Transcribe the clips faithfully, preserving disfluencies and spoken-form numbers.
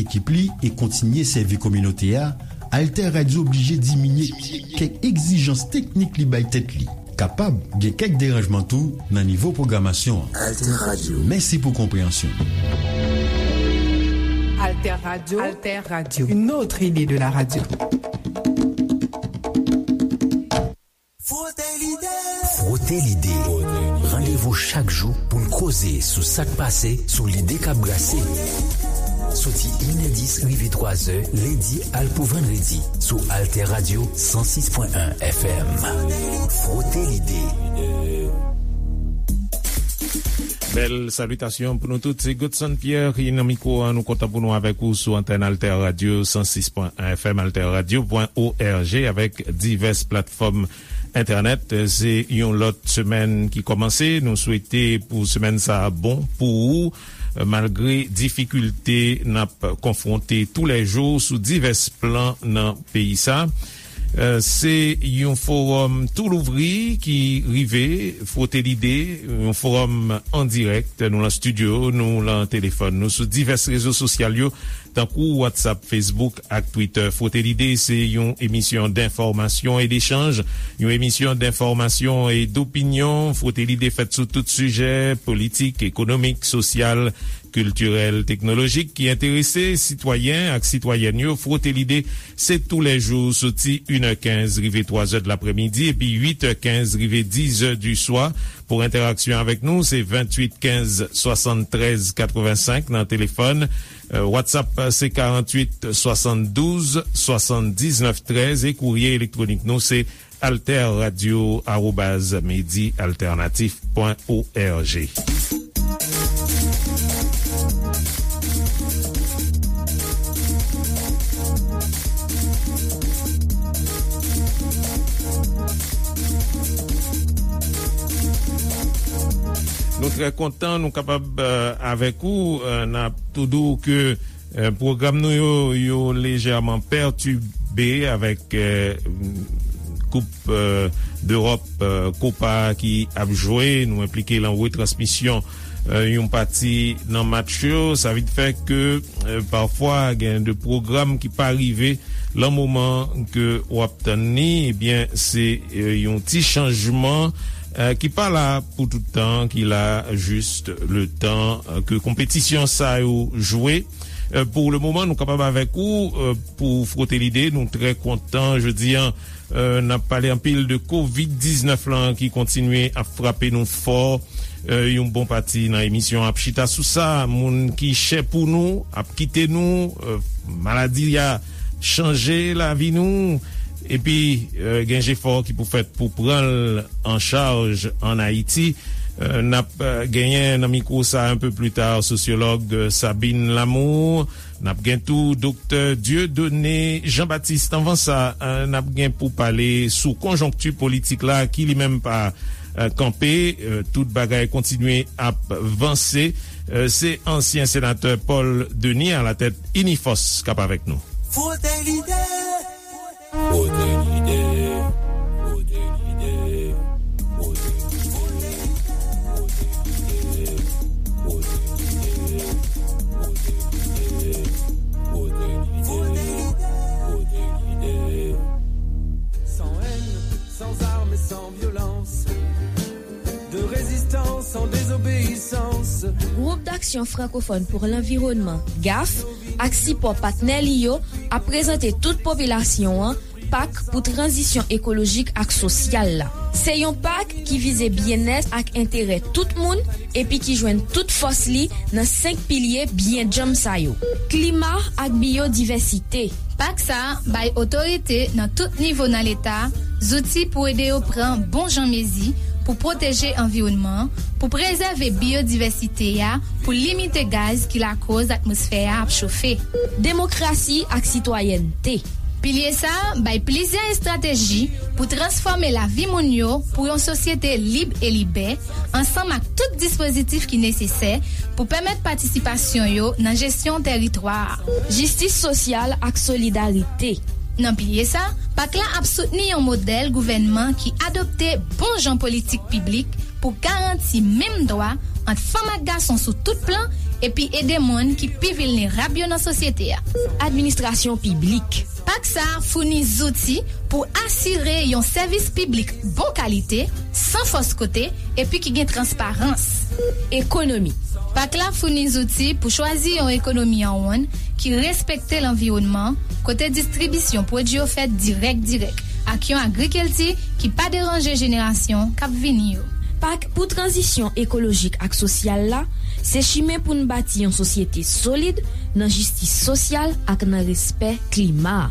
ekip li e kontinye sèvi kominote a, Alter Radio oblije diminye kèk egzijans teknik li bay tèt li. Kapab gen kèk deranjman tou nan nivo pwogramasyon an. Alter Radio. Mèsi pou konpreyansyon. Alter Radio, Alter Radio, une autre idée de la radio. Frote Lide. Frote Lide. Randevou chak jou pou n koze sou sa k pase, sou lide k ap brase. Soti inè dis rive twazè, lendi al pou vandredi, sou Alter Radio san sis pwen en F M. Frote Lide. Bèl salitasyon pou nou tout. Se Godson Pierre ki nan mikwo a. Nou kontan pou nou avèk ou sou antèn Alter Radio san sis pwen en F M, alter radio pwen org, avèk divès platfòm entènèt. Se yon lòt semèn ki kòmanse. Nou swete pou semèn sa a bon pou ou, malgre difikilte n ap konfwonte toulèjou sou divès plan nan peyi sa. Euh, se yon fowòm tou louvri ki rive, Frote Lide, yon fowòm an dirèk. Nou lan estidyo, nou lan telefòn, nou sou divès rezo sosyal yo, tankou WhatsApp, Facebook ak Twitter. Frote Lide se yon emisyon denfòmasyon e dechanj, yon emisyon denfòmasyon e dopinyon. Frote Lide fèt sou tout sijè politik, ekonomik, sosyal, kiltirèl, teknolojik ki enterese sitwayen ak sitwayèn yo. Frote Lide, se toulèjou soti inè kenz rive twazè de laprèmidi epi uitè kenz rive dizè di swa. Pou entèraksyon avèk nou, se venntuit kenz swasanntrèz katrevensenk nan telefòn. Euh, WhatsApp, se karanntuit swasanndouz swasanndiznèf trèz e kourye elektwonik nou, se alter radio arobaz medi alternatif pwen org. Nou trè kontan nou kapab, euh, avèk ou. Euh, n ap tou di w ke Euh, pwogram nou yo, yo lejèman pètibe avèk, euh, Koup, euh, Dewòp, euh, Kopa ki ap jwe. Nou enplike lan retransmisyon, euh, yon pati nan match yo. Sa vin fè ke, euh, pafwa, gen de pwogram ki pa rive lan moman ke w ap tann li. Ebyen, se, euh, yon ti chanjman, euh, ki pa la pou tout tan, ki la jis le tan, euh, ke konpetisyon sa yo jwe. Euh, pou le moman, nou kapab avèk ou, euh, pou Frote Lide. Nou trè kontan jodi a, euh, n ap pale anpil de kovid diznèf lan ki kontinye ap frape nou fò. Euh, yon bon pati nan emisyon ap chita sou sa. Moun ki chè pou nou ap kite nou, euh, maladi a chanje lavi nou. Epi, euh, gen jefò ki pou fèt pou pran l an chaj ann Ayiti. Euh, n ap, euh, genyen nan mikwo sa a un peu plus tard sosyològ, euh, Sabine Lamour. N ap gen tou Doktè Dieudonné Jean-Baptiste. Anvan sa, euh, n ap gen pou pale sou konjonkti politik la ki li menm pa, euh, kanpe. Euh, tout bagay kontinye ap vanse. Euh, se ansyen senatè Paul Denis alatèt Inifòs k ap avèk nou. Frote Lide. Frote Lide. Frote Lide. Frote Lide. Frote Lide. Frote Lide. Frote Lide. Frote Lide. Sans haine, sans armes et sans violence. De résistance en désobéissance. Gwoup d'Aksyon Frankofòn pou Lanviwònman, gaf, ak sipò patnè li yo ap prezante tout popilasyon an pak pou tranzisyon ekolojik ak sosyal la. Se yon pak ki vize byennèt ak enterè tout moun epi ki jwenn tout fòs li nan senk pilye byen djanm sa yo: klima ak biyodivèsite. Pak sa a bay otorite nan tout nivo nan Leta zouti pou ede yo pran bon jan mezi pou pwoteje anviwònman an, pou prezève biyodivèsite a, pou limite gaz ki lakòz atmosfè a ap chofe. Demokrasi ak sitwayènte. Pilye sa a bay plizyè estrateji pou transfòme lavi moun yo pou yon sosyete lib e libè, ansanm ak tout dispozitif ki nesesè pou pèmèt patisipasyon yo nan jesyon tèritwa a. Jistis sosyal ak solidarite. Nan pilye sa, pak la ap soutni yon modèl gouvènman ki adopte bon jan politik piblik pou garanti menm dwa ant fanm ak gason sou tout plan epi ede moun ki pi vilnerab yo nan sosyete a. Administrasyon piblik. Pak sa a founi zouti pou asire yon sèvis piblik bon kalite, san fòs kote, epi ki gen transparans. Ekonomi. Pak la founi zouti pou chwazi yon ekonomi an wonn ki respekte lanviwònman, kote distribisyon pwodui yo fèt dirèk dirèk, ak yon agrikilti ki pa deranje jenerasyon k ap vini yo. Pak pou tranzisyon ekolojik ak sosyal la se chimen pou n bati yon sosyete solid nan jistis sosyal ak nan respè klima.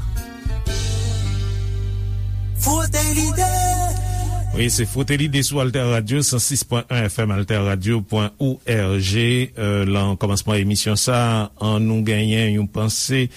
Frote lide. Wi, se Frote Lide sou Alter Radio, san sis pwen en F M, alterradio pwen org. Euh, lan kòmansman emisyon sa, an nou genyen yon panse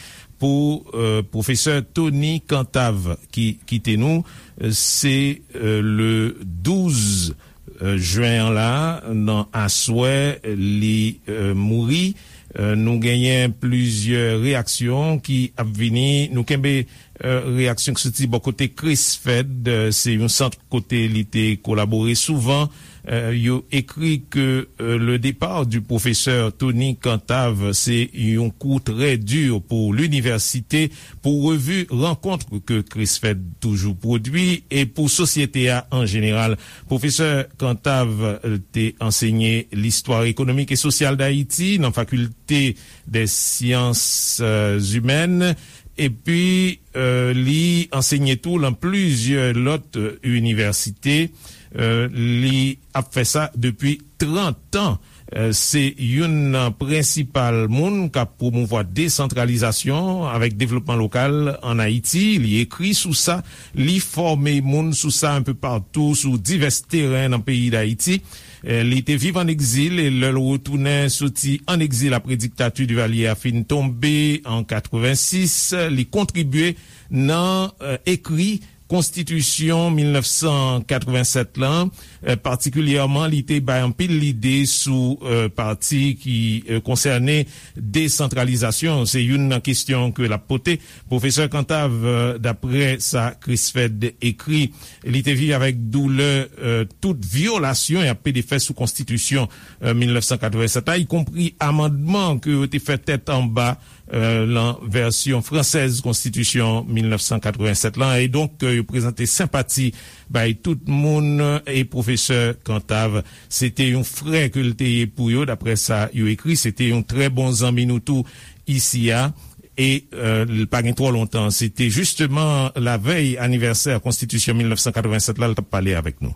pou euh, pwofesè Tony Cantave ki kite nou. Euh, se euh, le douz euh, jen an la, nan aswè, li euh, mouri. Euh, nou genyen plizyè reyaksyon ki ap vini. Nou kenbe euh, reyaksyon ki soti bò kote Chris Fed, euh, se yon sant kote li te kolabore souvan. Euh, yo ekri ke euh, le départ du professeur Tony Cantave, c'est un coup très dur pour l'université, pour revue rencontre que Chris Fed toujours produit et pour société a en général. Pwofesè Cantave euh, te ansenye listwa ekonomik e sosyal Dayiti nan fakilte des sciences euh, humaines. Epi euh, li ansenye tou lan plizyè lòt euh, inivèsite. Euh, li ap fè sa depi trant an. Euh, se youn nan prensipal moun k ap pwomouvwa desantralizasyon avèk devlopman lokal ann Ayiti. Li ekri sou sa, li fòme moun sou sa enpe patou sou divès teren nan peyi Dayiti. Eh, li te viv ann egzil e lè l retounen soti ann egzil apre diktati Divalye a fin tonbe an katrevensis, li kontribye nan eh, ekri konstitisyon mil nèf san katrevennsèt lan. Eh, patikilyèman, li te bay anpil lide sou eh, pati ki eh, konsène desantralizasyon. Se youn nan kesyon ke l ap pote. Pwofesè Cantave, eh, daprè sa Chris Fed ekri, li te viv avèk doulè eh, tout vyolasyon y ap pede fè sou konstitisyon eh, mil nèf san katrevennsèt la, ikonpri amandman ke yo te fè tèt anba eh, lan vèsyon fransèz konstitisyon mil nèf san katrevennsèt lan. E donk, eh, yo prezante senpati bay tout moun, eh, e pwofesè Cantave, se te yon frè ke l te ye pou yo, daprè sa yo ekri, se te yon trè bon zanmi nou tou isi a. E eh, l pa gen twò lontan, se te jisteman lavèy anivèsè konstitisyon mil nèf san katrevennsèt la, l t ap pale avèk nou.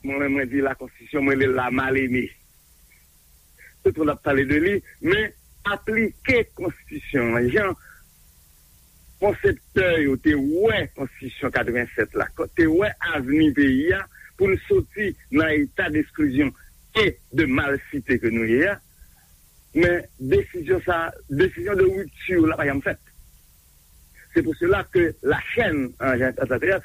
Mwen menm, mwen di la konstitisyon, mwen rele l la mal eme. Tout moun ap pale de li, men aplike konstitisyon an jan konseptè yo te wè konstitisyon katrevennsèt la, te wè avni peyi a, pou n soti nan eta d'esklizyon e de malsite ke nou ye a. Men desizyon sa, desizyon de ripti la pa janm fèt. C'est pour cela que la chaîne en, en tant que telle,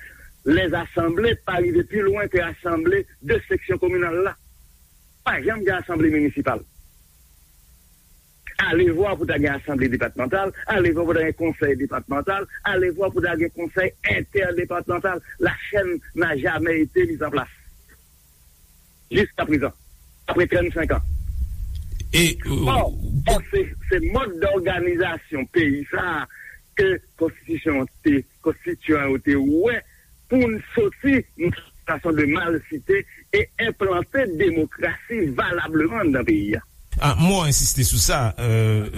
les assemblées pa rive pi lwen ke asanble de seksyon kominal la. Pa janm gen asanble minisipal. Alevwa pou ta gen asanble depatmantal, alevwa pou ta gen konsèy depatmantal, alevwa pou ta gen konsèy entèdepatmantal. La chaîne n'a jamais été mise en place. Jiska prezan, apre trannsenk an. E, Or, or, se, se mòd dòganizasyon peyi sa a ke konstitisyon te, konstitiyan yo te wè pou n soti nan sitiyasyon de malsite e enplante demokrasi valableman anndan peyi a. Ah, mwen ensiste sou sa, euh,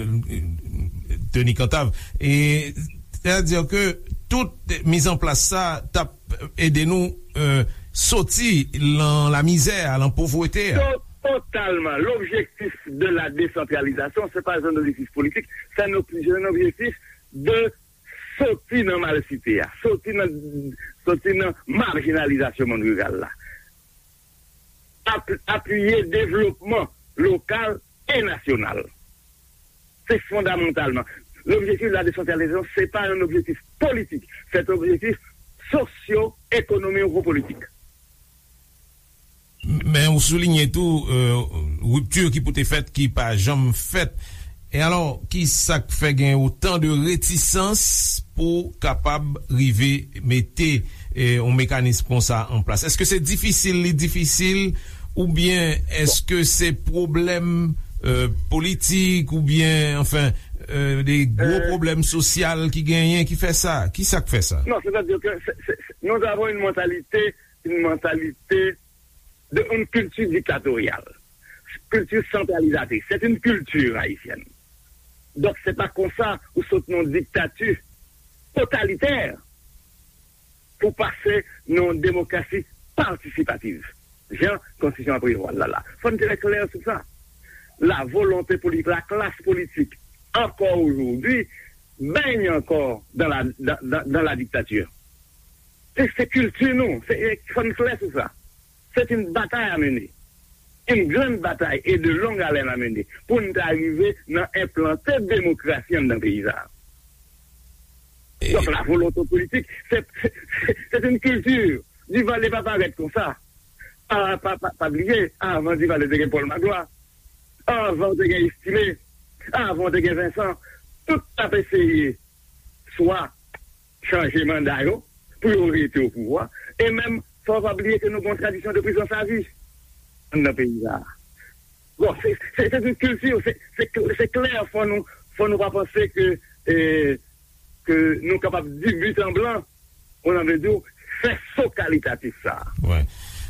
Tony Cantave. E, sètadi ke tout mizanplas sa t ap ede nou euh, soti lan lamizè a, lan povrete a. To-, totalman. L'objectif de la décentralisation, c'est pas un objectif politique, c'est un ob-, c'est un objectif de soti nan malsite a, soti nan, soti nan marjinalizasyon monn riral la. Ap-, apiye devlopman lokal e nasyonal. C'est fondamentalement. L'objectif de la décentralisation, c'est pas un objectif politique, c'est un objectif socio-économico-politique. Men ou soulinye tou euh, ripti ki pou te fèt ki pa janm fèt. E alò, ki sa k fè gen otan de retisans pou kapab rive mete eh, yon mekanis konsa an plas? Èske se difisil, li difisil, oubyen èske se pwoblèm euh, politik oubyen, anfen, euh, de gwo pwoblèm sosyal ki genyen ki fè sa? Ki sa k fè sa? Non, c'est-à-dire que c'est, c'est, c'est, nous avons une mentalité, une mentalité de une culture dictatoriale, culture centralisatrice. C'est une culture haïtienne. Donc, c'est pas comme ça ou sot non dictature totalitaire pour passer non démocratie participative. Jan konstitisyon an prevwa l la la. Fò n trè klè sou sa. La volonté politique, la classe politique, encore aujourd'hui, baigne encore dans la, dans, dans, dans la dictature. Se, se kilti nou, se, fò n klè sou sa. C'est une bataille à mener. Une grande bataille et de longue haleine à mener pour n ta rive nan enplante demokrasi anndan peyi sa. Donk, la volonté politique, c'est, c'est, c'est une culture. Duvalier pa parèt konsa. Pa, pa, pa, pa bliye, avan Duvalier te gen Paul Magloire. Avan te gen Estimé. Avan te gen Vincent. Tout ap eseye swa chanje manda yo pou yo rete o pouvwa. E menm, fò w pa bliye ke nou gen yon tradisyon de prizans avi anndan peyi sa. Bon, se, se, se yon kilti, se, se, se klè, fò nou, fò nou pa panse ke, eh, ke nou kapab di but en blanc, on a vle di, fè so kalitatif sa. Wi.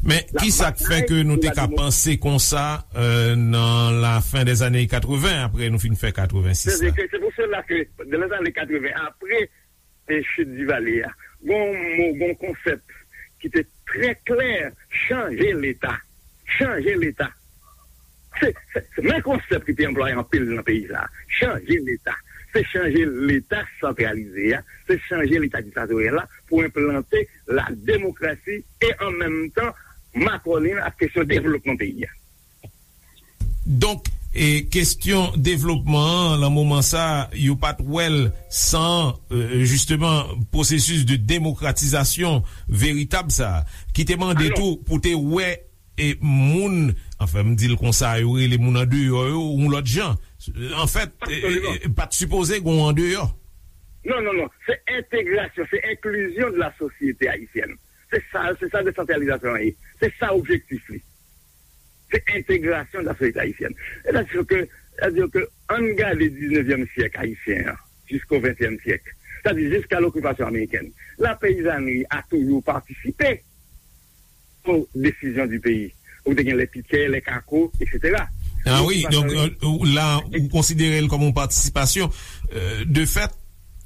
Men ki sa k fè ke nou te ka panse konsa, euh, nan la fin des années quatre-vingts, apre nou fin fè quatre-vingt-six la? C'est-à-dire que c'est pour cela que dans les années quatre-vingts, après, eh, chute Duvalier a, gon mo, gon konsèp ki te trè klè, chanje Leta. Chanje Leta. Se, se, se menm konsèp ki te anplwaye anpil nan peyi sa. Chanje Leta. Se chanje Leta santralize a, se chanje Leta diktatoryal la pou enplante la demokrasi e an menm tan makònen ak kesyon devlopman peyi a. Donk, e, kesyon devlopman an, nan moman sa, yo pa t wè l san, e, jisteman, pwosesis de demokratizasyon veritab sa, ki te mande tou pou te wè, e, moun, anfen, m di l konsa, yo rele moun andeyò yo, yon lòt jan. Anfèt, e, e, e, pa t sipoze gen yon andeyò. Non, non, non. Se entegrasyon, se enklizyon de la sosyete ayisyèn. Se sa, se sa desantralizasyon an ye. Se sa objektif li. Se entegrasyon de la sosyete ayisyèn. Sètadi ke, sètadi ke, ann gade diznevyèm syèk ayisyen an, jisko ventyèm syèk. Sètadi jiska lokipasyon amerikèn. La peyizanri a toujou patisipe aux décisions du pays. Ou te gen lè pitè, lè kako, et cetera. Ah wi, donk, euh, la, ou konsidere l kòm yon patisipasyon, euh, de fèt.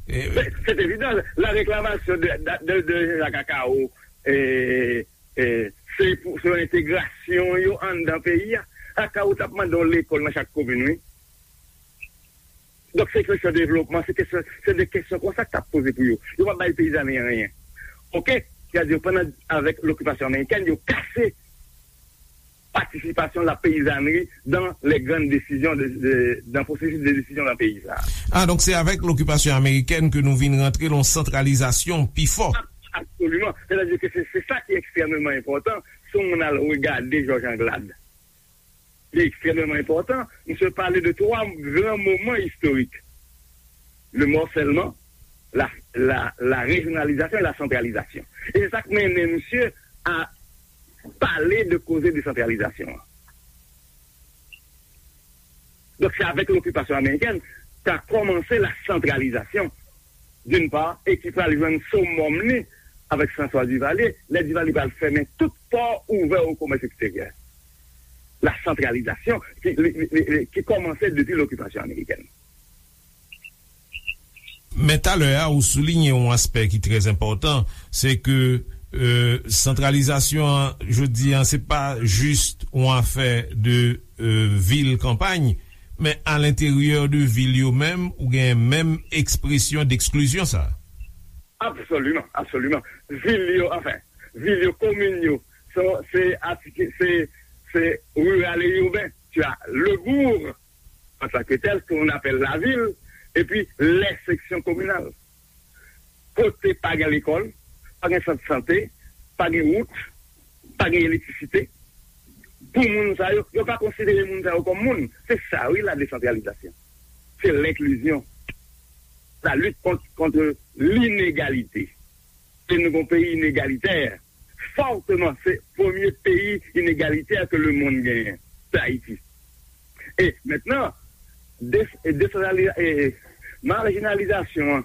Se, se evidan, la reklamasyon de, de, de, de Jean-Jacques Akao, eh, eh, se pou, se yon entegrasyon yo anndan peyi a. Akao t ap mande yon lekòl nan chak komin, wi. Donk, se kesyon devlopman, se kesyon, se de kesyon konsa k t ap poze pou yo. Yo pa bay peyizanri anyen. Oke? Sètadi, pandan, avèk lokipasyon amerikèn, yo kase patisipasyon la peyizanri dans les grandes décisions de, de, dans pwosesis de desizyon nan peyi sa. Ah, donk se avèk lokipasyon amerikèn ke nou vin rantre nan santralizasyon pi fò. Ab-, absoliman. Sètadi ke se, se sa ki ekstrèmeman enpòtan. Si yon moun al regade Jòj Anglad, li ekstrèmeman enpòtan. Misye pale de twa gran moman istorik. Le morcellement, la, la, la régionalisation et la centralisation. E se sa k mennen misye a pale de koze desantralizasyon an. Donk, se avèk lokipasyon amerikèn, ka kòmanse la santralizasyon, d'une part, e ki pral jwenn summum li avèk François Duvalier, lè Duvalier pral fèmen tout pò ouvè o komès eksteryè. La santralizasyon ki, li, li, li, li, ki kòmanse depi lokipasyon amerikèn. Men talè a, ou souliye yon aspè ki trè enpòtan, se ke, euh, santralizasyon an, jodi an, se pa jis yon afè de, euh, vil kanpay, men alenteryè de vil yo menm, ou gen menm ekspresyon deksklizyon sa. Absoliman, absoliman. Vil yo, anfen, vil yo, komin yo, se, se, se, se riral e iben. Tu as le bourg, en tant que tel, qu'on appelle la ville, et puis les sections communales. Kote pa gen lekòl, pa gen sant sante, pa gen wout, pa gen elektrisite. Pou moun sa yo, yo pa konsidere moun sa yo kòm moun. Se sa, wi, la desantralizasyon. Se lenklizyon. La lutte contre, contre l'inégalité. E nou gon peyi inegalitè. Fòteman, se premye peyi inegalitè ke lemonn genyen. Se Ayiti. E mentnan, des- e desantraliza- e majinalizasyon an,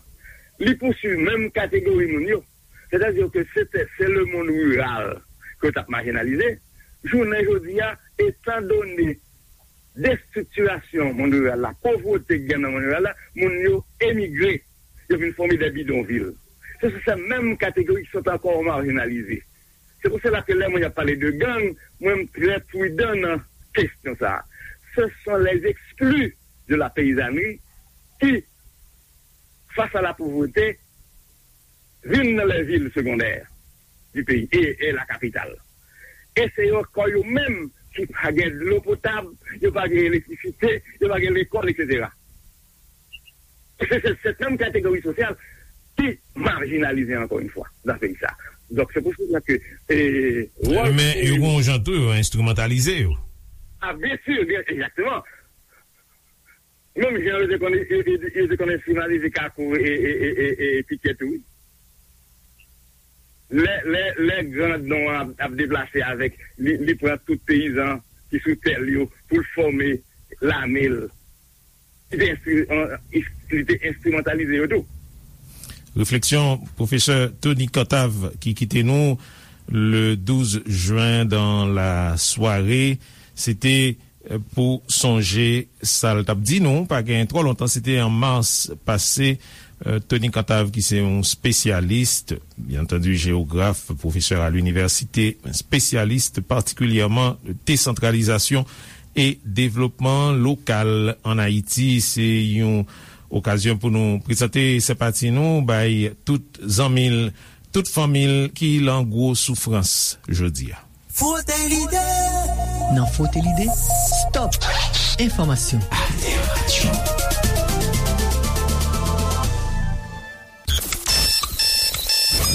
li pouswiv menm kategori moun yo. Sètadi ke se te- se lemonn riral ke yo t ap majinalize. Jounen jodi a, etandone destriktirasyon monn riral la, povrete k gen nan monn riral la, moun yo emigre, yo vin fòme de bidonvil. Se sou se menm kategori ki sot ankò majinalize. Se pou sela ke lè mwen ap pale de gang, mwen m trè pridan nan kesyon sa a. Ce sont les exclus de la paysannerie qui, face à la pauvreté, vin nan les villes secondaires du pays et, et la capitale. E se yo kò yo menm ki pa gen dlo potab, yo pa gen elektrisite, yo pa gen lekòl, et cetera. Se se- se menm kategori sosyal ki majinalize ankò yon fwa nan peyi sa. Donk se pou sela ke e, wòl Men yo gen yon jan tou yo enstrimantalize yo. A, byen si, byen, egzakteman. Menm jan yo te konn yo, yo, yo te konn enstrimalize Kakou e, e, e, e, e Pitye tou, wi. Lè, lè, lè grandon an ap, ap deplase avèk, li, li pran tout peyizan ki sou tè l yo pou l fòme lame l. Li te enstri- an- li te enstrimantalize yo tou. Refleksyon pwofesè Tony Cantave ki kite nou le douz jen dan la sware. Se te pou sonje sa l t ap di nou, pa gen twò lontan, se te an mas pase. Tony Cantave, ki se yon spesyalis, byen antandi, jewograf, pwofesè a linivèsite, spesyalis patikilyèman desantralizasyon e devlopman lokal ann Ayiti. Se yon okazyon pou nou prezante senpati nou bay tout zanmi l, tout fanmi l ki lan gwo soufrans jodi a. Frote lide. Nan Frote lide, stop enfòmasyon. Alter Radio.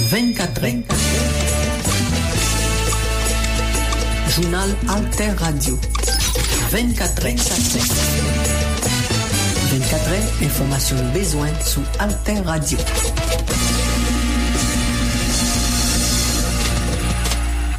Vennkatrè. Jounal Alter Radio. Vennkatrè. Vennkatrè, enfòmasyon nou bezwen sou Alter Radio.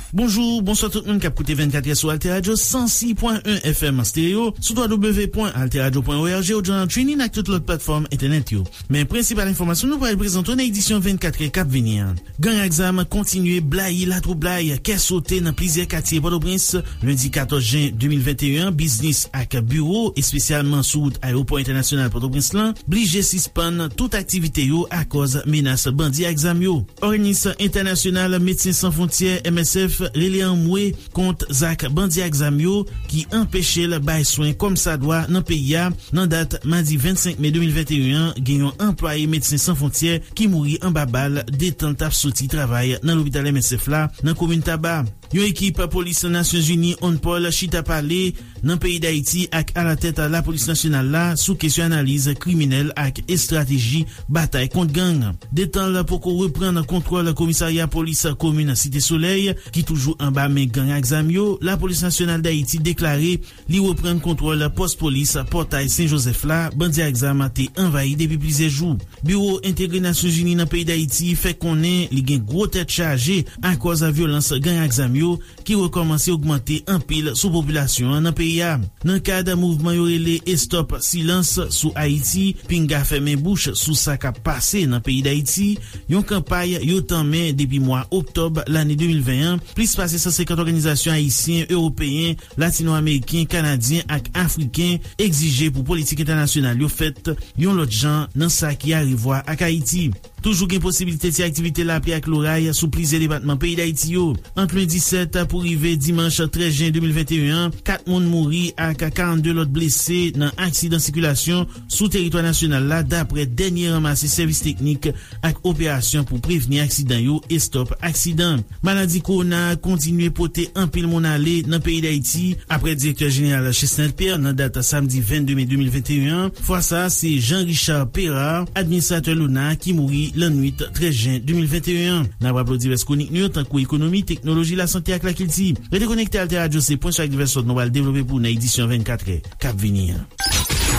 Bonjou, bonswa tout moun k ap koute vennkatrè sou Alter Radio san sis pwen en F M stereo, sou w w w pwen alter radio pwen o r g, ou nan TuneIn ak tout lòt platfòm entènèt yo. Men prensipal enfòmasyon nou pral prezante w nan edisyon vennkatrè k ap vini an. Gang ak zam kontinye blayi latwoublay, kè sote nan plizyè katye Pòtoprens. Lendi katòz jen de mil venteyen an, biznis ak biwo, espesyalman sou wout Ayewopò Entènasyonal Pòtoprens lan, blije sispann tout aktivite yo akòz menas bandi ak zam yo. Òganis Entènasyonal Medsen San Fwontyè, M S F, rele anmwe kont zak bandi ak zam yo ki anpeche l bay swen kòmsadwa nan peyi a. Nan dat madi vennsenk me de mil venteyen an, gen yon anplwaye Medsen San Fwontyè ki mouri anba bal detan l t ap soti travay nan lopital M S F la nan komin Taba. Yon ekip polis Nasyonzini, UNPOL, chita pale nan peyi Dayiti ak alatèt lapolis nasyonal la sou kesyon analiz kriminèl ak estrateji batay kont gang. Detan l poko reprann kontwòl komisarya polis komin Site Solèy, ki toujou anba men gang ak zam yo, lapolis nasyonal Dayiti deklare li reprann kontwòl pòs polis Pòtay Sen Jozèf la, bandi ak zam te anvayi depi plizyè jou. Biwo Entegre Nasyonzini nan peyi Dayiti fè konnen li gen gwo tèt chaje akòz vyolans gang ak zam yo ki rekòmanse ogmante anpil sou popilasyon an nan peyi a. Nan kad mouvman yo rele Estòp Silans sou Ayiti, Pinga Fèmen Bouch sou sa k ap pase nan peyi Dayiti, yon kanpay yo tanmen depi mwa oktòb lane de mil ven an, plis pase san senkant òganizasyon ayisyen, ewopeyen, latino-ameriken, kanadyen ak afriken egzije pou politik entènasyonal yo fèt yon lòt jan nan sa ki arevwa ak Ayiti. Toujou gen posiblite ti aktivite lapli ak loray sou plizyè depatman peyi Dayiti yo. Ant lendi sèt pou rive dimanch trèz jen de mil venteyen an, kat moun mouri ak karannde lòt blese nan aksidan sikilasyon sou teritwa nasyonal la, dapre dènye ranmase sèvis teknik ak operasyon pou prevni aksidan yo, Estòp Aksidan. Maladi kowona a kontinye pote anpil moun ale nan peyi Dayiti. Apre direktè jeneral Chesnel Pierre nan dat samdi vennde me de mil venteyen an, fwa sa a se Jean Richard Perard, administratè lona, ki mouri lannwit trèz jen de mil venteyen an. N ap raple w divès kwonik nou yo, tankou ekonomi, teknoloji, lasante ak lakilti. Rete konekte, Alter Radio se pwen sou ak divès lòt nou pral devlope pou w nan edisyon vennkatrè k ap vini an.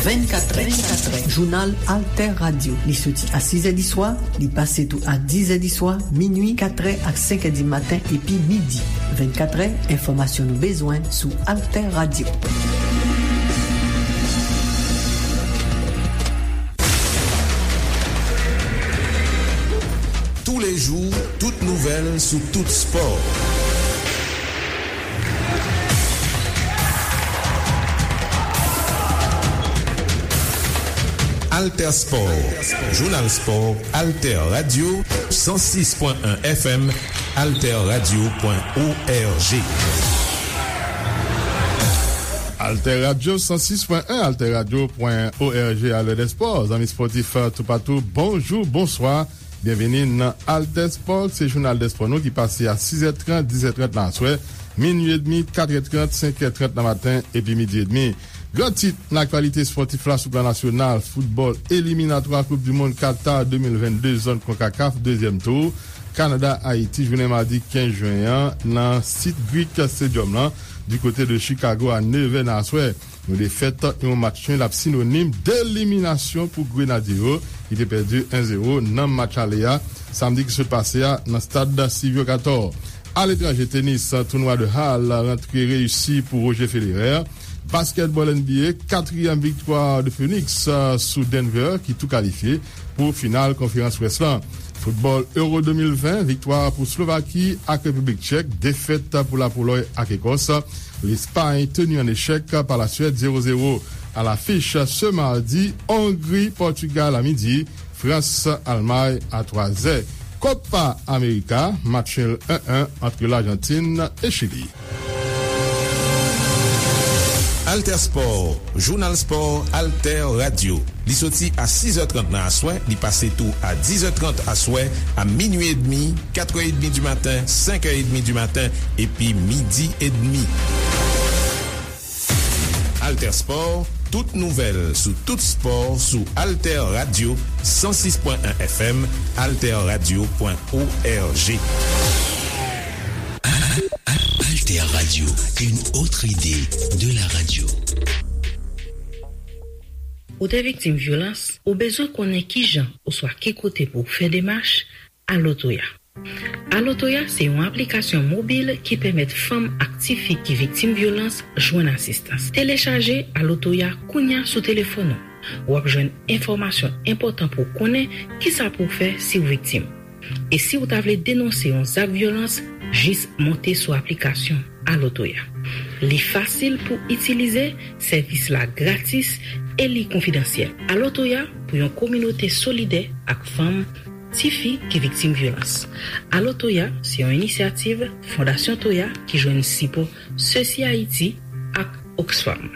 Vennkatrè, jounal Alter Radio. Li soti a sizè di swa, li pase tou a dizè di swa, minui, katrè ak senkè di maten epi midi. Vennkatrè, enfòmasyon nou bezwen sou Alter Radio. Sou tout spò. Alter Sport, Jounal Spò, Alter Radio, san sis pwen en F M, alter radio pwen org. Alter Radio san sis pwen en, alter radio pwen org, alè dè spò. Zanmi spòtif toupatou, bonjou, bonswa. Byenvini nan Alter Sport, se jounal dè spò nou ki pase a sis è trant, dis è trant nan aswè, minui edmi, kat è trant, senk è trant nan maten, epi midi edmi. Gran tit nan aktyalite spòtif la sou plan nasyonal, foutbòl eliminatwa Koup di Mond Qatar de mil vennde, zòn konkakaf, dezyèm tou. Kanada, Ayiti, jounen madi kenz jen an, nan sit Greek Stadium lan, di kote de Chicago a nevè nan aswè. Yon defèt, yon match nul ap sinonim deliminasyon pou Grenadye yo, ki te pèdi en zewo nan match ale a, samdi ki sot pase a, nan stad Silvio Cator. Aletranje, tenis, tounwa de Halle rantre reyisi pou Roger Federer. Baskètbòl N B A, katriyèm viktwa de Phoenix, euh, sou Denver, ki tou kalifye pou final konferans West lan. Foutbòl Euro de mil ven, viktwa pou Slovaki ak Repiblik Tchèk, defèt pou Lapolòy ak Ekòs. Lespay teni an echèk pa Laswèd zewo zewo. A lafich se madi, Ongri, Pòtigal a midi, Frans, Almay a twa zè. Copa America, match nul en en ant Lajantin e Chili. Alter Sport, Jounal Spò, Alter Radio. Li soti a sis è trant nan aswè, li pase tou a dis è trant aswè, a minui edmi, kat è edmi di maten, senk è edmi di maten, epi midi edmi. Alter Sport, tout nouvèl sou tout spò sou Alter Radio san sis pwen en F M, alter radio pwen org. Alter Radio, une autre idée de la radio. Ou te viktim vyolans? Ou bezwen konnen kijan oswa ki kote pou w fè demach? Alo Toya. Alo Toya se yon aplikasyon mobil ki pèmèt fanm ak tifi ki viktim vyolans jwenn asistans. Telechaje Alo Toya kounya sou telefòn ou. W ap jwenn enfòmasyon enpòtan pou w konnen kisa pou w fè si w viktim. E si w ta vle denonse yon zak vyolans, jis monte sou aplikasyon Alo Toya. Li fasil pou itilize, sèvis la gratis e li konfidansyèl. Alo Toya pou yon kominote solidè ak fanm, tifi ki viktim vyolans. Alo Toya se yon inisyativ Fondasyon Toya ki jwenn sipò Sesi Ayiti ak Oxfam.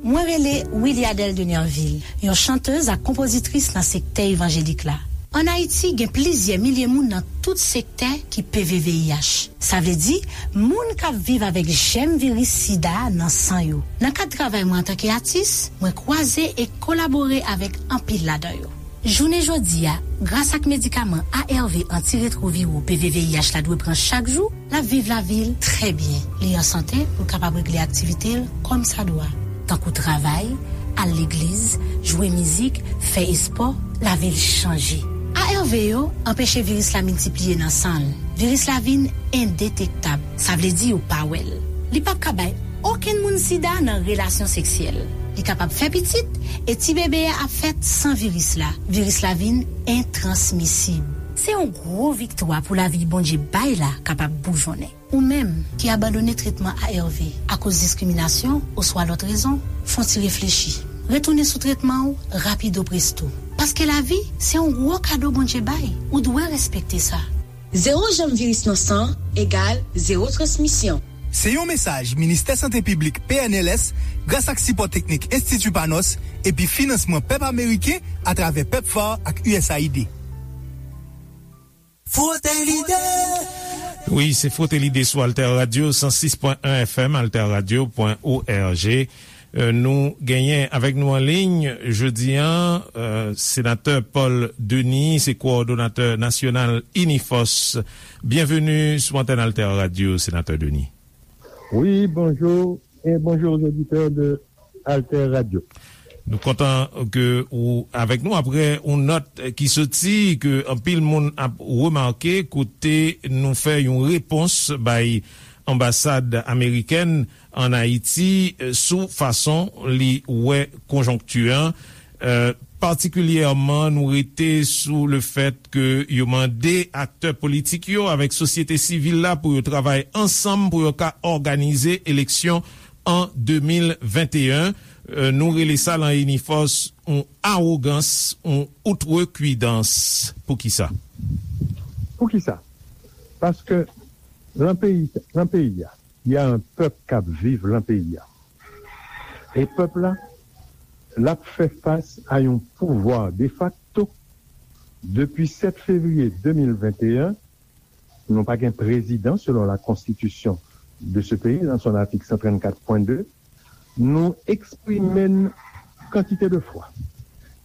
Mwen rele Wiliadelle de Nerville, yon chantèz ak konpozitris nan sektè evanjelik la. Ann Ayiti, gen plizyè milye moun nan tout sektè ki P V V I H. Sa vle di, moun k ap viv avèk jèm viris sida nan san yo. Nan kad travay mwen antanke atis, mwen kwaze e kolabore avèk anpil ladan yo. Jounen jodi a, gras ak medikaman A R V antiretwoviro P V V I H la dwe pran chak jou, l ap viv lavi l trè byen. Li an sante pou l kapab regle aktivite l kòmsadwa, tankou travay, al legliz, jwe mizik, fè espò, lavi l chanje. A R V yo anpeche viris la miltipliye nan san l. Viris la vin endetektab, sa vle di yo pa wè l. Li p ap ka bay okenn moun sida nan relasyon seksyèl. Li kapab fè pitit, e ti bebe a ap fèt san viris la. Viris la vin entransmisib. Se yon gwo viktwa pou lavi Bondye bay la kapab boujonnen. Ou menm ki abandone tretman A R V akoz diskriminasyon oswa lòt rezon, fè yon ti reflechi. Retounen sou tretman w rapido presto. Paske lavi, se yon gwo kado Bondye bay. Ou dwe respekte sa. Zewo janm viris nan san egal zewo transmisyon. Se yon mesaj Ministè Sante Piblik P N L S, gras ak sipò teknik Enstiti Panos epi finansman pèp ameriken atravè PEPFAR ak U S A I D. Frote lide! Wi, se Frote lide sou Alter Radio san sis pwen en F M, alter radio pwen org. Euh, nou genyen avèk nou an liy jodi a, euh, senatè Paul Denis, se kowòdonatè nasyonal Inifòs. Byenveni sou antèn Alter Radio, senatè Denis. Wi, bonjou, e bonjou aux auditeurs de Alter Radio. Nou kontan ke ou avèk nou apre yon nòt ki soti ke anpil moun ap remake kote nou fè yon repons bay anbasad amerikèn an Ayiti, eh, sou fason li wè konjonkti an. Eh, patikilyèman, nou rete sou le fèt ke yo mande aktè politik yo avèk sosyete sivil la pou yo travay ansanm pou yo ka òganize eleksyon an de mil venteyen. Euh, nou rele sa lan Inifòs yon awogans, yon outrekwidans. Poukisa? Poukisa? Paske lan peyi, lan peyi a, y a un pèp k ap viv lan peyi a. E pèp la, l ap fè fas a yon pouvwa defakto. Depi sèt fevriye de mil venteyen, nou pa gen prezidan selon la konstitisyon de ce pays, dans son article cent trente-quatre point deux, nou eksprime n kantite de fwa.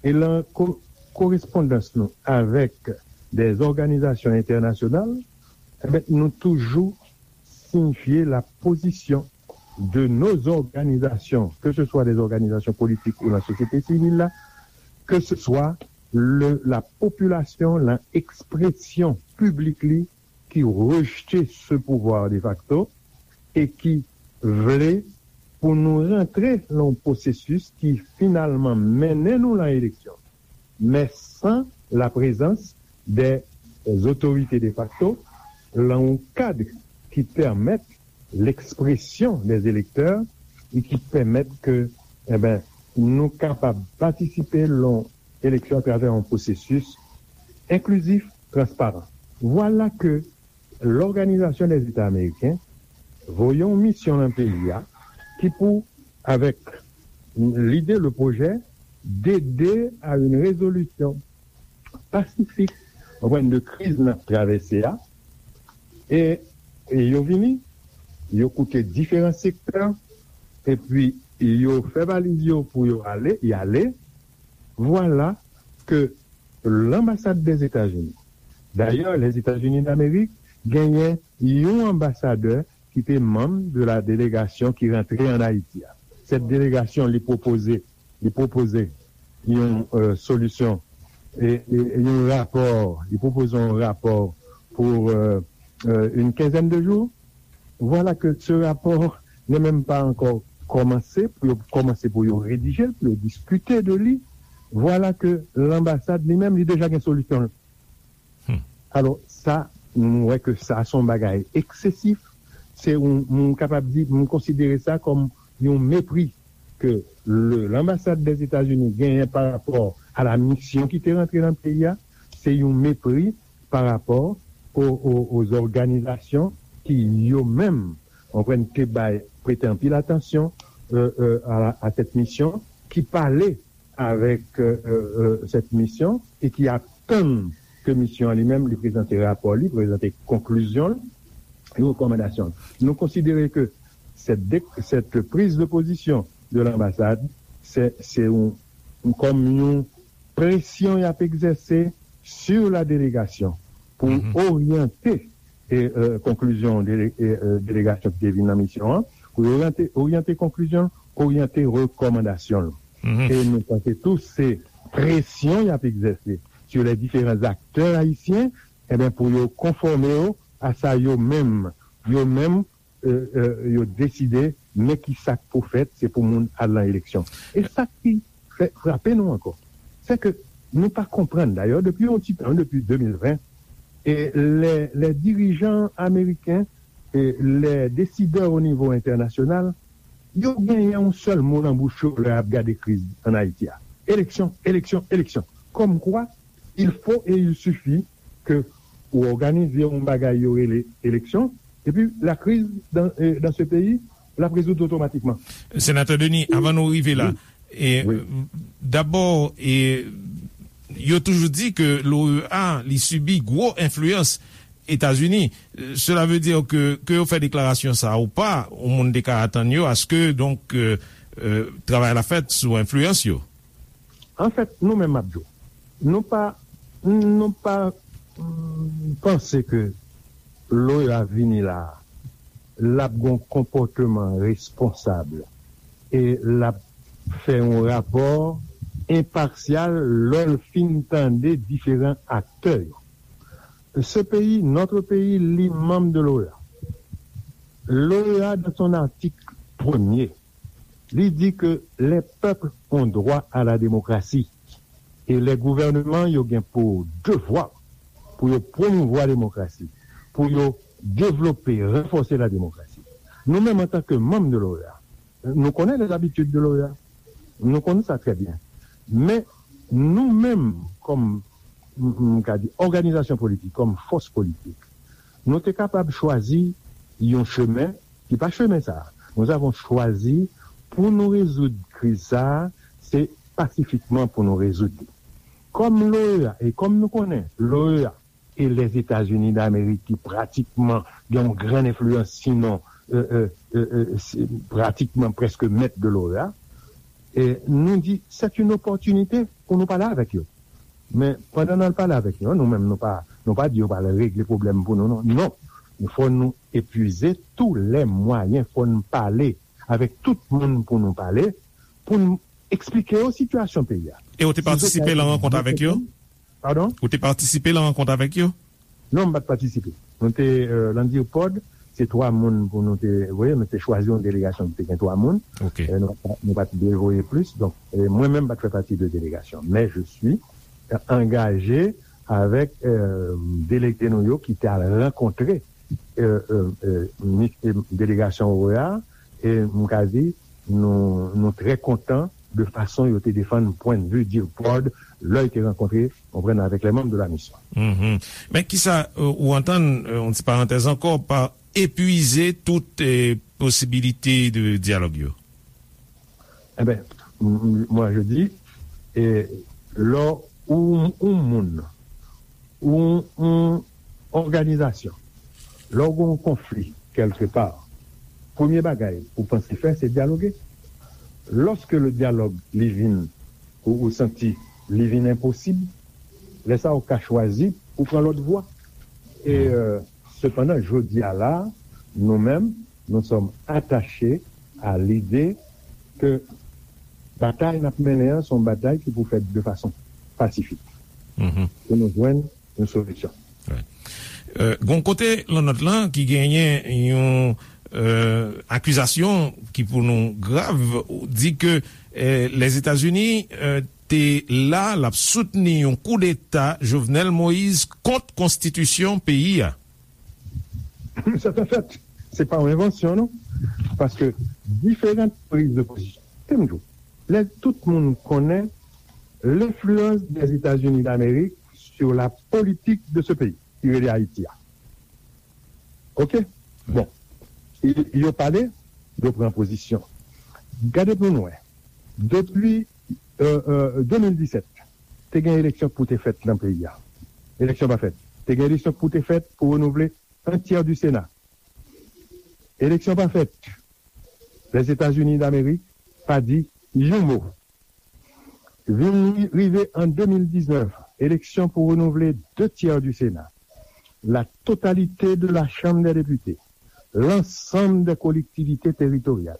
E lan ko- korespondans nou avèk des organizations internationales, eh ben, nou toujou siyifye la position de nos organisations, que ce soit des organisations politiques ou la société civile, là, que ce soit le, la population, la expression publique li, ki rejte ce pouvoir de facto e ki vle pou nou rantre lan yon pwosesis ki finalman mennen nou lan eleksyon, men san la prezans de otorite de facto, lan yon kad ki pèmèt lekspresyon de elektè e ki pèmèt ke, enben, nou kapab patisipe lan eleksyon atravè yon pwosesis enklizif, transparan. Vwala ke Lòganizasyon dè Zeta Ameriken voye yon misyon lan peyi a ki pou, avèk lide, le pwojè, d'aider à une résolution pacifique, konprann, de kriz n ap travèse a. E, e yo vini, yo koute diferan sektè, epi yo fè valiz yo pou yo ale, y ale. Vwala ke lanbasad dèzetazini, dayè, Lèzetazini Damerik genyen yon anbasadè ki te manm de la delegasyon ki rantre ann Ayiti a. Sèt delegasyon, li pwopoze, li pwopoze yon, euh, solisyon, e, e, e yon rapò, li pwopoze yon rapò pou, euh, euh, une quinzaine de jours. Vwala ke se rapò ne menm pa ankò kòmanse, pou yo kòmanse pou yo redije l, pou yo diskite de li. Vwala ke lanbasad li menm, li deja gen solisyon l. Alò, sa, m wè ke sa se yon bagay eksesif. Se yon, m kapab di, m konsidere sa kòm yon mepri ke le, lanbasad dèzetazini genyen pa rapò a la misyon ki te rantre nan peyi a. Se yon mepri pa rapò o, o, aux organisations ki yo menm, konprann, te bay, prete anpil atansyon, euh, euh, a, a cette mission, ki pale avèk, euh, euh, cette mission e ki atann ke misyon an li menm li prezante rapò li, prezante konklizyon l, e rekòmandasyon l. Nou konsidere ke cette, cette prise de position de l'ambassade, se, se yon, kòm yon presyon y ap egzèse sur la délégation pou oryante e, euh, konklizyon dele, e, euh, delegasyon ki te vin nan misyon an, pou oryante, oryante konklizyon, oryante rekòmandasyon l. E nou panse tou se presyon y ap egzèse sur les différents acteurs haïtiens, enben, pou yo konfòme yo a sa yo menm, yo menm, euh, euh, yo deside, men ki sa k pou fèt, se pou moun al nan eleksyon. E sa ki fè frape nou ankò, se ke nou pa konprann, dayè, depi yon ti tan, depi de mil ven, e les, les dirigeants américains, e les décideurs au niveau international, yo genyen yon sèl mo nan bouch yo lè y ap gade kriz ann Ayiti a. Eleksyon, eleksyon, eleksyon. Kòmkwa, il faut et il suffit ke ou òganize yon bagay yo rele eleksyon, epi la crise dans, euh, dans ce pays, l ap rezoud otomatikman. Senatè Denis, avan nou rive la, e, dabò, e, yo toujou di ke l'O E A, li sibi gwo enfliyans Etazini. Cela veut dire que, ke yo fè deklarasyon sa ou pa, yon moun te ka atann yo aske, donk, euh, euh, travay la fèt sou enfliyans yo. Anfèt, nou menm, m ap di w, nou pa, nou pa, mm, panse ke l'O E A vini la a, l ap gen yon konpòteman responsab e l ap fè yon rapò enpasyal lè l fin tande diferan aktè yo. Ce pays, notre pays, li manm de l'O E A. L'O E A, dans son article premier, li di ke les peuples ont droit à la démocratie. E lè gouvènman yo gen pou devwa pou yo pwomouvwa demokrasi, pou yo devlope, ranfòse la demokrasi. Nou menm, antanke manm de l'OEA, nou konnen les habitudes de l'OEA. Nou konnen sa trè byen. Men, nou menm, kòm, m, m ka di, òganizasyon politik, kòm fòs politik, nou te kapab chwazi yon chemen ki pa chemen sa a. Nous avons choisi pou nou rezoud kriz sa a, se pasifikman pou nou rezoud li. Kòm l'OEA, e kòm nou konnen, l'OEA e Lèzetazini Damerik ki pratikman gen yon gran enfliyans, sinon, euh, euh, euh, euh, se pratikman prèske mèt de l'OEA, e nou di, c'est une opportunité pou nou pale avèk yo. Men, pandan n al pale avèk yo, nou menm, nou pa, nou pa di yo pral regle pwoblèm pou nou, non. Non. Fò nou epuize tous les moyens, fò n pale avèk tout moun pou nou pale, pou n eksplike yo sitiyasyon peyi a. E ou te patisipe nan rankont avèk yo? Padon? Ou te patisipe nan rankont avèk yo? Non, m pa t patisipe. Nou te, euh, nan DIRPOD, se twa moun pou nou te voye, nou te chwazi yon delegasyon ki te gen twa moun. Ok. Euh, nou, nou pa t dwe voye plis. Donk, euh, mwen menm pa t fè pati de delegasyon. Men je suis, euh, engagé avec, euh, delege nou yo ki te al rankontre, euh, euh, euh, mi- euh, delegasyon OEA, e m ka di, nou, nou trè kontan de fason yo te defann pwennvi DIRPOD lè yo te rankontre, konprann, avèk les membres de la mission. Mhm. Men kisa, euh, ou antann, euh, yon ti parantèz ankò, pa epuize tout, euh, posibilite de dyalòg yo? Eh ben, m- m- moi je dis, e lè ou, ou moun, ou, ou òganizasyon, lè ou gen yon konfli kèlke pa, premye bagay ou panse fè, se dyaloge. Lòske le dyalòg li vin, ou, ou santi li vin enposib, lè sa ou ka chwazi pou pran lòt vwa. E, euh, sepandan, jodi a la, nou menm, nous sommes attachés à l'idée que batay n ap mennen an, se yon batay ki pou fèt de fason pasifik. Mhm. Pou nou jwenn yon solisyon. Wi. Euh, gon kote lan nòt lan ki genyen yon, euh, akizasyon ki pou nou grav, di ke, euh, Lèzetazini, euh, te la, l ap soutni yon koudeta Jovenel Moïse kont konstitisyon peyi a. C'est un fait. Se pa yon envansyon, non. Paske diferan priz de pozisyon. Te m di w, lè tout moun konnen l'influence des États-Unis d'Amérique sur la politique de ce pays, ki rele Ayiti a. Ok? Bon. Y- Yo pale, yo pran pozisyon. Gade pou nou wè. Depi, euh, euh, de mil disèt, te gen eleksyon pou te fèt nan peyi a. Eleksyon pa fèt. Te gen eleksyon pou te fèt pou renouvle un tiers du Sénat. Eleksyon pa fèt. Lèzetazini Damerik pa di yon mo. Vin ri- rive an de mil diznèf, eleksyon pou renouvle deux tiers du Sénat, la totalité de la Chambre des députés, l'ensemble des collectivités territoriales.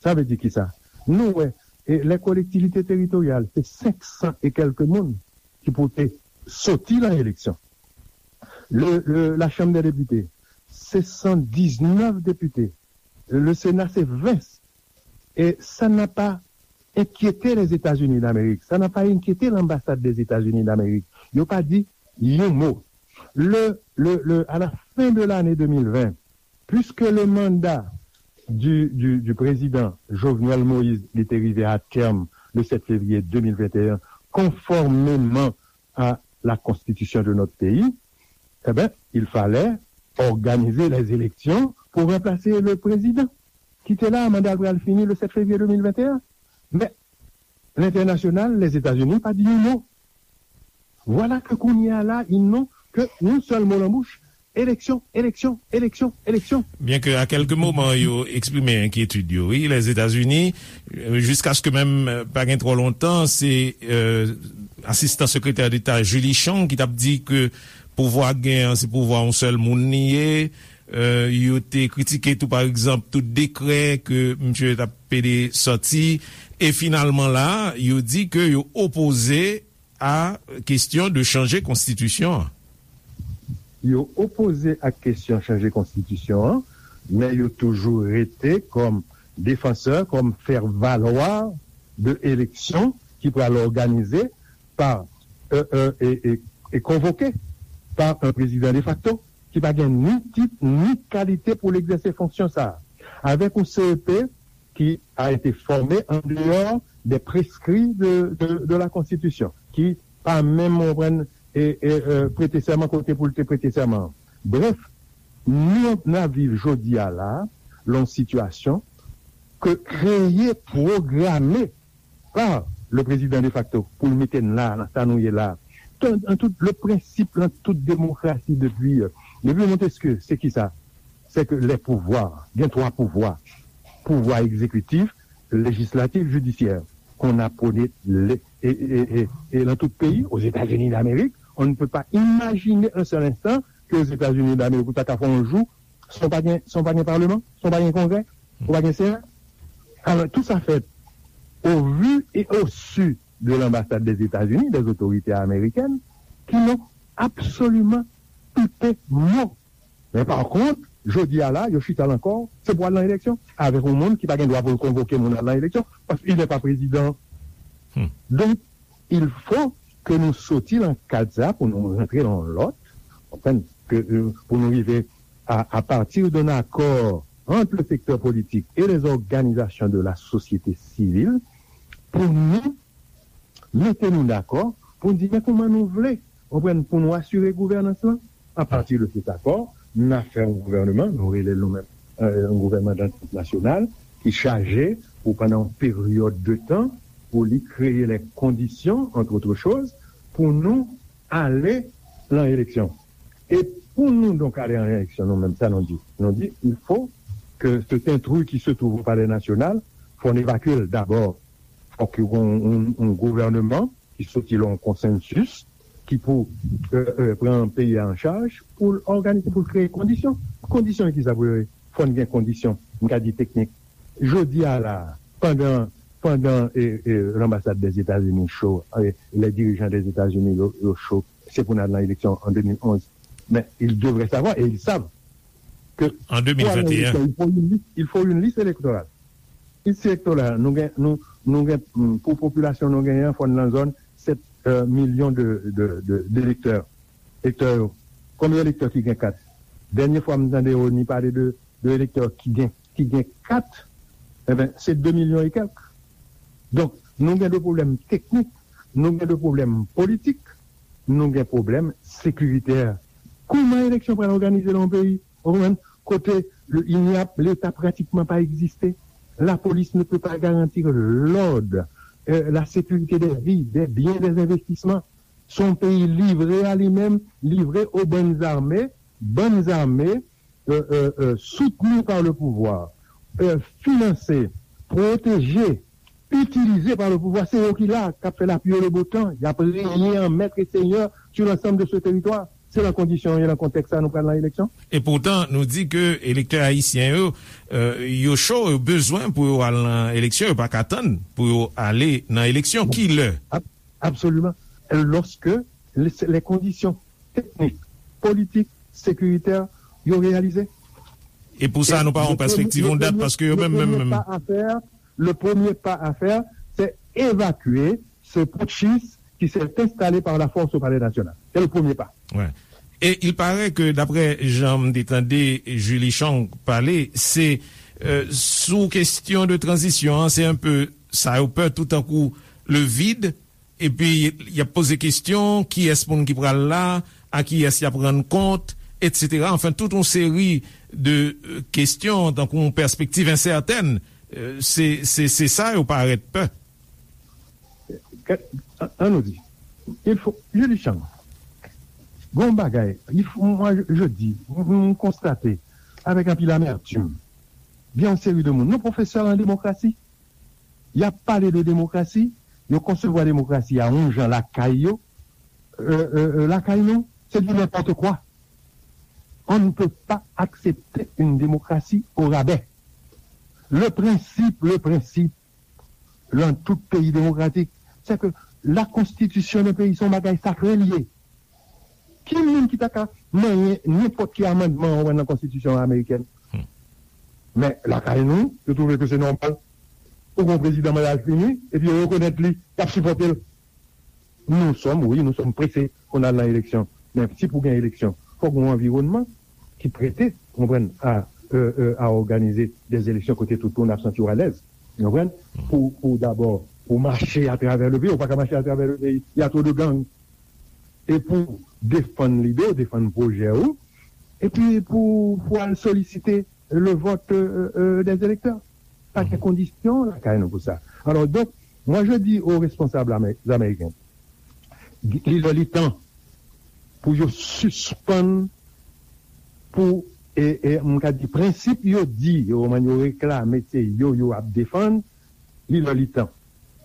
Sa vle di kisa? Nou wè, e, les collectivités territoriales, se senk san e kèlke moun ki pou te soti nan eleksyon. Le, le, la Chambre des députés, se san diznèf depite. Le Sénat, se ven. E sa n'a pas inquiété les États-Unis d'Amérique, ça n'a pas inquiété l'ambassade des États-Unis d'Amérique. Yo pa di yon mo. Le, le, le, à la fin de l'année deux mille vingt, puisque le mandat du, du, du président Jovenel Moïse, il était arrivé à terme le sept février deux mille vingt et un, conformément à la constitution de notre pays, eh ben, il fallait organiser les élections pour remplacer le président qui était là, mandat pral fini le sept février deux mille vingt et un. Men, lentènasyonal, Lèzetazini, pa di yon mo. Vwala ke kounye a la, ils n'ont que yon sèl mo nan bouch, eleksyon, eleksyon, eleksyon, eleksyon. Byen ke a kèlke moman yo eksprime enkyetid yo, wi, Lèzetazini, euh, jiskaske menm, euh, pa gen twò lontan, se, euh, asistan sekretè deta Julie Chang ki t ap di ke pouvwa gen an, se pouvwa yon sèl moun li ye. Euh, yo te kritike tou, pa egzanp, tout dekrè ke misye t ap pede sòti. E finalman la, yo di ke yo opoze a kesyon de chanje konstitisyon an. Yo opoze ak kesyon chanje konstitisyon an, men yo toujou rete kòm defansè, kòm fè valwa de eleksyon ki pral òganize pa, euh, euh, e, e, e konvoke pa yon prezidan defakto ki pa gen ni tit ni kalite pou l egzèse fonksyon sa a, avèk yon C E P qui a été formé en dehors des prescrits de, de, de la Constitution, ki pa menm, ou konprann, e, e, e, prete sèman kote pou l te prete sèman an. Brèf, nou, n ap viv jodi a la, lan yon sitiyasyon ke kreye, pwograme pa le prezidan defakto pou l mete n la, nan sa nou ye la. An tout, le prensip, lan tout demokrasi depi, euh, depi Montesquieu, se ki sa? C'est que les pouvoirs, il y a trois pouvoirs, pouvoir exécutif, législatif, judiciaire, qu'on a prôné les, et, et, et, et dans tout pays, aux États-Unis d'Amérique, on ne peut pas imaginer un seul instant qu'aux États-Unis d'Amérique, ou ta ka fè yon jou, san pa gen, san pa gen paleman, san pa gen kongrè, ou pa gen sena. Alors, tout ça fait au vu et au su de l'ambassade des États-Unis, des autorités américaines, qui n'ont absolument pipé mot. Men pa kont, jodi a la, yo chita la ankò, se pou al nan eleksyon, avèk yon moun ki pa gen dwa pou l konvoke moun al nan eleksyon, paske il n'est pas président. Donk, il faut que nou soti lan kad sa pou nou rantre lan lòt, konprann, ke, euh, pou nou rive à, à partir d'un accord entre le secteur politique et les organisations de la société civile, pou nou mete nou dakò, pou n di, men kòman nou vle, konprann, pou nou asire gouvènans lan. A pati de cet accord, n a fè yon gouvènman, nou rele l nou menm, euh, yon gouvènman dantant nasyonal, ki chaje pou pandan yon peryòd de tan, pou li kreye les conditions, entre autres choses, pou nou ale lan eleksyon. E pou nou donk ale an eleksyon, nou menm, sa nou di? Nou di, il faut que cet intrus qui se trouve au Palais National, fò n evakye l dabò. Fòk yo gen yon, yon, yon gouvènman ki soti la yon konsansis ki pou, euh, euh, pran peyi a an chaj pou l òganize, pou l kreye kondisyon. Kondisyon ki sa pou yo ye? Fò n gen kondisyon, m ka di teknik. Jodi a la, pandan, pandan, e, e, l'ambassade des États-Unis cho, e, les dirigeants des États-Unis yo, yo cho, se pou n al nan eleksyon an de mil onz. Men, ils devraient savoir, et ils savent, que pour aller en élection, il faut une liste, il faut une liste électorale. Liste électorale, nou gen, nou, nou gen, mm, pou popilasyon nou genyen, fò n nan zòn sèt, euh, milyon de, de, de, d'elektè. Elektè yo. Konbyen elektè ki gen kat? Dènye fwa m tande Rony pale de, de elektè ki gen, ki gen kat, enben, se de milyon e kèk. Donk, nou gen de pwoblèm teknik, nou gen de pwoblèm politik, nou gen pwoblèm sekiritè. Kòman eleksyon pral òganize nan yon peyi, ou konprann, kote le, il n'y a, Leta pratikman pa egziste? La police ne peut pas garantir l'ordre, euh, la sécurité des vies, des biens, des investissements. Se yon peyi livre a li menm, livre aux bandes armées, bandes armées, euh, euh, euh, soutenues par le pouvoir, euh, financées, protégées, utilisées par le pouvoir. Se yo ki la, k ap fè lapli e le beau temps. Y ap renye an maître et seigneur sur l'ensemble de ce territoire. Se nan kondisyon yo, nan kontèks sa nou pral nan eleksyon. E poutan, nou di ke elektè ayisyen yo, euh, yo cho, yo bezwen pou yo al nan eleksyon, yo pa ka tann pou yo ale nan eleksyon. Ki lè? Ab-, absolument. Lorsque les, les conditions techniques, politiques, sécuritaires, yo reyalize. E pou sa, nou pa yon pèspektiv, yon dat, paske yo menm, menm, menm. Le premier pas à faire, c'est évacuer ce putschiste qui s'est installé par la force au Palais National. C'est le premier pas. Ouais. Et il paraît que, d'après jan m te tande Julie Chang pale, se, euh, sou kesyon de tranzisyon an, se un peu sa yo pè, tout tankou le vide, epi y ap poze kesyon, kiyès moun ki pral la, a kiyès y ap rann kont, etsetera. Anfen, tout yon seri de, euh, kesyon, tankou yon pèspektiv ensètèn. Euh, se, se, se sa yo parèt pè. An, an nou di, il faut, Julie Chang, gon bagay, il faut, moi, je, je dis, m, m konstate avèk anpil amètim, gen yon seri de moun, nou pwofesè an demokrasi, y ap pale de demokrasi, yo konsevwa demokrasi a yon jan lakay yo, euh, euh, euh, lakay nou, se du n'importe quoi. On ne peut pas accepter une démocratie au rabais. Le principe, le principe, dans tout pays démocratique, c'est que la constitution d'un pays, se yon bagay sakre li ye. Ki moun ki ta ka manyen nenpòt ki amandman ou wè nan konstitisyon amerikèn? Hmm. Men, lakay nou, yo twouve ke se nòmal. Ou gen yon prezidan mandal fini, epi yo rekonèt li, y ap sipòte l. Nous sommes, oui, nous sommes pressés pou n al nan eleksyon. Men si pou gen eleksyon, fòk gen yon anviwònman ki prete, konprann, a, euh, euh, à organiser des élections kote tout moun ap santi yo alèz. Konprann? Pou, pou dabò, pou mache atravè le peyi, ou pa ka mache atravè le peyi. Il y a trop de gangs. E pou defann lide w, defann pwojè ou, epi pou, pou al solisite le vote, euh, euh, des électeurs. Pa gen kondisyon lakay nou pou sa. Alors, donc, moi, je dis aux responsables amé-, américains, li lè li tan pou yo sispann, pou, e, e, m ka di, prensip yo di, yo, yo reklame, se yo, yo ap defann, li lè li tan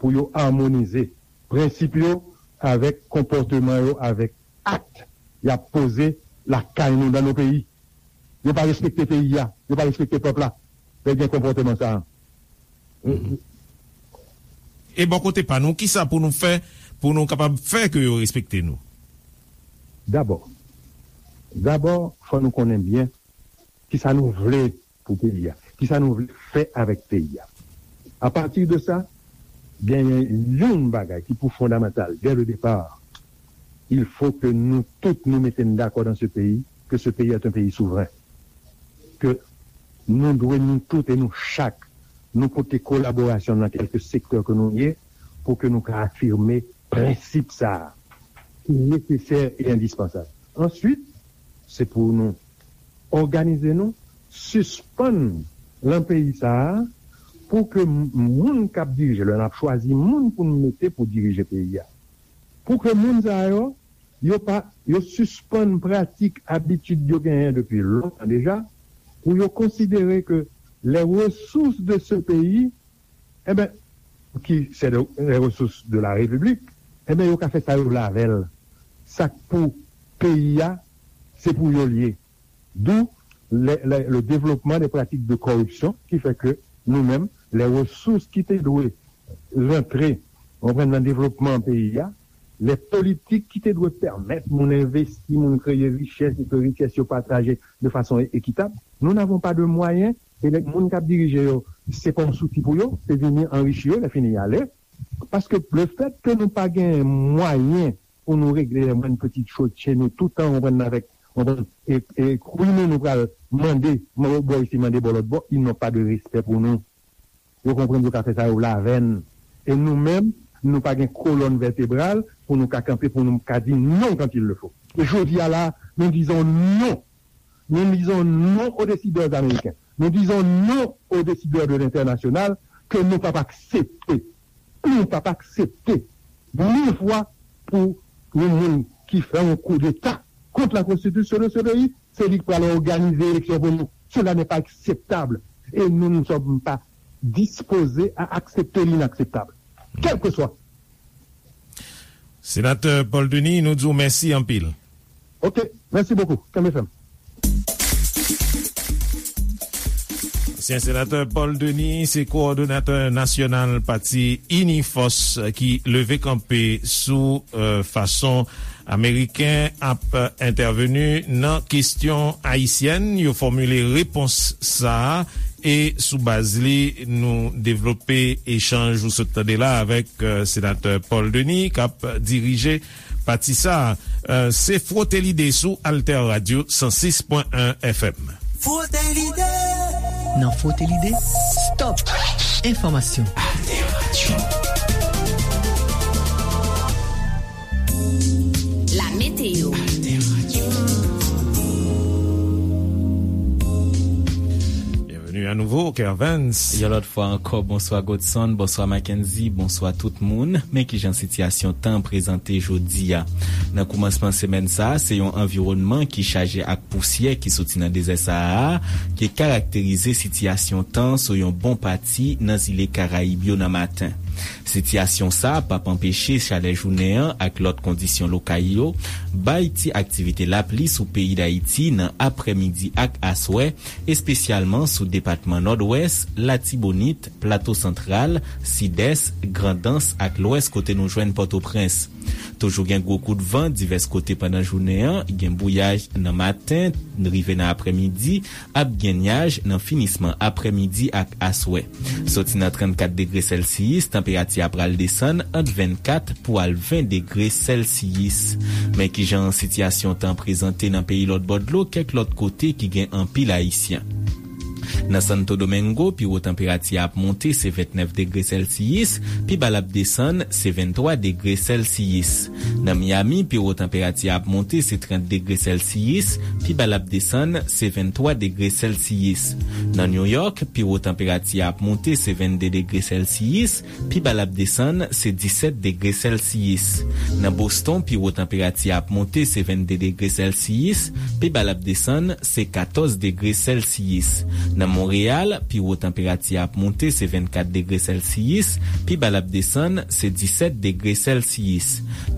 pou yo amonize prensip yo avèk konpòteman yo, avèk ak y ap poze lakay nou, dans nos pays. Yo pa respekte peyi a, yo pa respekte pèp la. Lè gen konpòteman sa a. E bò kote pa nou, kisa pou nou fè pou nou kapab fè ke yo respekte nou? Dabò, dabò, fò nou konnen byen kisa nou vle pou peyi a, kisa nou vle fè avèk peyi a. A pati de sa, genyen yon bagay ki pou fondamantal, dès le départ, il faut que nous tous nous mettions d'accord dans ce pays, que ce pays est un pays souverain. Ke nou dwe, nou tout e nou chak, nou pote kolaborasyon nan kèlke sektè ke nou ye, pou ke nou ka afime prensip sa a, ki nesesè e endispansab. Answit, se pou nou òganize nou, sispann lan peyi sa a, pou ke m-, moun k ap dirije, lè n ap chwazi moun pou n mete pou dirije peyi a, pou ke moun sa yo, yo pa, yo sispann pratik, abitid yo genyen depi lontan deja, pou yo konsidere ke les ressources de ce pays, enben, ki se de, les ressources de la République, enben, yo ka fè sa yo vle avè l. Sa k pou peyi a, se pou yo l ye. D'où le, le, le développement des pratiques de corruption qui fait que nou menm, les ressources ki te dwe rantre, konprann, nan devlopman peyi a, les politiques ki te dwe pèmèt moun envesti, moun kreye richès, e ke richès yo pataje de façon é-, équitable, nous n'avons pas de moyens, e nèg, moun k ap dirije yo, se pa yon souti pou yo, se vini anrichi yo, lè fini y ale. Paske le fait que nou pa gen mwayen pou nou regle les moindres petites choses chez nous, tout tan, konprann, avèk, konprann, e, e kwi nou, nou pral mande, mande bò isi, mande bò lòt bò, ils n'ont pas de respect pour nous. Yo konprann yo ka fè sa yo vle avè n. E nou menm, nou pa gen kolòn vètebral pou nou ka kanpe, pou nou ka di non quand il le faut. E jodi a la, nous disons non. Nous disons non aux décideurs américains. Nous disons non aux décideurs de l'international que nou p ap aksepte. Nou p ap aksepte mil fwa pou yon moun ki fè yon koudeta kont la konstitisyon de ce pays, se li k pral òganize eleksyon pou nou. Cela n'est pas acceptable. Et nous ne sommes pas disposés à accepter l'inacceptable. Quel que soit. Senatè Paul Denis, nou di w mèsi anpil. Ok, merci beaucoup. Kenbe fèm. Ansyen senatè Paul Denis se kowòdonatè nasyonal pati Inifòs ki leve kanpe sou, euh, fason Ameriken ap entèveni nan kesyon ayisyèn. Yo fòmile repons sa a e sou baz li nou devlope echanj ou sot tande la avèk, euh, senatè Paul Denis k ap dirije pati sa a. Euh, se Fwote Lide sou Alter Radio san sis pwen en F M. Fwote Lide. Nan Fwote Lide, stop enfòmasyon. Alter Radio. La météo. Byenveni a nouvo, Kervens. Yon lòt fwa ankò, bonswa Godson, bonswa Mackenzie, bonswa tout moun. Men kijan sitiyasyon tan prezante jodi a. Nan koumansman semèn sa a, se yon anviwònman ki chaje ak pousyè ki soti nan dezè Sahara a, ki karakterize sitiyasyon tan sou yon bon pati nan zile Karayib yo nan maten. Sitiyasyon sa a p ap anpeche chalè jounen an ak lòt kondisyon lokal yo bay ti aktivite lapli sou peyi Dayiti nan aprèmidi ak aswè, espesyalman sou depatman Nòdwès, Latibonit, Plato Santral, Sidès, Grandans ak Lwès kote nou jwenn Pòtoprens. Toujou gen gwo kout van divès kote pandan jounen an, gen bouyaj nan maten, rive nan aprèmidi, ap gen nyaj nan finisman aprèmidi ak aswè. Soti nan trannkat degre sèlsiyis, tanperati a pral desann ant vennkat pou al ven degre sèlsiyis. Men kijan sitiyasyon tan prezante nan peyi lòt bò dlo kèk lòt kote ki gen anpil Ayisyen. Nan Santo Domingo, pi wo tanperati a ap monte se vennèf degre sèlsiyis, pi ba l ap desann se venntwa degre sèlsiyis. Nan Miami, pi wo tanperati a ap monte se trant degre sèlsiyis, pi ba l ap desann se venntwa degre sèlsiyis. Nan New York, pi wo tanperati a ap monte se vennde degre sèlsiyis, pi ba l ap desann se disèt degre sèlsiyis. Nan Boston, pi wo tanperati a ap monte se vennde degre sèlsiyis, pi ba l ap desann se katòz degre sèlsiyis. Nan Monreyal, pi wo tanperati a ap monte se vennkat degre sèlsiyis, pi ba l ap desann se disèt degre sèlsiyis.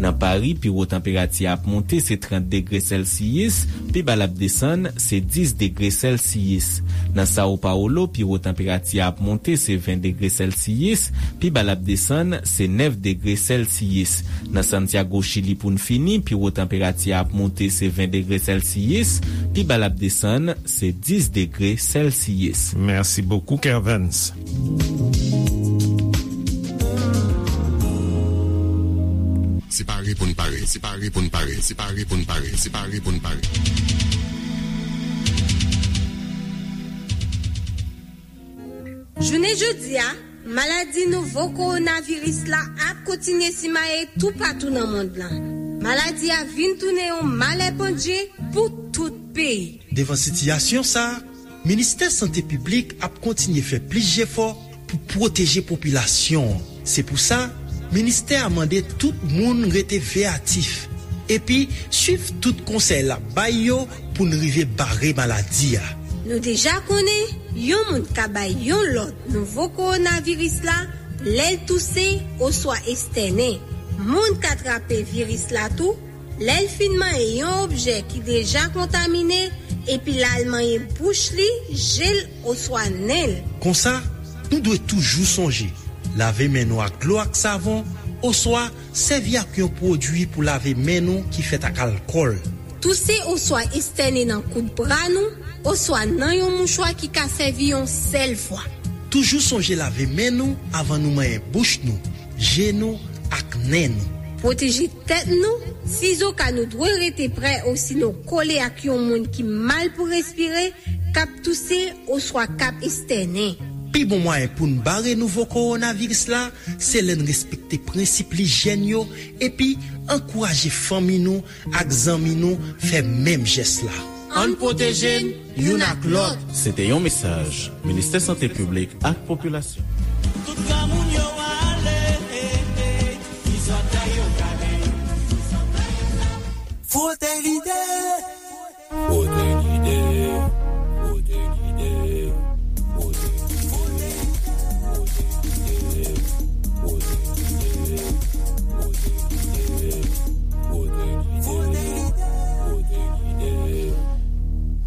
Nan Pari, pi wo tanperati a ap monte se trant degre sèlsiyis, pi ba l ap desann se dis degre sèlsiyis. Nan Sao Paulo, pi wo tanperati a ap monte se ven degre sèlsiyis, pi ba l ap desann se nèf degre sèlsiyis. Nan Santiago, Chili, pou n fini, pi wo tanperati a ap monte se ven degre sèlsiyis, pi ba l ap desann se dis degre sèlsiyis. Merci beaucoup, Kervens. Se pare pou n pare, se pare pou n pare, se pare pou n pare, se pare pou n pare. Jounen jodi a, maladi nouvo kowonaviris la ap kontinye simaye toupatou nan mond lan. Maladi a vin tounen yon malè pandje pou tout peyi. Devan sitiyasyon sa a, Ministè Sante Piblik ap kontinye fè plis jefò pou pwoteje popilasyon an. Se pou sa, ministè a mande tout moun rete veyatif epi swiv tout konsèy l ap bay yo pou n rive bare maladi a. Nou deja konnen, yon moun ka bay yon lòt nouvo kowonaviris la lè l touse oswa estènen. Moun ka trape viris la tou lè l fin manyen yon objè ki deja kontamine epi l al manyen bouch li, je l oswa nen l. Konsa, nou dwe toujou sonje lave men nou ak dlo ak savon oswa sèvi ak yon pwodui pou lave men nou ki fèt ak alkòl. Touse oswa estène nan kout bra nou oswa nan yon mouchwa ki ka sèvi yon sèl fwa. Toujou sonje lave men nou avan nou manyen bouch nou, je nou ak nen nou. Pwoteje tèt nou, sizoka nou dwe rete prè osinon kole ak yon moun ki mal pou respire, k ap touse oswa k ap estènen. Pi bon mwayen pou n bare nouvo kowonaviris la, se lè n respekte prensip lijyèn yo epi ankouraje fanmi nou ak zanmi nou fè menm jès la. Ann pwoteje n youn ak lòt. Se te yon mesaj Ministè Sante Piblik ak Popilasyon. Tout granmoun yo ale, ti zòtèy yo kale. Fwote lide. Fwote lide. Fwote lide. Fwote lide. Fwote lide. Fwote lide.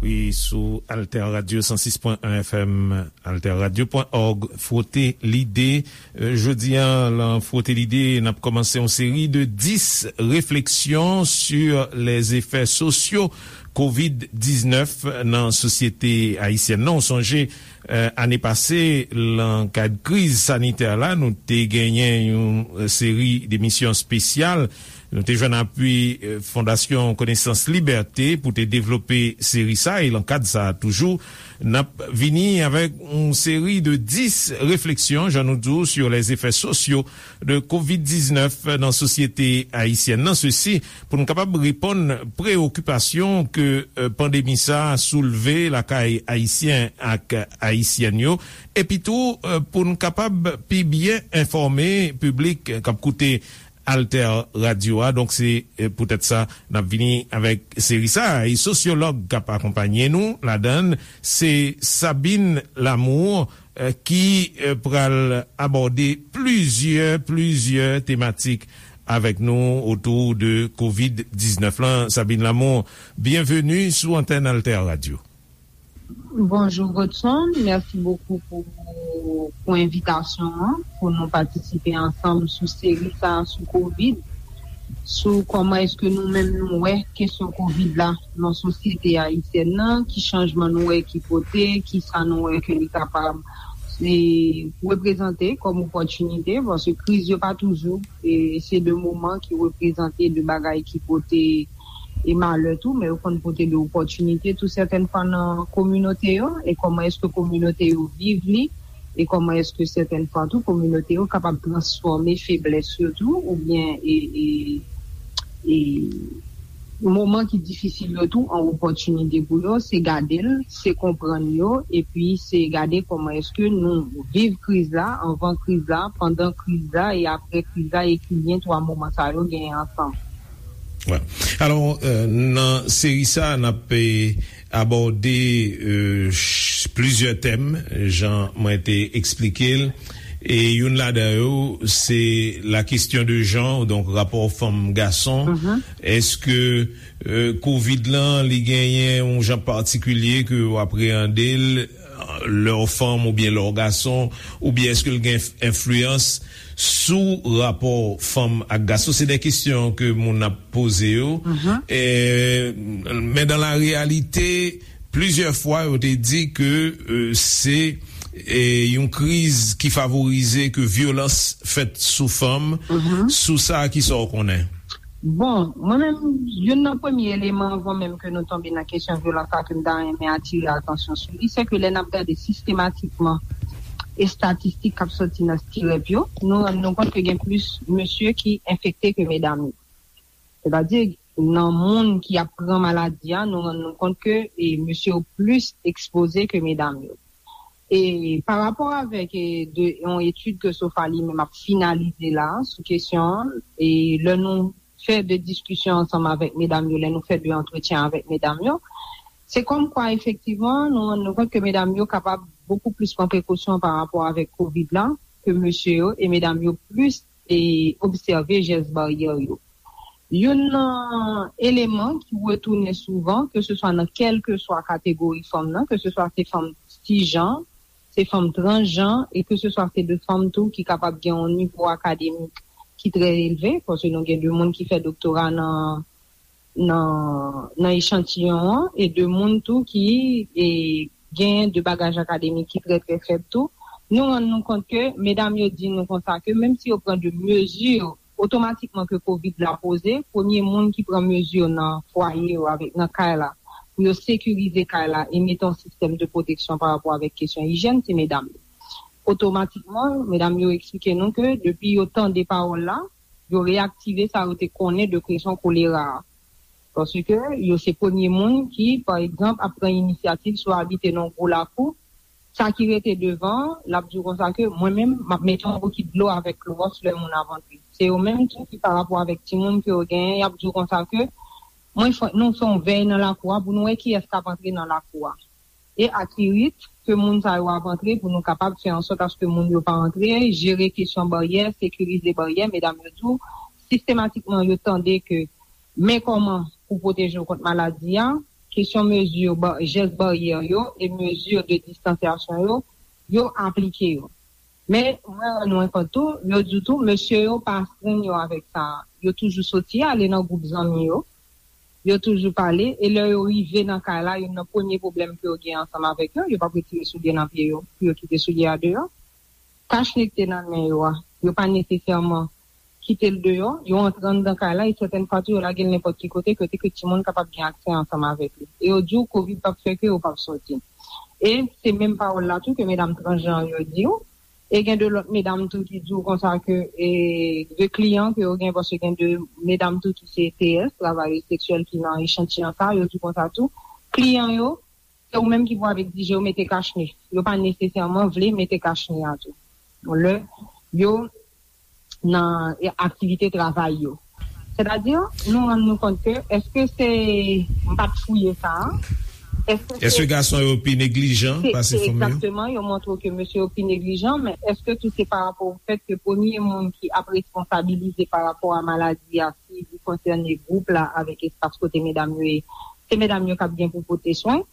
Wi, sou Alter Radio san sis pwen en F M, alterradio pwen òg, Fwote Lide. Euh, jodi a, lan Fwote Lide, n ap kòmanse yon seri de dis réflexions sur les effets sociaux kovid diznèf nan sosyete ayisyèn nan. Ou sonje, euh, ane pase, lan kad kriz sanitè la, nou te genyen yon, euh, seri de emisyon espesyal. Nou te jwenn apui, euh, Fondasyon Konesans Libète pou te devlope seri sa, e lan kad sa a toujou, n ap vini avèk yon seri de dis réflexions, jan nou di w, sur les effets sociaux de kovid diznèf nan sosyete ayisyèn nan. Sesi, pou n kapab reponn preyokipasyon ke, euh, pandemi sa a soulve lakay Ayisyen ak Ayisyèn yo, epi tou, euh, pou n kapab pi byen enfòme piblik k ap koute Alter Radio a. Donk, se, eh, poutèt sa, n ap vini avèk seri sa a. E sosyològ k ap akonpanye nou ladan l, se Sabine Lamour, eh, ki, eh, pral abòde plizyè, plizyè tematik avèk nou otou de kovid diznèf lan. Sabine Lamour, byenveni sou antèn Alter Radio. Bonjou Godson, mèsi bokou pou, pou envitasyon an, pou nou patisipe ansanm sou seri sa a sou kovid. sou kòman èske nou menm nou wè kesyon kovid la nan sosyete ayisyèn nan, ki chanjman nou wè ki pote, ki sa nou wè ke li kapab e, reprezante kòm opòtinite, paske kriz yo pa toujou e se de moman ki reprezante de bagay ki pote e malè tou, men yo konn pote de opòtinite tou sètèn fwa nan kominote yo, e kòman èske kominote yo viv li, e kòman èske sètèn fwa tou kominote yo kapab transfòme feblès yo tou, oubyen e, e, e moman ki difisil yo tou an opòtinite pou yo, se gade l, se konprann yo, epi se gade kòman èske nou viv kriz la, anvan kriz la, pandan kriz la e apre kriz la, e ki lyen twa moman sa yo genyen ansanm. Alò, nan seri sa, n ap abòde plizyè tèm, jan mwen te eksplike l. E youn ladan yo, se la question de genre, donk rapò fanm gason. Èske kovid lan, li genyen yon jan patikilye ke w apreyande l, lè w fanm oubyen lè w gason, oubyen èske l gen enfliyans sou rapò fanm ak gason? Se de kesyon ke moun ap poze yo. Men dan la reyalite, plizyè fwa yo te di ke se yon kriz ki favorize ke vyolans fèt sou fanm. Sou sa, kisa w konnen? Bon, mwen menm, youn nan premye eleman anvan menm ke nou tonbe nan kesyon vyolans la ke m ta renmen atire atansyon sou li, se ke lè n ap gade sistematikman estatistik k ap soti nan stirèp yo, nou rann nou kont ke gen plis mesye ki enfekte ke medam yo. Sètadi, nan moun ki ap pran maladi a, nou rann nou kont ke e, mesye yo plis ekspoze ke medam yo. E pa rapò avèk e, de, yon etid ke sofa li menm ap finalize la sou kesyon an, e lè nou fè de diskisyon ansanm avèk medam yo, lè nou fè de antretyen avèk medam yo, se kòmkwa efektivman nou rann nou kont ke medam yo kapab bokou plis pran prekosyon pa rapò avèk kovid la ke mesye yo, e medam yo plis e obsève jès baryè yo. Youn nan eleman ki retounen souvan, ke se swa nan kèlkeswa kategori fanm nan, ke se swa se fanm sijan, se fanm transjan, e ke se swa se de fanm tou ki kapab gen yon nivo akademik ki trè elve, paske nou gen de moun ki fè doktora nan nan nan echantiyon an, e de moun tou ki e, gen de bagaj akademik ki trè trè fèb tou. Nou rann nou kont ke medam yo di nou konsa ke menm si yo pran de mezi otomatikman ke kovid la poze, premye moun ki pran mezi nan fwaye yo avèk nan kay la pou yo sekirize kay la e mete yon sistèm de pwoteksyon pa rapò avèk kesyon ijyèn, se medam yo. Otomatikman, medam yo eksplike nou ke depi yo tande pawòl la, yo reyaktive sa yo te konnen de kesyon kolera a. Paske yo se premye moun ki, pa egzanp, ap pran inisyativ si w abite nan yon gwo lakou, sa ki rete devan, l ap di w konsa ke mwen menm, m ap mete yon bokit dlo avèk klowòks lè moun ap antre. Se yo menm tou ki pa rapò avèk timoun ke yo genyen, y ap di w konsa ke mwen fè, nou fè yon vèy nan lakou a pou nou wè kiyès k ap antre nan lakou a. E ak ki rit ke moun sa yo ap antre pou nou kapab fè ansòt aske moun yo pa antre, jere kesyon baryè, sekirize baryè, medam yo tou, sistematikman yo tande ke men kòman pou pwoteje w kont maladi a, kesyon mezi, jès baryè yo e mezi de distansyasyon yo, yo aplike yo. Men mwen rann mwen kont tou, yo di tou, mesye yo pa astrenn yo avèk sa. Yo toujou soti ale nan gwoup zanmi yo, yo toujou pale, e lè yo rive nan kay la, youn nan premye pwoblèm ke yo gen ansanm avèk yo, yo p ap retire soulye nan pye yo pou yo kite soulye a deyò. Kachne ki te nan men yo a, yo pa nesesèman kite l deyò, yo antre anndan kay la, e sètèn fwa tou yo lage l nenpòt ki kote, kote ke timoun kapab gen aksè ansanm avèk li. E yo di w kovid p ap fè ke yo p ap soti. E se menm pawòl la tou ke medam transjan yo di w. E gen de lòt medam tou ki di w konsa ke e, de kliyan ke yo gen, paske gen de medam tou ki se T S, travayè seksyèl ki nan echantiyon sa, yo di w konsa tou, kliyan yo, se ou menm ki pou al egzije yo mete kachne. Yo pa nesesèman vle mete kachne a tou. Lè yo nan e, aktivite travay yo. Sètadi, nou rann nou kont ke, èske se, m pa t fouye sa a, èske se, Èske gason yo pi neglijan se, pase se fanm yo? Egzakteman, yo montre w ke mesye yo pi neglijan, men èske tou se pa rapò o fèt ke premye moun ki ap responsabilize pa rapò a maladi a, si li konsène gwoup la avèk espas kote medam yo ye, se medam yo k ap gen pou pote swen?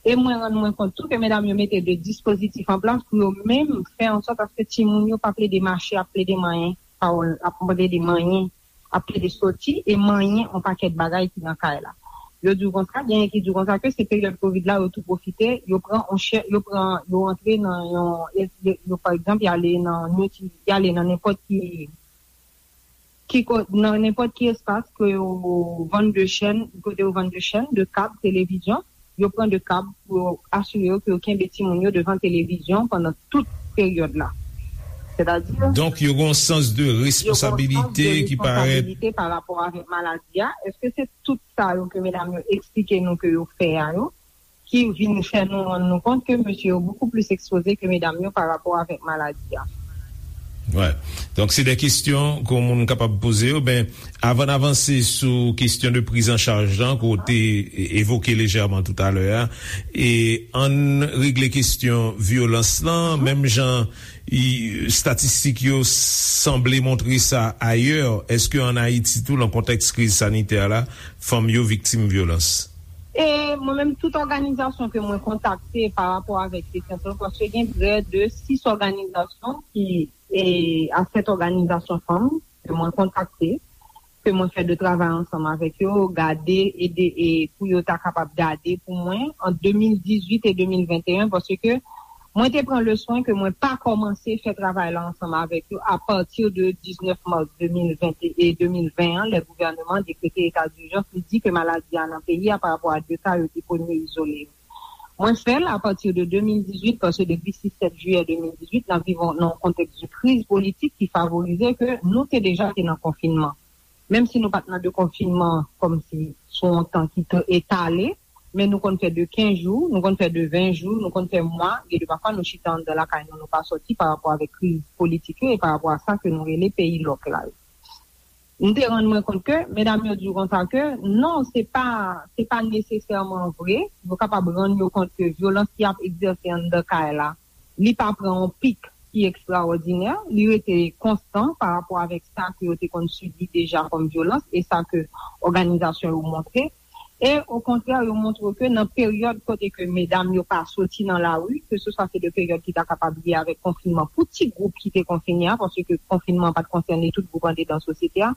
E mwen rann mwen kont tou ke medam yo mete de dispozitif an plas pou yo menm fè ansòt aske timoun yo pa plede mache ap plede manyen pawòl, ap plede manyen ap plede soti e manyen yon pakèt bagay ki nan kay la. Yo di w konsa, genyen ki di w konsa ke se peryòd kovid la, yo tou pwofite, yo pran yon chè, yo pran, yo antre nan yon, yo, yo, pa egzanp, y ale nan, y ale nan nenpòt ki, ki ko-, nan nenpòt ki espas ke yo vann de chèn, kote yo vann de chèn, de kab, televizyon, yo pran de kab pou yo asire yo ke yo kenbe timoun yo devan televizyon pandan tout peryòd la. Sètadi, Donk, yo gen yon sans de yo gen yon sans de responsabilite ki parèt. Responsabilite pa rapò avèk maladi a. Èske se tout sa yo ke medam yo eksplike nou ke yo fè a yo, ki vin fè nou rann nou kont ke mesye yo bokou plis ekspoze ke medam yo pa rapò avèk maladi a? Wè. Donk, se de kesyon ke yon moun kapab poze yo. Ben, avan n avanse sou kesyon de priz an chaj lan, ke w te e-, evoke lejèman toutalè a, e ann regle kesyon vyolans lan, menm jan i, estatistik yo sanble montre sa ayè, èske ann Ayiti tou, nan kontèks kriz sanitè la, fanm yo viktim vyolans? E mwen menm, tout òganizasyon ke mwen kontakte pa rapò avèk kesyon sa, paske gen prè de sis òganizasyon ki, e, a sèt òganizasyon fanm ke mwen kontakte, ke mwen fè de travay ansanm avèk yo, gade, ede, e pou yo ta kapab gade pou mwen ant de mil dizuit e de mil venteyen, paske mwen te pran le swen ke mwen pa kòmanse fè travay la ansanm avèk yo apati de diznèf mas de mil ven e de mil ven an, lè gouvèneman an dekrete eta dijans, li di ke maladi a nan peyi a pa rapò a de ka yo te premye izole yo. Mwen fè l apati de de mil dizuit, paske depi sis sèt jiyè de mil dizuit, n ap viv nan yon kontèks de kriz politik ki favorize ke nou te deja te nan konfinman. Menm si nou pa t nan de konfinman kòmsi sou yon tan ki te etale, men nou konn fè de kenz jou, nou konn fè de ven jou, nou konn fè mwa, gen de pafwa nou chita anndan lakay nou, nou pa sòti pa rapò avèk kriz politik yo e pa rapò a sa ke nou rele peyi lòk la yo. M te rann mwen kont ke medam yo di w konsa ke non, se pa, se pa nesesèman vre. Yo kapab rann yo kont ke vyolans ki ap egzèse anndan kay la, li pa pran yon pik ki ekstraòdinè, li rete konstan pa rapò avèk sa ke yo te konn sibi deja kòm vyolans e sa ke òganizasyon yo montre. E okontrè, yo montre ke nan peryòd kote ke medam yo pa soti nan lari, keseswa se de peryòd ki ta kapab lye avèk konfinman pou ti gwoup ki te konfine a, paske konfinman pa t konsène tout gwoup andedan sosyete a.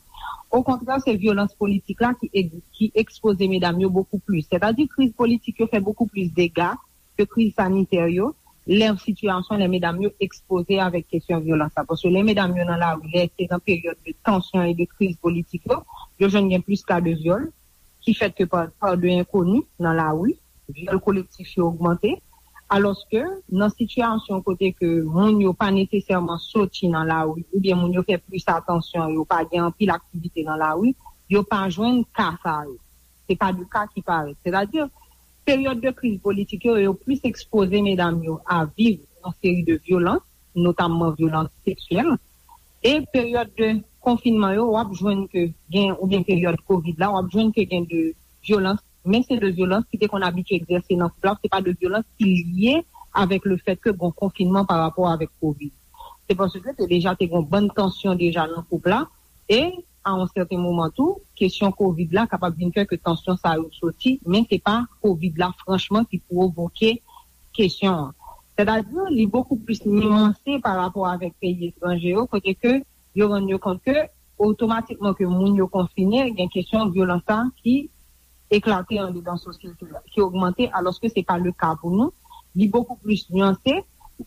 Okontrè, se vyolans politik la ki, ki ekspoze medam yo bokou plis. Sètadi, kriz politik yo fè bokou plis dega ke kriz sanitè yo, lè sitiyasyon, lè medam yo ekspoze avèk kesyon vyolans la. Paske lè medam yo nan lari, lè se nan peryòd de tansyon e de kriz politik yo, yo jwenn gen plis ka de vyòl, ki fèt ke pa, pa de enkoni nan lari, vyòl kolektif yo ogmante, alòske nan sitiyasyon kote ke moun yo pa nesesèman soti nan lari, oubyen moun yo fè plis atansyon, yo pa gen anpil aktivite nan lari, yo pa jwenn ka sa yo. Se pa de ka ki parèt. Sètadi, peryòd de kriz politik yo, yo plis ekspoze medam yo a viv yon seri de vyolans, notamman vyolans seksyèl. E peryòd de konfinman yo, w ap jwenn ke gen, oubyen peryòd kovid la, w ap jwenn ke gen de vyolans, men se de vyolans ki te konn abitye egzèse nan koup la, se pa de vyolans ki lye avèk le fèt ke gen konfinman pa rapò avèk kovid. Se paske te deja te gen bann tansyon deja nan koup la, e a yon sèten moman tou, kesyon kovid la kapab vin fè ke tansyon sa yo soti, men se pa kovid la franchman ki pwovoke kesyon an. Sètadi, li bokou plis niyanse pa rapò avèk peyi etranje yo, kote ke yo rann yo kont ke otomatikman ke moun yo konfine, gen kesyon vyolans sa ki eklate andedan sosyete a, ki ogmante, alòske se pa le ka pou nou. Li bokou plis niyanse,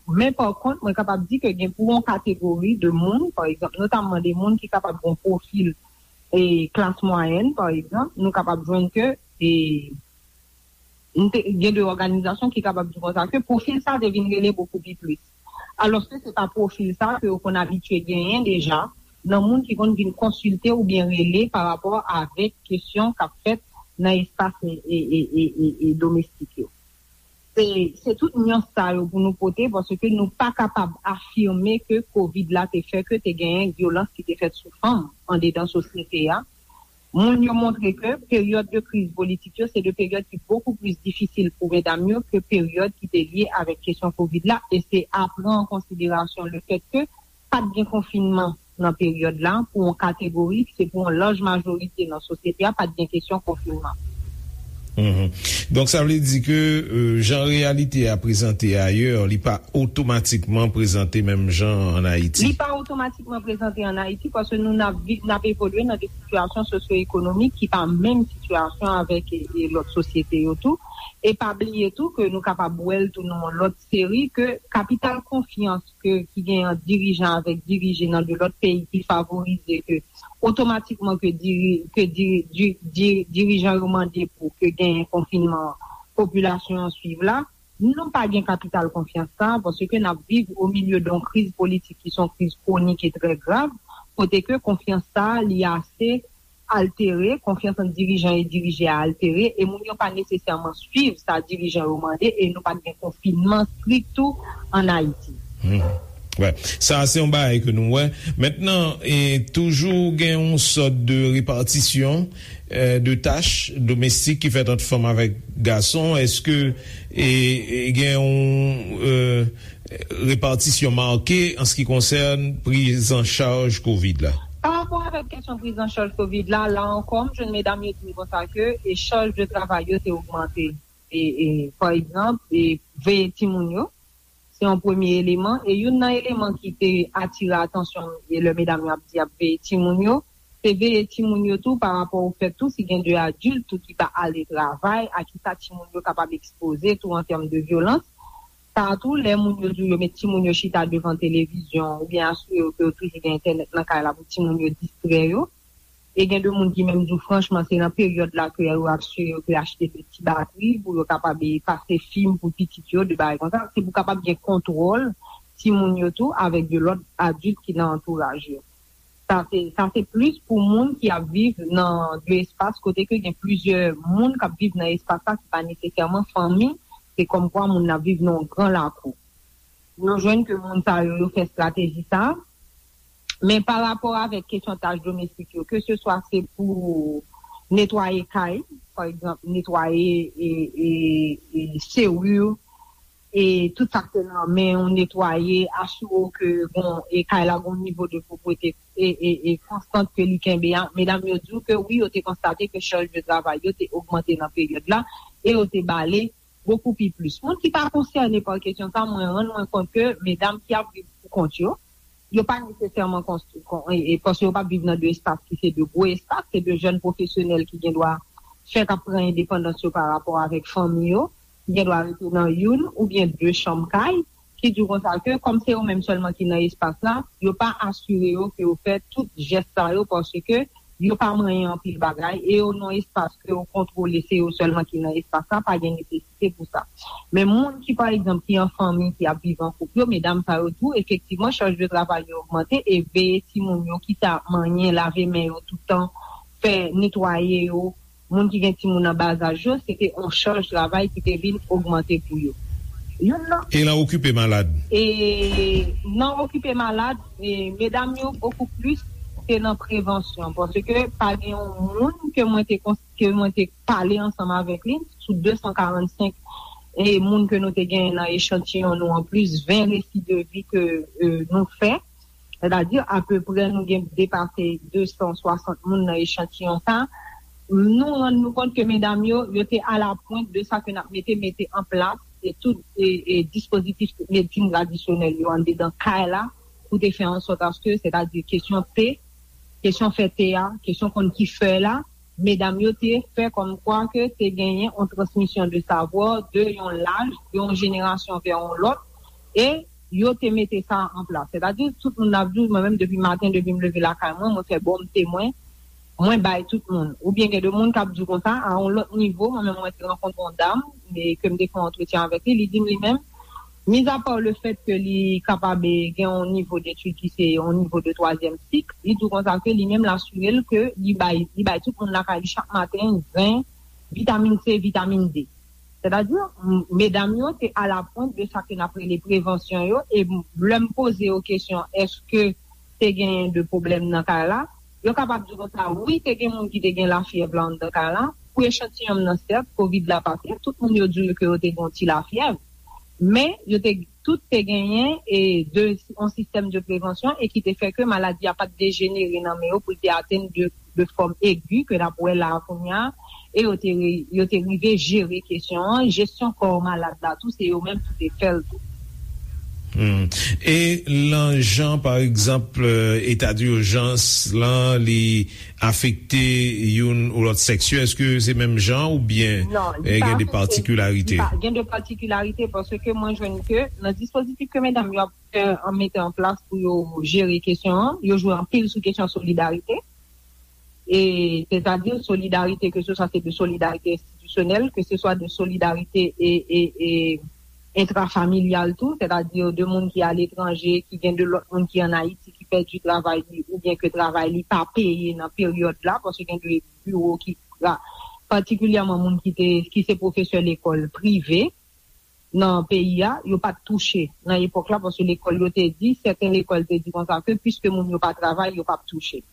men pa kont, mwen kapab di ke gen pou yon kategori de moun, pa egzanp, notamman de moun ki kapab gen yon pwofil, e, klas mwayèn, pa egzanp, nou kapab jwenn ke, e, nou te, gen de òganizasyon ki kapab di konsa ke pwofil sa te vin rele bokou pi plis. Alòske se pa pwofil sa ke yo konn abitye genyen deja nan moun ki konn vin konsilte oubyen rele pa rapò avèk kesyon k ap fèt nan espas e, e, e, e, e, e domestik yo. Se, se tout nyans sa yo pou nou pote, paske nou pa kapab afime ke kovid la te fè ke te genyen vyolans ki te fèt sou fanm andedan sosyete a. Moun yo montre ke peryòd de kriz politik yo se de peryòd ki bokou plis difisil pou medam yo ke peryòd ki te lye avèk kesyon kovid la, e se a pran an konsiderasyon le fèt ke pa t gen konfinman nan peryòd la pou yon kategori, se pou yon laj majorite nan sosyete a, pa t gen kesyon konfinman. Mhm. Donk, sa vle di ke euh, jan reyalite a prezante ayè, li pa otomatikman prezante menm jan an Ayiti. Li pa otomatikman prezante an Ayiti paske nou n ap vi- n ap evolye nan de sitiyasyon sosyo-ekonomik ki pa menm sitiyasyon avèk e, e lòt sosyete yo tou. E pa bliye tou ke nou kapab wè l tou nan yon lòt seri ke kapital konfyans ke ki gen an dirijan avèk dirije nan de lòt peyi ki favorize ke otomatikman ke diri, ke diri, di, di, dirijan yo mande pou ke genyen konfinman popilasyon an swiv la, nou pa gen kapital konfyans sa, paske n ap viv o milye de yon kriz politik ki se yon kriz kwonik e trè grav, kote ke konfyans sa li ase altere, konfyans ant dirijan e dirije a altere, e moun yo pa nesesèman swiv sa dirijan yo mande, e nou pa t gen konfinman strik tou an Ayiti. Hmm. Wè. Sa se yon bagay ke nou wè. Mentnan, e, toujou gen yon sòt de repatisyon e, de tach domestik ki fèt ant fanm avèk gason. Èske e, e, gen yon e, repatisyon make an se ki konsène prizanchaj kovid la? Pa rapò avèk kesyon prizanchaj kovid la, la ankò, m jwenn medam yo di m konsa ke e chaj de travay yo te ogmante. E, e, pa egzanp, e veye timoun yo, se yon premye eleman. E youn nan eleman ki te atire atansyon m, e lè medam yo ap di y ap veye timoun yo, se veye timoun yo tou pa rapò o fèt tou si gen de adilt tou ki pa ale travay, a kisa timoun yo kapab ekspoze tou an tèm de vyolans. Sa tou, lè moun yo di w yo met timoun yo chita devan televizyon oubyen asire yo ke yo toujou gen entènèt nan kay la pou timoun yo distrè yo. E gen de moun ki menm di w franchman se nan peryòd la ke yo asire yo ke achte de ti batri pou yo kapab e pase fim pou pitit yo, de bagay konsa. Se pou kapab gen kontwòl timoun yo tou avèk de lòt adilt ki nan antouraj yo. Sa se, sa se plis pou moun ki ap viv nan de espas kote ke gen plizyè moun k ap viv nan espas la ki pa nesesèman fanmi, se kòmkwa moun nan ap viv nan yon gran lakou. Nou jwenn ke moun sa yo, yo fè estrateji sa. Men pa rapò avèk kesyon tach domestik yo, ke se swa se pou netwaye kay, pa egzanp, netwaye e, e, e seri, e tout sa k te nan men w, netwaye, asire w ke bon, e kay la gon nivo de pwopwete e, e, e konstant ke li kenbe a. Medam yo di w ke wi, yo te konstate ke chaj de travay yo te ogmante nan peryòd la e yo te bale bokou pi plis. Moun ki pa konsène pa kesyon sa, mwen rann mwen kont ke medam ki ap viv pou kont yo, yo pa nesesèman konstwi, kon, e, e, paske yo pa viv nan de espas ki se de gwo espas, se de jèn pwofesyonèl ki gen dwa fèk ap pran endepandans yo pa rapò avèk fanmi yo, ki gen dwa rete nan youn oubyen de chanm kay, ki di w konsa ke kòm se yo menm sèlman ki nan espas la, yo pa asire yo ke yo fè tout jès sa yo paske yo pa manyen anpil bagay e yo nan espas ke yo kontwole, se yo sèlman ki nan espas la, pa gen nesesite pou sa. Men moun ki, pa egzanp, ki an fanmi, ki ap viv an koup yo, medam sa yo tou, efektivman, chaj de travay yo ogmante e veye timoun yo, kit a manyen, lave men yo toutan, fè netwaye yo, moun ki gen timoun an bazaj yo, se te yon chaj travay ki te vin ogmante pou yo. Youn nan E nan okipe malad? E nan okipe malad, e medam yo bokou plis se nan prevansyon, paske pa gen yon moun ke mwen te kons- ke mwen te pale ansanm avèk li, sou de san karannsenk e moun ke nou te genyen nan echantiyon nou an, plis ven resi de vi ke e, nou fè, sètadi apeprè nou gen depase de san swasant moun nan echantiyon sa, nou rann nou kont ke medam yo, yo te alapwent de sa ke n ap mete, mete an plas e tout e, e dispozitif medsin tradisyonèl yo anndedan kay la pou te fè an sòt aske, sètadi kesyon te, kesyon fè te a, kesyon konn ki fè la, medam yo te fè kòmkwa ke te genyen yon transmisyon de savwa de yon laj, de yon jenerasyon vè yon lòt, e yo te mete sa an plas. Sètadi, tout moun ap di w, mwen menm depi maten, depi m leve lakay mwen, mwen fè bon m te mwen, mwen bay tout moun. Oubyen gen de moun k ap di w konsa, a yon lòt nivo, mwen menm mwen te rankontre yon dam, e ke m te fè yon antretyen avèk li, li di m li menm, mizapa lefèt ke li kapab e, gen yon nivo detid ki se yon nivo de twazyèm sik, li di w konsa ke li menm l asire l ke li bay, li bay tout moun lakay li chak maten zen, vitamin C, vitamin D. Sètadi, m- medam yo te alapwent de sa ke n ap rele prevansyon yo, e m- lè m poze yo kesyon, èske te genyen de pwoblèm nan kay la, yo kapab di konsa, wi, te gen moun ki te gen lafyèv la anndan kay la. Pou echantiyon m nan, sèt, kovid la pase, tout moun yo di w ke yo te gen yon ti lafyèv. Men, yo te, tout te genyen e de, yon sistèm de prevansyon e ki te fè ke maladi a pa t dejenere nan men yo pou l te atenn de, de fòm egi ke n ap wè la a kounye a, e yo te, re- yo te rive jere kesyon an, jesyon kò malad la tou, se yo menm ki te fè l tou. Hmm. E lan jan, pa egzanp, eta di ijans lan, li afekte youn ou lòt sèks yo, èske se menm jan oubyen Non, eh, gen de patikilarite? Gen de patikilarite paske mwen jwenn ke nan dispozitif ke medam yo ap fè an mete an plas pou yo jere kesyon an, yo jwe anpil sou kesyon solidarite. E sètadi solidarite ke se swa se de solidarite enstitisyonèl, ke se swa de solidarite e, e, e entrafamilyal tou, sètadi de moun ki aletranje, ki gen de lòt moun ki ann Ayiti, ki pèdi travay li oubyen ke travay li pa peye nan peryòd la, paske gen de biwo ki patikilyèman moun ki te ki se pwofesè lekòl prive nan peyi a, yo pa t touche nan epòk la, paske lekòl yo te di, sèten lekòl te di konsa ke piske moun yo pa travay, yo p ap touche.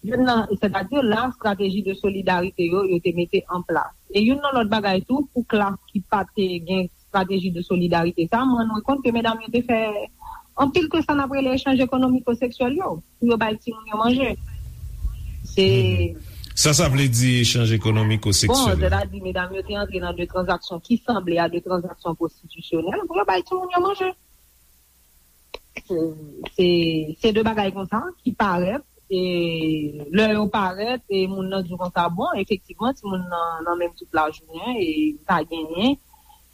Youn nan, sètadi la, estrateji de solidarite yo, yo te mete an plas. E youn nan lòt bagay tou, pou klas ki pa te gen estrateji de solidarite sa, mwen rann mwen kont ke medam yo te fè anpil ke sa n ap rele echanj ekonomiko seksyèl yo, pou yo bay timoun yo manje. Se Sa, sa vle di echanj ekonomiko seksyèl. Sètadi medam yo te antre nan de tranzaksyon ki sanble a de tranzaksyon pwostitisyonèl pou yo bay timoun yo manje. Se se de bagay konsa ki parèt, e lè yo parèt, e moun nan di konsa, bon, efektivman, timoun nan nan menm tout lajounen, e li pa genyen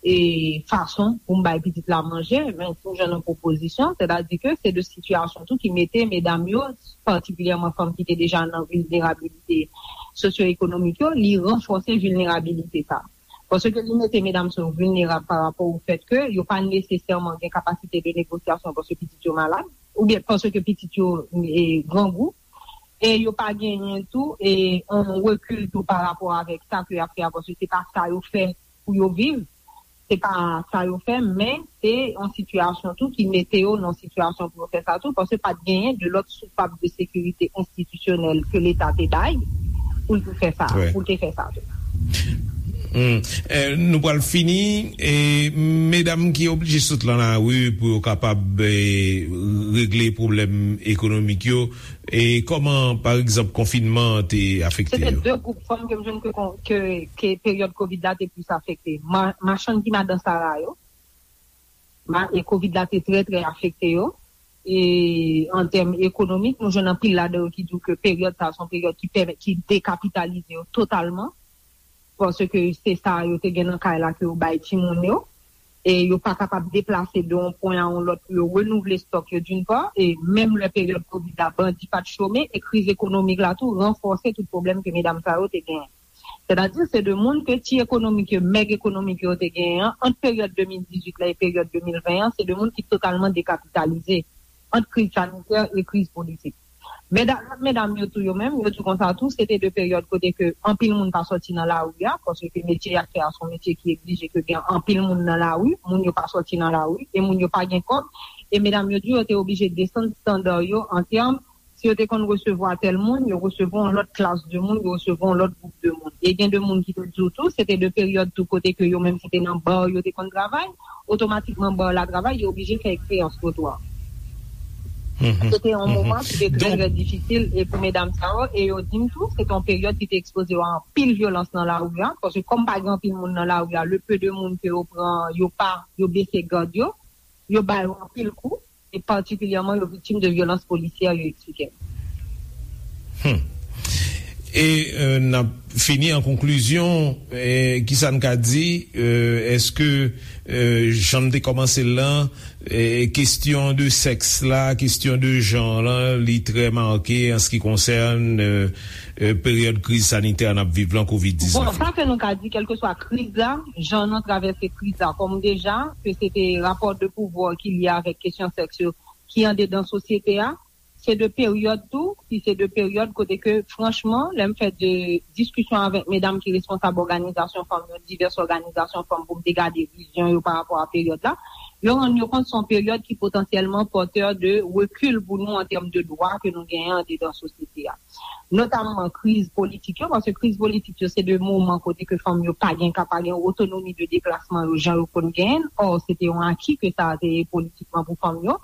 e fason pou m bay pitit la manje, men tou jan nan pwopozisyon, sètadi ke se de sitiyasyon tou ki mete medam yo, patikilyèman fanm ki te deja nan vilnerabilite sosyo-ekonomik yo, li ranfòse vilnerabilite sa. Paske li mete medam sa yo vilnerab pa rapò o fèt ke yo pa nesesèman gen kapasite de negosyasyon paske pitit yo malad, oubyen paske pitit yo e, grangou, e yo pa genyen tou e yon rekil tou pa rapò avèk sa ke y ap fè a, paske se pa sa yo fè pou yo viv, se pa sa yo fè, men se yon sitiyasyon tou ki mete yo nan sitiyasyon pou yo fè sa tou, paske pa t genyen de lòt soupap de sekirite enstitisyonèl ke Leta te bay pou l te fè sa, pou l te fè sa tou. Hmm. Eh, nou pral fini. E medam ki oblije sot lan lari pou yo kapab eh, regle pwoblèm ekonomik yo, e kòman, pa egzanp, konfinman an te afekte Se te yo? De gwoup fanm ke m jwenn ke, ke, ke peryòd kovid la te plis afekte. Ma, machann ki madan Sara yo, ma, e kovid la te trè, trè afekte yo. E an tèm ekonomik, nou jwenn anpil ladan yo ki di w ke peryòd sa a se yon peryòd ki pèmèt, ki dekapitalize yo totalman. Paske se sa yo te gen nan kay la ke yo bay timoun yo. E yo pa kapab deplase de yon pwen a yon lòt pou yo renouvle stòk yo d'une part, e menm lè peryòd kovid la, bandi pa t chome, e kriz ekonomik la tou ranfòse tout pwoblèm ke medam sa yo te genyen. Sètadi se de moun ke ti ekonomik yo, mèg ekonomik yo te genyen an, ant peryòd de mil dizuit la e peryòd de mil ven an, se de moun ki totalman dekapitalize ant kriz sanitè e kriz politik. Medam, lòt medam yo tou yo menm, yo di konsa tou, se te de peryòd kote ke anpil moun pa sòti nan lari a, paske metye y ap fè a se yon metye ki egzije ke gen anpil moun nan lari, moun yo pa sòti nan lari, e moun yo pa gen kòb, e medam yo di yo te oblije desann estanda yo an tèm, si yo te konn resevwa tèl moun, yo resevwa yon lòt klas de moun, yo resevwa yon lòt gwoup de moun. E gen de moun ki te di w tou, se te de peryòd tou kote ke yo menm ki te nan ba yo te konn travay, otomatikman ba la travay, yo oblije fè eksperyans twotwa. Se te yon moman ki te trè, trè difisil e pou medam sa yo, e yo di m tou, se te yon peryòd ki te ekspoze yo a anpil vyolans nan lari a, paske kòm pa gen anpil moun nan lari a, le peu de moun ke yo pran, yo pa, yo bese gad yo, yo ba yo anpil kou, e patikilyèman yo viktim de vyolans polisyè, yo eksplike m. Hmm. E euh, n ap fini an konklizyon, eh, kisa n ka di, euh, èske euh, jan m te kòmanse l lan, eh, kesyon de sèks la, kesyon de jan lan, li trè make an se ki konsène euh, euh, peryòd kriz sanitè n ap viv lan, kovid diznèf. Bon, sa ke nou ka di, kèlkeswa kriz la, jan nou travèse kriz la, kòm deja, ke se te rapò de pouvwa ki lye avèk kesyon sèks yo, ki andedan sosyete a, se de peryòd tou, ki se de peryòd kote ke, franchman, lè m fè de diskisyon avèk medam ki responsab òganizasyon fanm yo, divès òganizasyon fanm, pou m te gade vizyon yo pa rapò a peryòd la, yo rann yo kont se yon peryòd ki potansyèlman pòtè de rekil pou nou an tèm de dwa ke nou genyen andedan sosyete a. Notamman kriz politik yo, paske kriz politik yo se de moman kote ke fanm yo pa gen ka, pa gen otonomi de deplasman yo jan yo konn genyen, ò se te yon aki ke sa a te ye politikman pou fanm yo,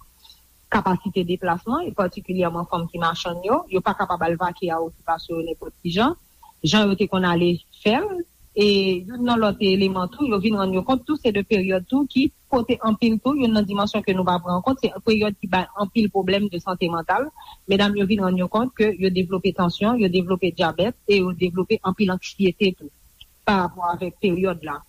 kapasite deplasman, e patikilyèman fanm ki machann yo, yo pa kapab al vake a okipasyon yo nenpòt ki jan. jan yo te konn ale fè l. E youn nan lòt eleman tou, yo vin rann yo kont tou, se de peryòd tou ki pote anpil tou, youn nan dimansyon ke nou pa pran an kont, se peryòd ki bay anpil pwoblèm de sante mantal. Medam yo vin rann yo kont ke yo devlope tansyon, yo devlope dyabèt e yo devlope anpil anksyete tou pa rapò avèk peryòd la.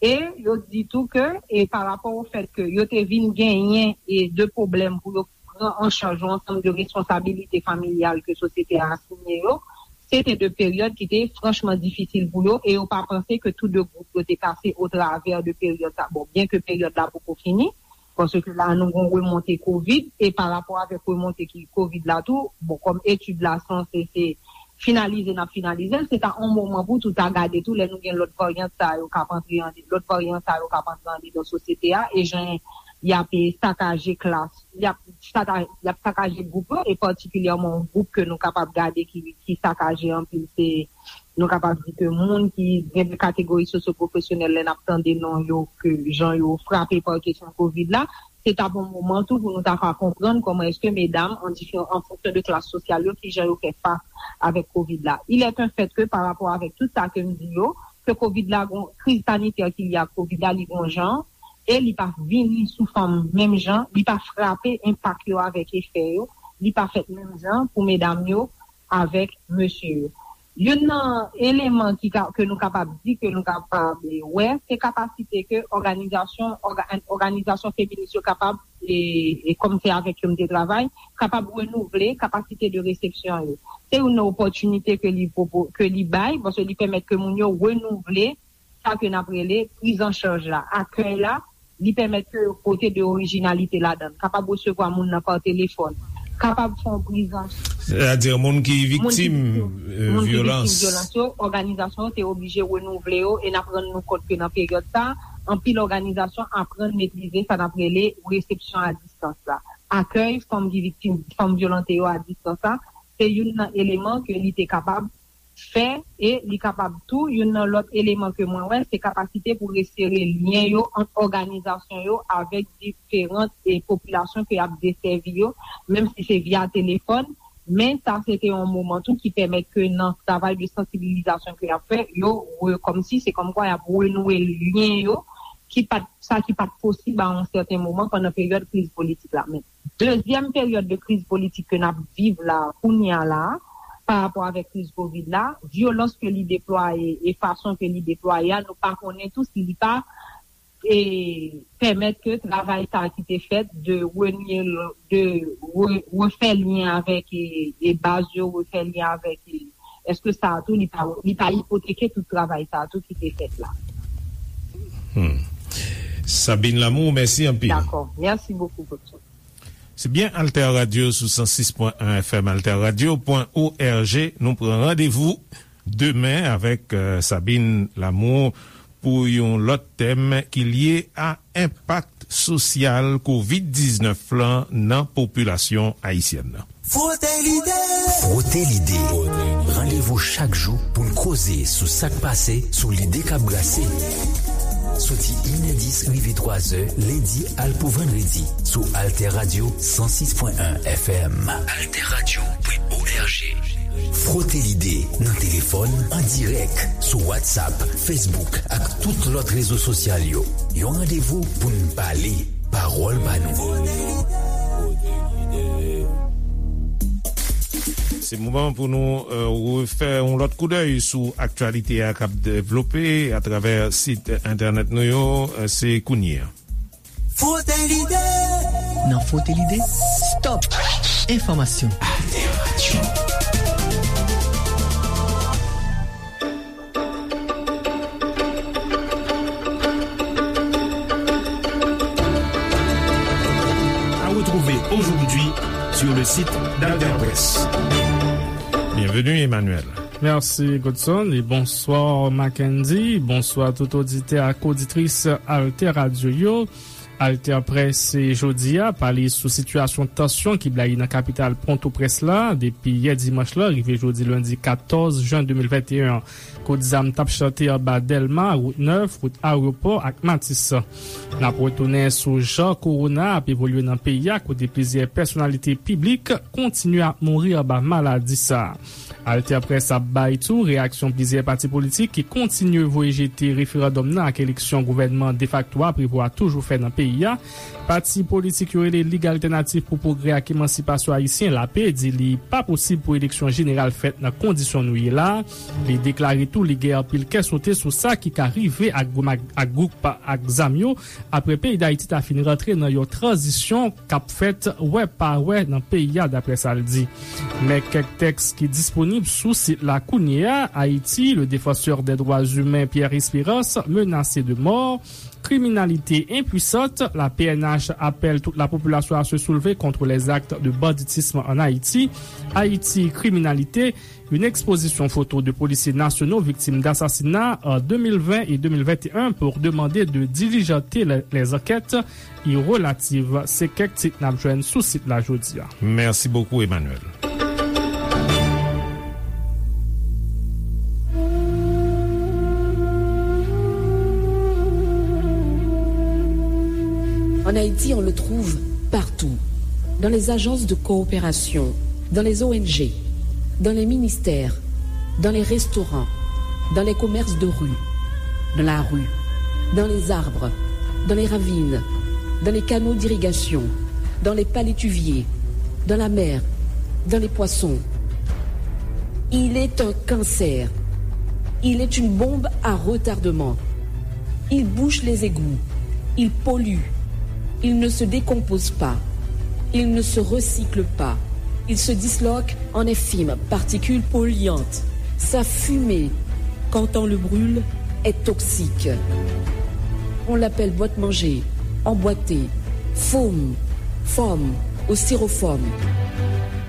E yo di tou ke, e pa rapò o fèt ke yo te vin genyen e de pwoblèm pou yo pran an chaj yon ansanm de responsabilite familyal ke sosyete a asinye yo, se te de peryòd ki te franchman difisil pou yo e yo pa panse ke tou de gwoup yo te pase otravè de peryòd sa. Bon, byen ke peryòd la poko fini, paske la nou gon remonte kovid e pa rapò avèk remonte ki kovid la tou, bon, kòm etid la sanse se finalize n ap finalize l, se ta yon moman pou tou ta gade tou lè nou gen lòt varyant sa yo k ap antre an, lòt varyan sa yo k ap antre andedan sosyete a e jan y ap sakaje klas, y ap saka-, y ap sakaje gwoup yo e patikilyèman yon gwoup ke nou kapab gade ki, ki sakaje anpil se nou kapab di ke moun ki gen de kategori sosyopwofesyonèl lè n ap tande non yo ke jan yo frape pa kesyon kovid la, se t ap yon moman tou pou nou ta ka konprann kòman èske medam an diferan, an fonksyon de klas sosyal yo, kijan yo fè fas avèk kovid la. Il est un fait que pa rapò avèk tout sa ke m di yo, ke kovid la gon kriz sanitè ki lye ak kovid la, li gon jan, e li pa vini sou fanm menm jan, li pa frape enpak yo avèk efè yo, li pa fèt menm jan pou medam yo avèk mesye yo. Youn nan eleman ki ka, ke nou kapab di, ke nou kapab, e, wè, se kapasite ke òganizasyon, òga-, òganizasyon feminis yo kapab, e, e kòm se avèk yo m te travay, kapab renouvle kapasite de resepsyon yo. Se youn nan opòtinite ke li pwopo-, ke li bay, paske li pèmèt ke moun yo renouvle sa ke n ap rele priz an chaj la, akèy la, li pèmèt ke yo pote de orijinalite ladan l, kapab resevwa moun nan pa telefòn, kapab fè yon priz an Sètadi moun ki viktim, viktim, e, moun ki viktim vyolans, vyolans yo, òganizasyon yo te oblije renouvle yo, e n ap rann nou kont ke nan peryòd sa, anpil òganizasyon aprann metrize sa n ap rele resepsyon a distans la. Akèy fanm ki viktim, fanm vyolante yo a distans la, se youn nan eleman ke li te kapab fè, e li kapab tou, youn nan lòt eleman ke mwen wè, se kapasite pou resere lyen yo ant òganizasyon yo avèk diferan, e, popilasyon ke y ap desèvi yo, menm si se via telefòn, men sa se te yon moman tou ki pèmèt ke nan travay de sansibilizasyon ke y ap fè, yo re-, kòmsi se kòmkwa y ap renouwe lyen yo ki pa t, sa ki pa t posib a yon sèten moman pandan peryòd kriz politik la. Men dezyèm peryòd de kriz politik ke n ap viv la, kounye a la, pa rapò avèk kriz kovid la, vyolans ke li deplwaye e fason ke li deplwaye a, nou pa konnen tou si li pa, e, pèmèt ke travay sa a ki te fèt de renye, de re-, refè lyen avèk, e, e baz yo, refè lyen avèk, e, èske sa a tou li pa, li pa ipoteke tout travay sa a tou ki te fèt la? Hmm. Sabine Lamour, mèsi anpil. Dakò. Mèsi bokou, Godson. Se byen, Alter Radio sou san sis pwen en F M, alter radio pwen org. Nou pran randevou demen avèk, euh, Sabine Lamour pou yon lòt tèm ki lye a enpak sosyal kovid diznèf lan nan popilasyon ayisyèn nan. Frote lide. Frote lide. Randevou chak jou pou n koze sou sa k pase, sou lide k ap brase. Soti inè dis rive twazè, lendi al pou vandredi, sou Alter Radio san sis pwen en F M. Alter Radio pwen org. Frote lide nan telefòn, an dirèk, sou WhatsApp, Facebook ak tout lòt rezo sosyal yo. Yon randevou pou n pale. Pawòl pa nou. Se moman pou nou, euh, refè yon lòt koudèy sou aktyalite a k ap devlope atravè sit entènèt nou yo, euh, se kounye a. Frote lide. Nan Frote lide, stop enfòmasyon. Alter Radio. À retrouver aujourd'hui sur le site d'Alter Presse. Bienvenue, Emmanuel. Mèsi, Godson, e bonswa, Mackendy. Bonswa tout oditè ak oditris Alter Radio yo. Alter Presse jodi a pale sou sitiyasyon tansyon ki blayi nan kapital Pòtoprens la depi yè dimanch la rive jodi lendi katòz jen de mil venteyen an. Kout zam t ap chante anba Dèlma, Wout Nèf, wout Ayewopò ak Matis. N ap retounen sou jan kowona ap evolye nan peyi a, kote plizyè pèsonalite piblik kontinye ap mouri anba maladi sa a. Alter Press ap bay tou reyaksyon plizyè pati politik ki kontinye voye jete referandòm nan ak eleksyon gouvènman defakto a prevo a toujou fè nan peyi a. Pati politik yo rele Lig Altènatif pou Pwogrè ak Emansipasyon Ayisyen, lape, di li pa posib pou eleksyon jeneral fèt nan kondisyon nou ye la. Li deklare tou li gen anpil kè sote sou sa ki ka rive ak gwoup ak, ak gwoup ak zam yo apre peyi Dayiti ta fin rantre nan yon tranzisyon k ap fèt wè pa wè nan peyi a, daprè sa l di. Men kèk tèks ki disponib sou sit la kounye a: Ayiti, le défenseur des droits humains Pierre Espérance menacé de mort, kriminalite enpwisant, la P N H apèl tout lapopilasyon a se soulve kont lèzak de banditism ann Ayiti, Ayiti, kriminalite, une exposition photo de policiers nationaux victimes d'assassinats en deux mille vingt et deux mille vingt et un pour demander de diligenter les, les enquêtes y relatives. Se kèk tit n ap jwenn sou sit la jodi a. Mèsi bokou, Emmanuel. En Haïti, on le trouve partout. Dans les agences de coopération, dans les O N G, dans les ministères, dans les restaurants, dans les commerces de rue, dans la rue, dans les arbres, dans les ravines, dans les canaux d'irrigation, dans les palétuviers, dans la mer, dans les poissons. Il est un cancer. Il est une bombe à retardement. Il bouche les égouts. Il pollue. Il ne se décompose pas. Il ne se recycle pas. Il se disloque en infimes particules polluantes. Sa fumée, quand on le brûle, est toxique. On l'appelle boîte-manger, emboîté, foam, foam ou styrofoam.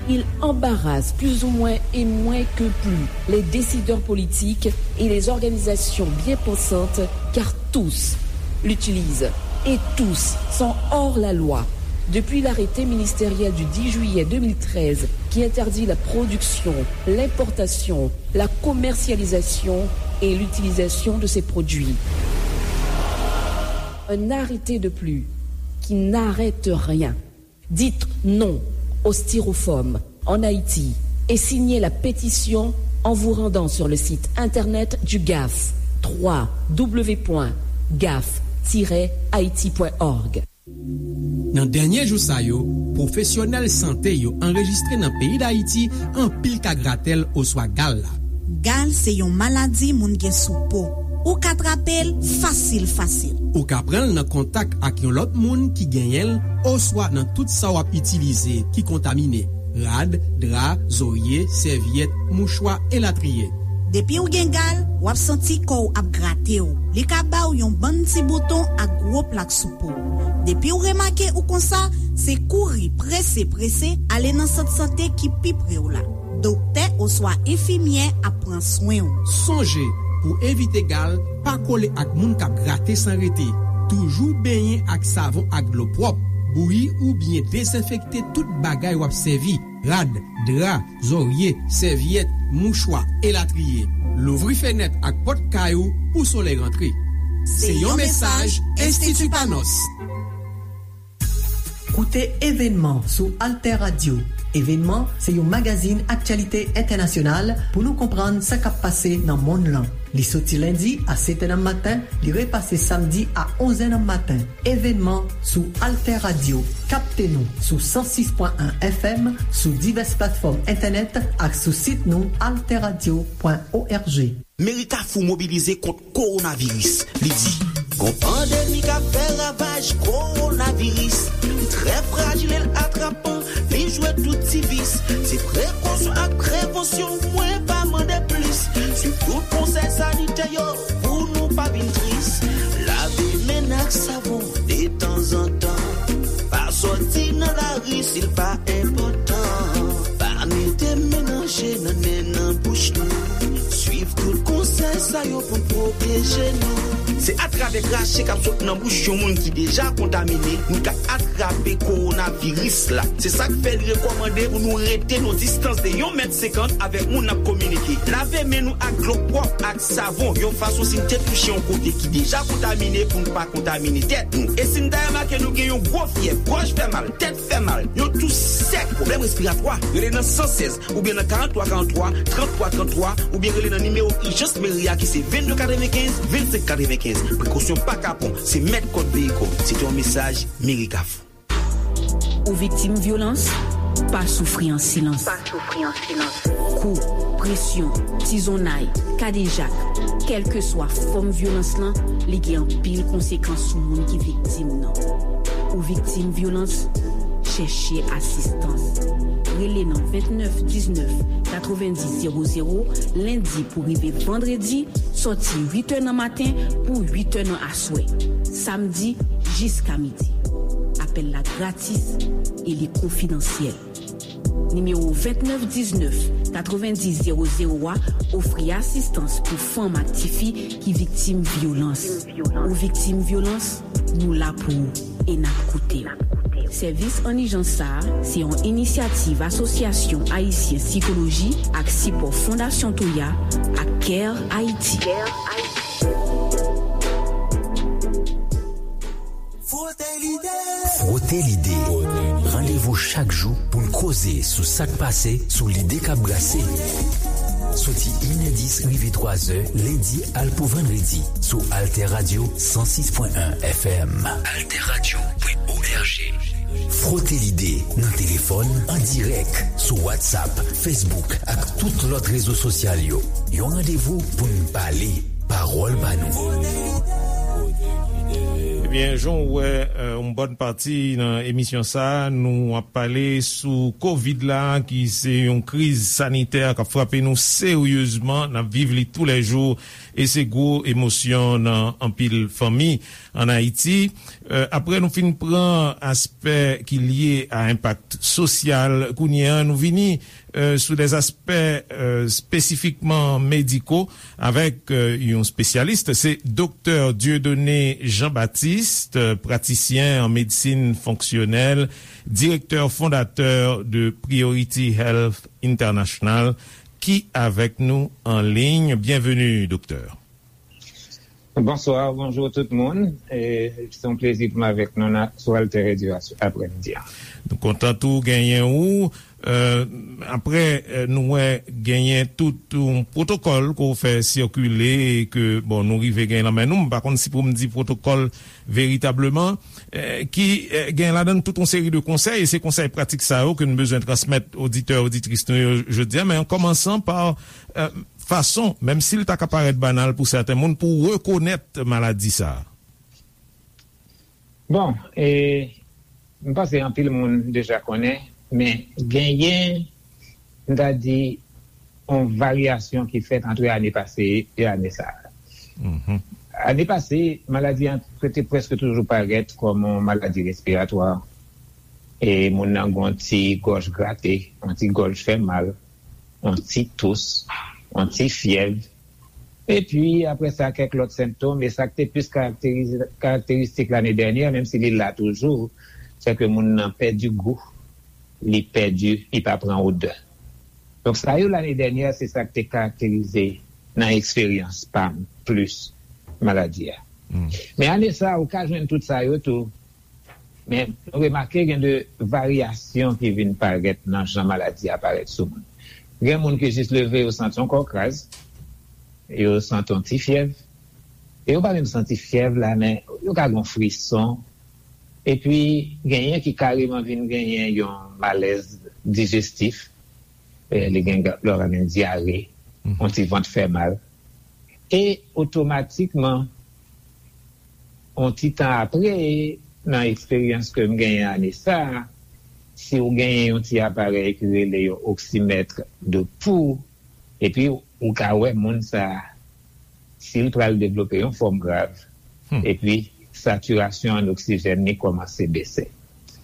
Il embarrasse plus ou moins et moins que plus les décideurs politiques et les organisations bien pensantes, car tous l'utilisent et tous sont hors la loi. Depuis l'arrêté ministériel du dix juillet deux mille treize qui interdit la production, l'importation, la commercialisation et l'utilisation de ces produits. Un arrêté de plus qui n'arrête rien. Dites non au styrofoam en Haïti et signez la pétition en vous rendant sur le site internet du gaf, trois w w w point gaf tiret haïti point org. Nan dènye jou sa yo, pwofesyonèl sante yo anrejistre nan peyi Dayiti anpil ka gratèl oswa gal la. Gal se yon maladi moun gen sou po. Ou ka trape l fasil fasil. Ou ka pran l nan kontak ak yon lòt moun ki genyen l oswa nan tout sa w ap itilize ki kontamine, rad, dra, zorye, sèvyèt, mouchwa, elatriye. Depi w gen gal, w ap santi kò w ap grate w. Li ka ba w yon bann ti bouton ak gwo plak sou po w. Depi w remake ou konsa, se kouri prese prese ale nan sant sante ki pi pre w la. Doktè oswa enfimyè ap pran swen w. Sonje, pou evite gal, pa kole ak moun k ap grate san rete. Toujou benyen ak savon ak dlo pwòp. Bouyi oubyen dezenfekte tout bagay w ap sèvi, rad, dra, zòrye, sèvyèt, mouchwa, elatriye. Louvri fenèt ak pòt kay ou pou solèy rantre. Se yon mesaj Enstiti Panos. Koute Evènman sou Alter Radio. Evènman se yon magazin aktyalite entènasyonal pou nou konprann sa k ap pase nan monn lan. Li soti lendi a sèt è nan maten, li repase samdi a onz è nan maten. Evènman sou Alter Radio. Kapte nou sou san sis pwen en F M, sou divès platfòm entènèt ak sou sit nou alterradio pwen org. Meri Kafou mobilize kont kowonaviris. Li di. Gon pandemi k ap fè ravaj, kowonaviris. Li trè frajil e l atrapan, li jwe tout ti vis. Se prekosyon ak prevansyon, mwen pa mande plis. Swiv tout konsèy sanitè yo pou nou pa vin tris. Lave men n ak savon detanzantan. Pa sòti nan lari si l pa enpòtan. Pa mete men nan je, nan nen, nan bouch nou. Swiv tout konsèy sa yo pou n pwoteje nou. Se atravè krache k ap sot nan bouch yon moun ki deja kontamine, nou ka atrape kowonaviris la. Se sa k fè li rekòmande pou nou rete nan distans de yon mèt senkant avèk moun n ap kominike. Lave men nou ak dlo pwòp ak savon, yon fason si n te touche yon kote ki deja kontamine pou n pa kontamine tèt nou. E si n ta remake nou gen yon gwo fyèv, gòj fè mal, tèt fè mal, yon tous sèk, pwoblèm respiratwa, rele nan san sèz oubyen nan karant twa karant twa, trant twa trant twa, oubyen rele nan nimewo ijans meri a ki se vennde katrevenkenz, vennsenk katrevenkenz. Prekosyon pa kapon, se mèt kòd veyi kò w. Se te yon mesaj Meri Kafou. Ou viktim vyolans? Pa soufri an silans. Pa soufri an silans. Kou, presyon, tizonnay, kadejak, kèlkeswa fòm vyolans lan, li gen anpil konsekans sou moun ki viktim nan. Ou viktim vyolans? Chèche asistans. Rele nan vennèf diznèf katrevenndis zewo zewo, lendi pou rive vandredi, sòti uit è nan maten pou uit è nan aswè, samdi jiska midi. Apèl la gratis e li konfidansyèl. Nimewo vennèf diznèf katrevenndis zewo zewo a ofri asistans pou fanm ak tifi ki viktim vyolans. Ou viktim vyolans, nou la pou ou e n ap koute w. Sèvis an ijans sa a se yon inisyativ Asosyasyon Ayisyen Sikoloji ak sipò Fondasyon Toya ak Care Haiti. Frote lide. Frote lide. Randevou chak jou pou n koze sou sa k pase, sou lide k ap brase. Soti inèdis rive twazè, lendi al pou vandredi, sou Alter Radio san sis pwen en F M. Alter Radio pwen O R G. Frote lide nan telefòn, an dirèk, sou WhatsApp, Facebook ak tout lòt rezo sosyal yo. Yon randevou pou n pale, pawòl pa nou. Ebyen, jan w wè, euh, yon bòn pati nan emisyon sa a, nou ap pale sou kovid la, ki se yon kriz sanitè k ap frape nou seryezman, n ap viv li toulèjou, e se gwo emosyon nan anpil fanmi ann Ayiti. Euh, apre nou fin pran aspè ki lye a enpak sosyal, kounye a nou vini, euh, sou dè aspè, euh, espesifikman mediko avèk, euh, yon espesyalis. Se Doktè Dieudonné Jean-Baptiste, euh, pratisyen an medsin fonksyonèl, direktè fondatè de Priority Health International, ki avèk nou an liy. Byenveni, doktè. Bonswa, bonjou tout moun. E, se yon plezi pou m avèk nou nan, sou Alter Radio a, aprèmidi a. Nou kontan tou genyen ou. Euh, apre, euh, nou wè genyen tout yon pwotokòl ke w fè sikile e ke, bon, nou rive gen nan men nou. M pa konn si pou m di pwotokòl veritableman, euh, ki, euh, gen ladan l tout yon seri de konsèy, e se konsèy pratik sa yo ke n bezwen transmèt oditè, oditris nou yo jodi a, men an kòmansan pa, euh, fason, menm si l ta ka parèt banal pou sèten moun, pou rekonèt maladi sa a? Bon, e, m panse anpil moun deja konnen, men genyen, m ta di, yon varyasyon ki fèt ant ane pase e ane sa a. Mhm. Ane pase, maladi an te prèske toujou parèt kòm yon maladi respiratwa. E moun nan gen yon ti gòj grate, yon ti gòj fè mal, yon ti tous, yon ti fyèv. Epi, apre sa, kèk lòt sentòm, e sa k te plis karakterize, karakteristik lane dènyè, menm si li la toujou, se ke moun nan pèdi gou, li pèdi, li pa pran odè. Donk, sa yo lane dènyè, se sa k te karakterize nan eksperyans pa m plis maladi a. Hmm. Men ane sa a, ou ka jwenn tout sa yo tou. Men nou remake gen de varyasyon ki vin parèt nan jan maladi a parèt sou moun. Gen moun ki jis leve, yo santi yon kò kraz, yo santi yon ti fyèv, e yo pa menm santi fyèv la, men yo ka gen yon frison. Epi, genyen ki kareman vin genyen yon malèz dijestif, e li gen, lè w ka gen dyare, mhm, yon ti vant fè mal. E otomatikman, yon ti tan apre, nan eksperyans ke m genyen ane sa a, si w genyen yon ti aparèy ki rele yon oksimèt de pou, epi ou ka wè moun sa a, si l pral devlope yon fòm grav, hmm, epi satirasyon an oksijèn li kòmanse bese.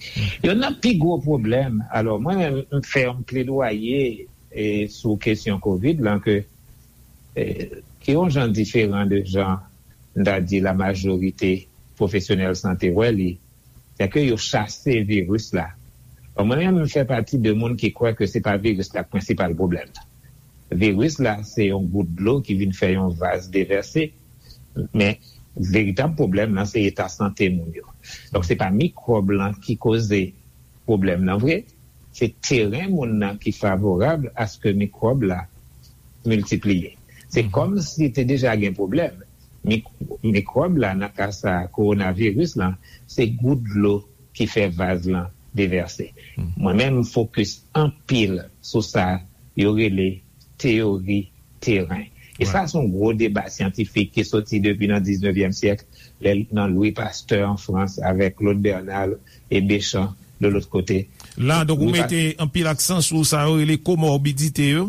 Hmm. Youn nan pi gwo pwoblèm, alò, mwen menm, m fè yon pledwaye, e, sou kesyon kovid lan, ke, e, ki yon jan diferan de jan m ta di la majorite pwofesyonèl sante wè li, se ke yo chase viris la. Bon, mwen menm, m fè pati de moun ki kwè ke se pa viris la k prensipal pwoblèm nan. Viris la, se yon gout dlo ki vin fè yon vaz devèse, men veritab pwoblèm nan, se eta sante moun yo. Donk, se pa mikwòb lan ki koze pwoblèm nan vre, se teren moun nan ki favorab aske mikwòb la miltipliye. Se kòm si te deja gen pwoblèm. Mik- mikwòb la, nan ka sa, kowonaviris lan, se gout dlo ki fè vaz lan devèse. Mwen menm, m fokis anpil sou sa yo rele teyori teren. E sa se yon gwo deba syantifik ki soti depi nan diznevyèm syèk, lè, nan Louis Pasteur an Frans, avèk Claude Bernard e Béchamp de lòt kote. La, donk, ou mete anpil aksan sou sa yo rele komorbidite yo?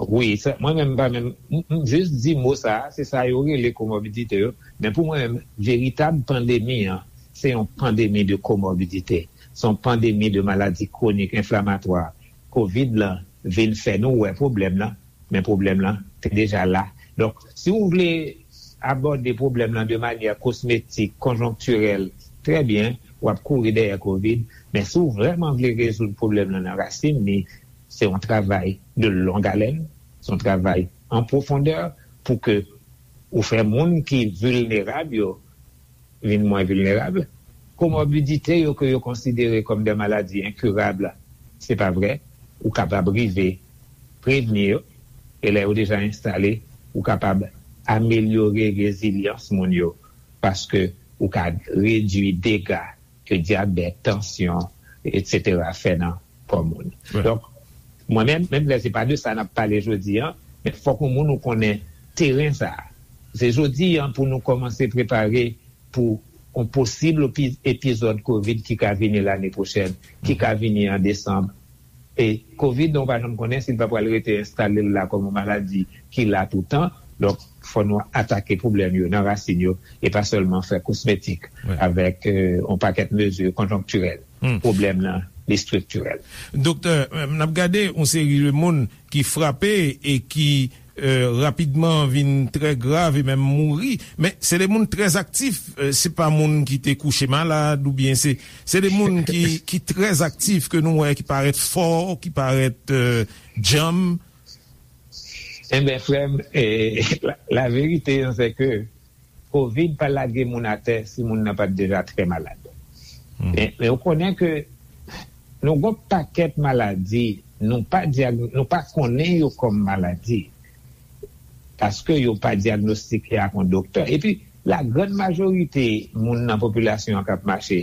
Wi, sa, mwen menm, m pa menm, m, m jis di mo sa a, se sa yo rele komorbidite yo. Men pou mwen menm, veritab pandemi an, se yon pandemi de komorbidite. Se yon pandemi de maladi kwonik enflamatwa. Kovid lan vin fè nou wè pwoblèm lan, men pwoblèm lan te deja la. Donk, si w vle abòde pwoblèm lan de manyè kosmetik, konjonktirèl, trè byen, w ap kouri dèyè kovid, men si w vrèman vle rezoud pwoblèm lan nan rasin li, se yon travay de long haleine, se yon travay an pwofondè pou ke ou fè moun ki vilnerab yo vin mwen vilnerab. Komorbidite yo ke yo konsidere kòm de maladi enkirab, se pa vre. Ou kapab rive prevni yo, e lè yo deja enstale, ou kapab amelyore rezilyans moun yo, paske ou ka redui dega ke dyabèt, tansyon, etsetera fè nan kò moun. Donk, mwen menm, menm lè se pa de sa n ap pale jodi an, men fòk yon moun ou konnen teren sa a. Se jodi an pou nou kòmanse prepare pou yon posib epi- epizòd kovid ki ka vini lane pwochèn, ki ka vini an desanm. E kovid, nou pa janm konnen si l pa pral rete enstale l la kòm yon maladi ki la toutan. Donk, fò nou atake pwoblèm yo nan rasin yo e pa sèlman fè kosmetik avèk, euh, yon pakèt mezi konjonktirèl. Pwoblèm nan, li estriktirèl. Doktè, euh, n ap gade yon seri de moun ki frape e ki, euh, rapidman vin trè grav e menm mouri. Men se de moun trè aktif, euh, se pa moun ki te kouche malad oubyen se, se de moun ki, ki trè aktif ke nou wè, ki parèt fò, ki parèt, euh, djanm. Enben, frè m, eh, la, la verite, se ke kovid pa lage moun atè si moun nan pa t deja trè malad. Men, men ou konnen ke nou gon pakèt maladi, nou pa dyag- nou pa konnen yo kòm maladi, paske yo pa dyagnostike ak yon doktè. Epi, lagrann majorite moun nan popilasyon an k ap mache,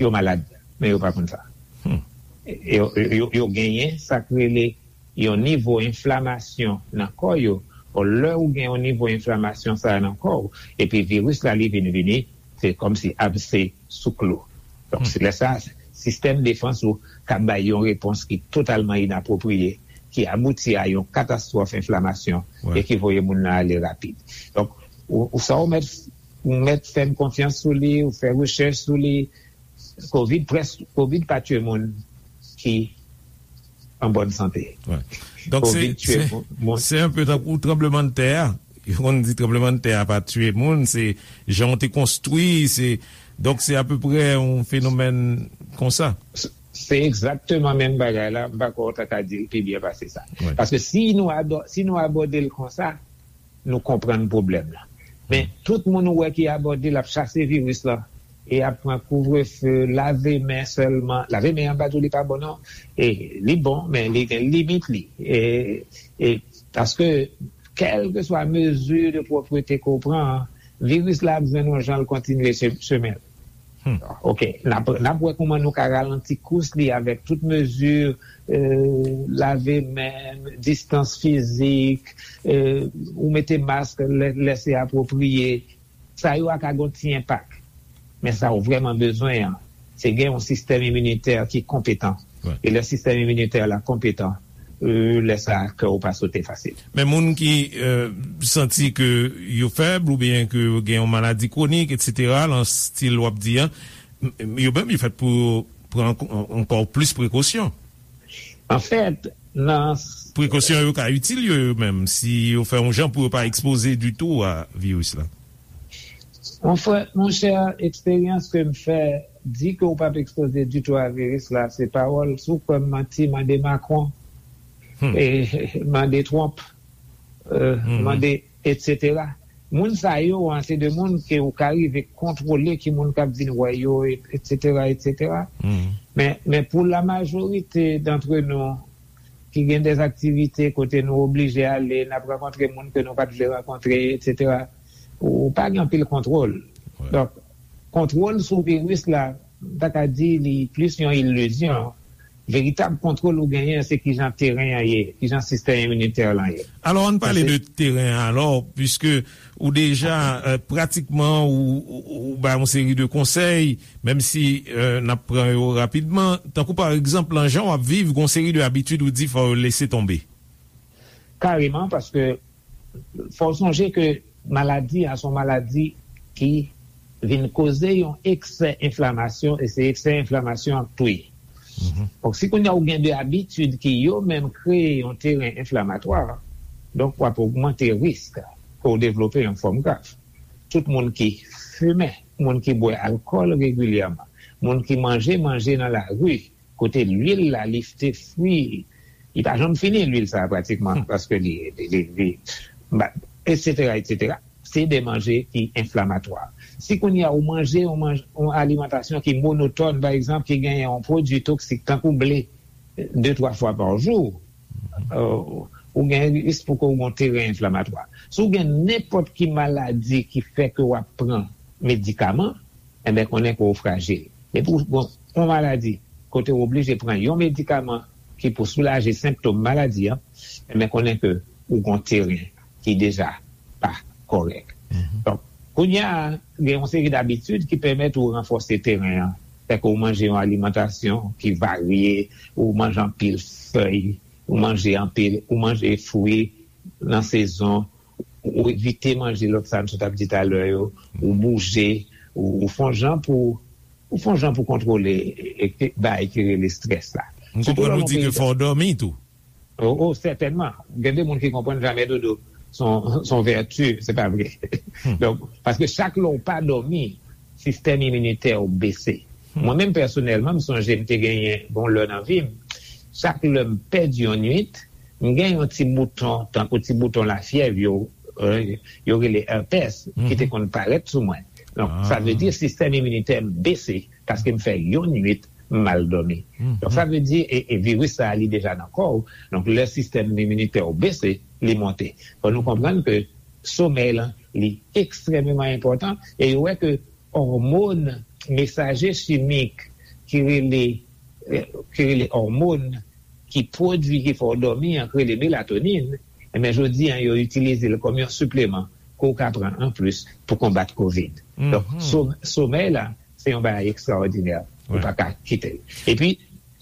yo malad, men yo pa konn sa. Yo, yo, yo genyen sa k rele yon nivo enflamasyon nan kò yo. Bon, lè ou gen yon nivo enflamasyon sa a nan kò w, epi viris la li vin vini, se kòmsi abse sou klou. Donk, se lè sa, sistèm defans ou ka bay yon repons ki totalman inapwopriye, ki abouti a yon katastwòf enflamasyon e ki voye moun nan ale rapid. Donk, ou, ou sa ou mèt, ou mèt fè m konfyans sou li, ou fè rechèch sou li, Kovid près, Kovid pa tye moun ki an bòn sante. Donk, se, se, se yon pe tankou tranblemanntè a. Yo konn di tranblemanntè a pa tye moun, se jan w te konstwi, se, donk, se apeprè yon fenomèn konsa. Se, se egzakteman menm bagay la, m pa kwè w ta ka di l pi byen pase sa. Paske si nou ado- si nou abòde l konsa, nou konprann pwoblèm nan. Men tout moun ou wè ki abòde l ap chase viris lan, e ap pran kouvrefe, lave men sèlman. Lave men an, m pa di w li pa bon non. E li bon, men li gen limit li. E, e paske kèlkeswa mezi de pwòprete ke w pran an, viris la ap jwenn yon jan l kontinye che- chemen l. Oke, n ap, n ap wè kòman nou ka ralanti kous li avèk tout mezi, euh, lave men, distans fizik, euh, ou mete mask lè, lè se apwopriye. Sa yo a ka gon ti enpak. Men sa ou vrèman bezwen an, se gen yon sistèm iminitè ki konpetan. E lè sistèm iminitè la konpetan, euh, lè sa a, kè w pa sote fasil. Men moun ki, euh, santi ke yo fèb oubyen ke yo gen yon maladi kwonik, etsetera, lan stil w ap di an, m- yo menm, yo fèt pou yo pran ankò- ankò plis prekosyon. Anfèt, nan s- Prekosyon yo ka itil yo, yo menm, si yo fè yon jan pou yo pa ekspoze ditou a viris la. Mon frè, monchè, eksperyans ke m fè di ke w p ap ekspoze ditou a viris la, se pawòl. Si w kwè m manti, mande Macron, e, mande Trump, e, mande, etsetera. Moun sa yo an, se de moun ke w ka rive kontwole ki moun k ap vin wè yo, etsetera, etsetera. Men, men pou la majorite d'antre nou, ki gen de aktivite kote nou oblije ale, n ap rankontre moun ke nou pa t vle rankontre, etsetera. Ou pa gen anpil kontwòl. Donk, kontwòl sou viris la, m ta ka di li plis yon ilizyon. Veritab kontwòl ou genyen, se kijan teren an ye, kijan sistèm iminitè lan ye. Alò, ann pale de teren an alò, piske ou deja, euh, pratikman, ou, ou, ou bay yon seri de konsèy, menm si, euh, n ap pran yo rapidman. Tankou, pa egzanp, lan jan w ap viv, gon seri de abitid ou di fò yo lese tonbe. Kareman, paske fò w sonje ke maladi a se yon maladi ki vin koze yon eksè enflamasyon, e se eksè enflamasyon an k touye. Donk, si kounye a ou gen de abitid ki yo menm kreye yon teren enflamatwa, donk w ap ogmante risk pou w devlope yon fòm grav. Tout moun ki fimen, moun ki bwè alkòl regilyèman, moun ki manje manje nan lari, kote lwil la, li te fri, li pa janm fini, lwil sa a, pratikman, paske li, li, li, li, ba, etsetera, etsetera. Se de manje ki enflamatwa. Si kounye a ou manje yon manj-, yon alimantasyon ki monotòn, pa egzanp, ki genyen yon pwodui toksik, tankou ble, de, twa fwa pa jou, euh, ou gen risk pou ke w gen yon teren enflamatwa. Si w gen nenpòt ki maladi ki fè ke w ap pran medikaman, enben, konnen ke w frajil. Depi w gen yon maladi kote w oblije pran yon medikaman ki pou soulaje senptòm maladi an, enben, konnen ke ou gen yon teren ki deja pa kòrèk. Donk, kounye a, gen yon seri dabitid ki pèmèt ou ranfòse teren an. Fè ke ou manje yon alimantasyon ki varye, ou manje anpil fèy, ou manje anpil, ou manje fwi nan sezon, ou evite manje lòt sa n sot ap di talè yo, ou bouje, ou, ou fè yon jan pou, ou fè yon jan pou kontwole e, e, e bagay ki rele estrès la. M konprann ou di ke fò w dòmi tou. Oh, oh, sètènman. Gen de moun ki konprann jamè dodo se yon, se yon vèti, se pa vre. Donk, paske chak lè w pa dòmi, sistèm iminitè w bese. Mwen menm pèsonèlman, m sonje m te genyen bon lè nan vi m, chak lè m pèdi yon nwit, m gen yon ti bouton, tankou ti bouton lafyèv yo, euh, yo rele herpès, ki te konn parèt sou mwen. Donk, sa vle di sistèm iminitè m bese paske m fè yon nwit m mal dòmi. Donk, sa vle di, e, e viris sa a, li deja nan kò w. Donk, lè sistèm iminitè w bese, li monte. Fò nou konprann ke somèy lan, li ekstrèmeman enpòtan, e yo wè ke òmòn, mesaje chimik ki rele, eh, ki rele òmòn ki pwodui, ki fè w dòmi an, ki rele melatonin, enben, jodi an, yo itilize l kòm yon sipleman ke w ka pran anplis pou konbat kovid. Donk, so-, somèy la, se yon bagay ekstraòdinè. Ou pa ka kite l. Epi,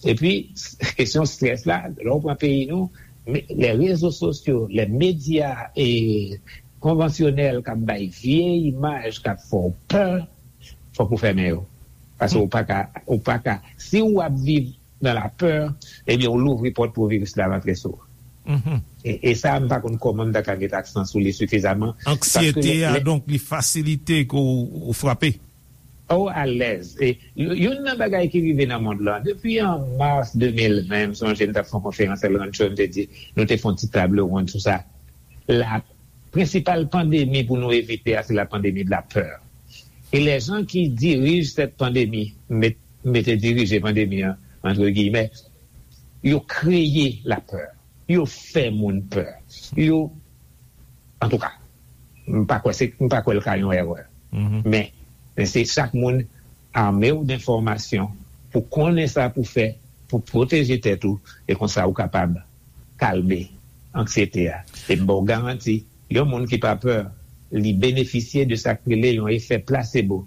epi, kesyon strès la, lè w pran peyi nou, men, lè rezo sosyo, lè medya, e, konvansyonèl k ap bay vye imaj, k ap fè w pè, fòk ou fèmen yo. Paske ou pa ka, ou pa ka, si w ap viv nan lapè, ebyen, ou louvri pòt pou viris la rantre sou ou. E, e sa, m pa konn kòman m ta ka met aksan sou li sifizaman. Anksiyete a, donk, li fasilite ke w, w frape. Oh, alèz. E, y-, youn nan bagay ki rive nan mond lan, depi an mas de mil ven, m sonje m t ap fè yon konferans El Rancho, m te di, nou te fè yon ti table ronde sou sa. La prensipal pandemi pou nou evite a, se la pandemi de la peur. E les gens qui dirigent cette pandémie, met-, mete dirije pandemi an, entre guillemets, yo kreye lapè. Yo fè moun pè. Yo, antouka, m pa kwè se, m pa kwè l ka yon erè. Men, men se chak moun ame w d enfòmasyon pou konnen sa pou fè, pou pwoteje tèt ou, e konsa ou kapab kalme anksiyete a. E m ba w garanti, yon moun ki pa pè, li benefisye de sa k rele yon efè plasebo.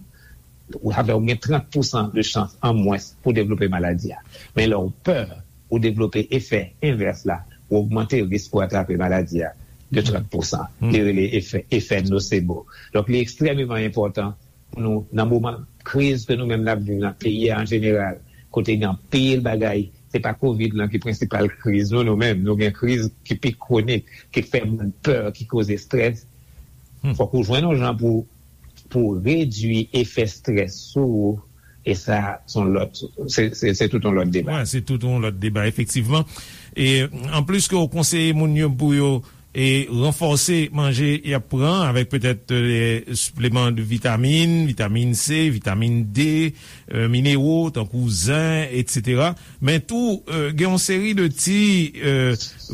Ou, sa fè ou gen trant pousan de chans an mwens pou devlope maladi a. Men lè w pè, ou devlope efè envès la, ou ogmante risk pou atrape maladi a de trant pousan. Li rele efè, efè nosebo. Donk, li ekstrèmeman enpòtan pou nou, nan moman kriz ke nou menm n ap viv nan peyi a an jeneral, kote gen anpil bagay, se pa kovid lan ki prensipal kriz nou, nou menm, nou gen kriz ki pi kwonik, ki fè moun pè, ki koze estrès. Fòk ou jwenn yon jan pou pou redui efè strès sou ou, e sa, se yon lòt, se, se, se tout yon lòt deba. Wi, se tout yon lòt deba, efektivman. E anplis ke w konseye moun yo pou yo e ranfòse manje y ap pran avèk petèt, e, sipleman de vitamin, vitamin C, vitamin D, e, minero, tankou zen, etsetera. Men tou, e, gen yon seri de ti, e,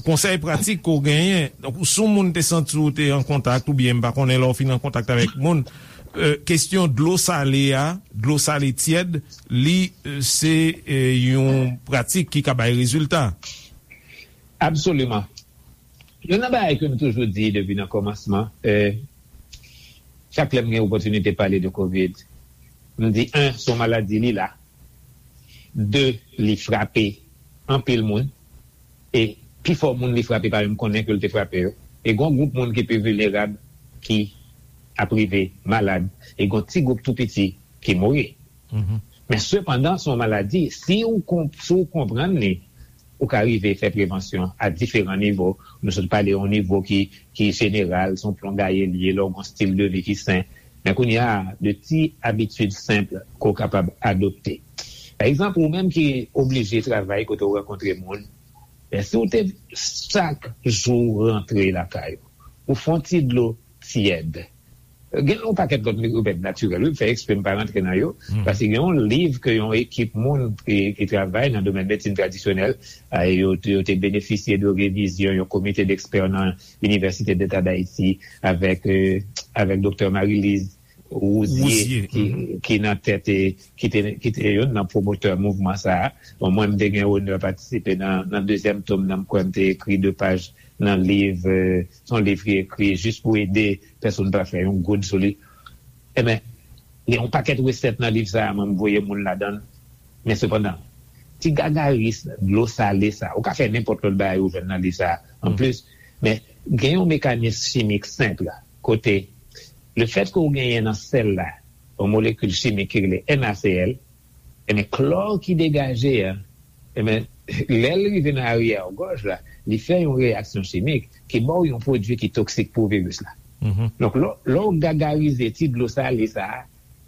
konsèy pratik ke w genyen. Donk, si yon moun te santi w te an kontak, oubyen m pa konnen lè w fin an kontak avèk moun, e, kesyon dlo sale a, dlo sale tyèd, li, e, se, e, yon pratik ki ka bay rezilta. Absoliman. Youn nan bagay ke m toujou di depi nan kòmansman, e, chak lè m gen opòtinite pale de kovid, m di, en, se yon maladi, li la. De, li frape anpil moun. E pifò moun li frape pa menm konnen ke l te frape yo. E gen yon gwoup moun ki pi vilnerab ki ap rive malad. E gen yon ti gwoup tou piti ki mouri. Men sepandan, se yon maladi, si ou, si ou konprann li, ou ka rive fè prevansyon a diferan nivo. Nou sot pale yon nivo ki, ki jeneral, se yon plongaye l ye, lè w gen yon stil de vi ki sen. Men kounye a, de ti abitid senp ke w kapab adopte. Pa egzanp, ou menm ki oblije travay kote w rankontre moun, men si w te chak jou rantre lakay ou, ou fè yon ti dlo tyèd. Gen yon pakèt lòt remèd natirèl, wi, m fè eksprè m pa rantre nan yo, paske gen yon liv ke yon ekip moun ki, ki travay nan domèn medsin tradisyonèl, a, yo, yo te benefisye de revizyon yon komite dekspè nan Inivèsite Deta d Ayiti avèk, e, avèk Doktè Marie-Lise Rouzier, Rouzier, ki, ki nan tèt, e, ki te, ki te youn nan pwomotè mouvman sa a. Bon, mwen, m te gen onè patisipe nan, nan dezyèm tom nan, m kwè m te ekri de paj nan liv, e, se yon liv ki ekri jis pou ede pèsonn pa fè yon goud sou li. Ebyen, gen yon pakèt resèt nan liv sa a, mwen, m voye moun ladan l. Men sepandan, ti gagaris dlo sale sa, ou ka fè nenpòt lòt bagay ou jwenn nan liv sa a anplis. Men gen yon mekanis chimik senp la, kote lefètke ou genyen nan sèl la yon molekil chimik ki rele NaCl, ebyen, klò ki degaje a, ebyen, lè l rive nan aryè gòj la, li fè yon reyaksyon chimik ki ba w yon pwodui ki toksik pou viris la. Donk, lè, lè w gagarize ti dlo sale sa a,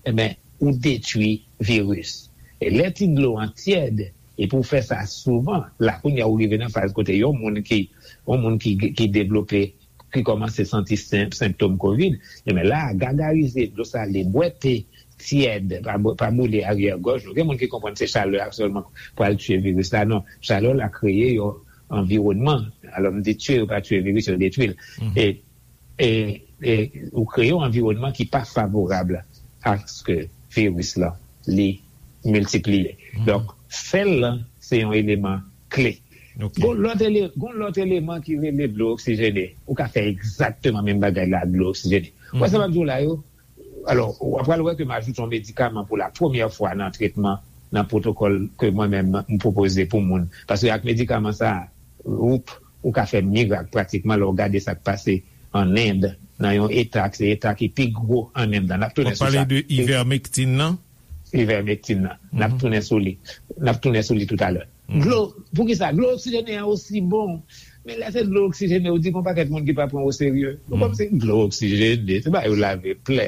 ebyen, ou detwi viris. E lè ti dlo an tyèd, epi w fè sa souvan, la kounye a ou rive nan faz kote yon moun ki, yon moun ki, ki devlope, ki kòmanse santi sen-, senptòm kovid, ebyen la, gagarize dlo sale, bwè te tyèd, pa bwè, pa boule aryè gòj nou. Gen moun ki konprann se chalè a sèlman pral tiye viris la. Non, chalè la kreye yon anviwònman. Alò, m di tiye, yo pa tiye viris, yo detwi l. E, e, e ou kreye yon anviwònman ki pa favorab aske viris la, li miltipliye. Donk, fè l lan, se yon eleman kle. Gon lòt ele-, gon lòt eleman ki rele dlo oksijene. Ou ka fè egzakteman menm bagay la ak dlo oksijene. Ou wè sa m ap di w la yo? Alò, w ap pral wè ke m ajoute yon medikaman pou la premyè fwa nan tretman, nan pwotokòl ke mwen menm m pwopoze pou moun. Paske ak medikaman sa a, ou, ou ka fè mirak pratikman lè w gade sa k pase an End, nan yon eta, se eta ki pi gwo an End lan. N ap tounen sou sa. W ap pale de ivermectin nan? Ivermectin nan. N ap tounen sou li. N ap tounen sou li toutalè. Dlo, poukisa? Dlo oksijene an osi bon. Men lè se dlo oksijene, ou di gon pakèt moun ki pa pran w oserye. Nou kòmsi dlo oksijene, se ba yo lave plè.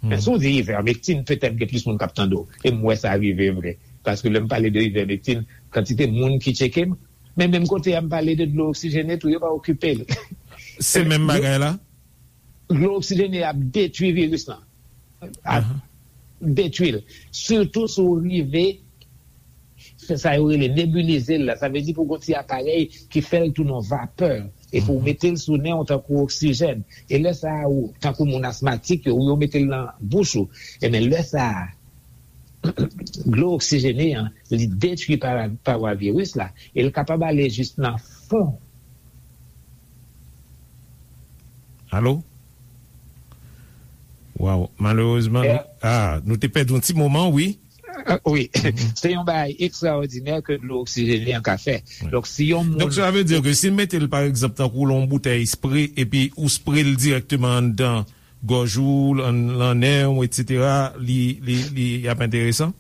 Men si w di ivermectin, petèt gen plis moun k ap tande w. E m wè sa rive vre. Paske lè m pale de ivermectin, kantite moun ki tcheke m, men menm kote a m pale de dlo oksijene tou, yo pa okipe l. Se menm bagay la? Dlo oksijene ap detwi viris lan. Ap detwi l. Sitou si w rive fè sa yo rele nebilize l la. Sa vle di pou w gon ti aparèy ki fè l tounen yon vapè. Epi w mete l sou nen w tankou oksijèn. E lè sa a, ou, tankou moun asmatik yo, ou yo mete l nan bouch ou. Ebyen, lè sa a, dlo oksijene an, li detwi para-, pawa viris la, e l kapab ale jis nan fon. Alo? Waw, malerezman, nou, ah, nou te pèdi yon ti moman, wi. Ah, wi. Se yon bagay ekstraòdinè ke dlo oksijene an ka fè. Donk, si yon moun... Donk, sa vle di ke si l mete l, pa egzanp, tankou l yon boutèy spre, epi ou spre l dirèkteman anndan gòj ou, lan, lan nen w, etsetera, li, li, li ap enteresan?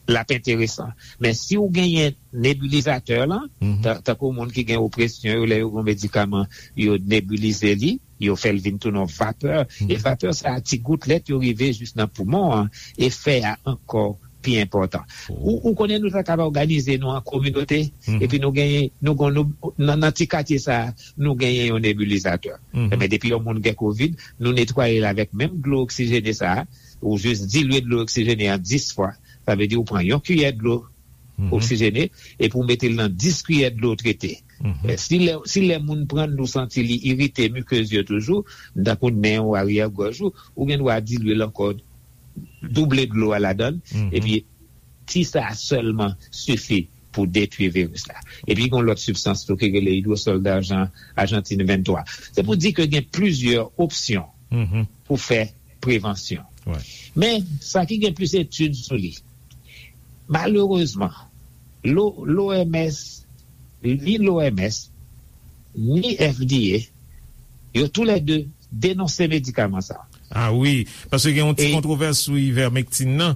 L ap enteresan. Men si w genyen nebilizatè lan, ta-, tankou moun ki gen opresyon yo, lè yo gen medikaman, yo nebilize li, Yo fè l vin tounen yon vapè. E vapè sa a, ti goutlèt yo rive jis nan poumon an, e fè a ankò pi enpòtan. Ou, ou konnen nou ta kapab òganize nou an kominote, epi nou genyen, nou gon, nou, nan, nan ti katye sa a, nou genyen yon nebilizatè. Ebyen, depi yon moun gen kovid, nou netwaye l avèk menm dlo oksijene sa a, ou jis dilye dlo oksijene an dis fwa. Sa vle di ou pran yon kiyè dlo oksijene, epi ou mete l nan dis kiyè dlo trete. Eh, si lè, si lè moun pran l, nou santi li irite mikez yo toujou, tankou nen ou, aryè gòj ou, ou gen dwa dilye l ankò, double dlo a ladan l, epi ti sa a sèlman sifi pou detwi viris la. Epi gen yon lòt sibstans tou ki rele idwosòl dajan, Ajantin venntwa. Se pou di ke gen plizyè opsyon pou fè prevansyon. Men, sa ki gen plis etid sou li, malerezman, l'O M S, ni l'O M S, ni F D A, yo toulède denonse medikaman sa. Ah wi, paske gen yon ti kontwovès sou ivermectin nan.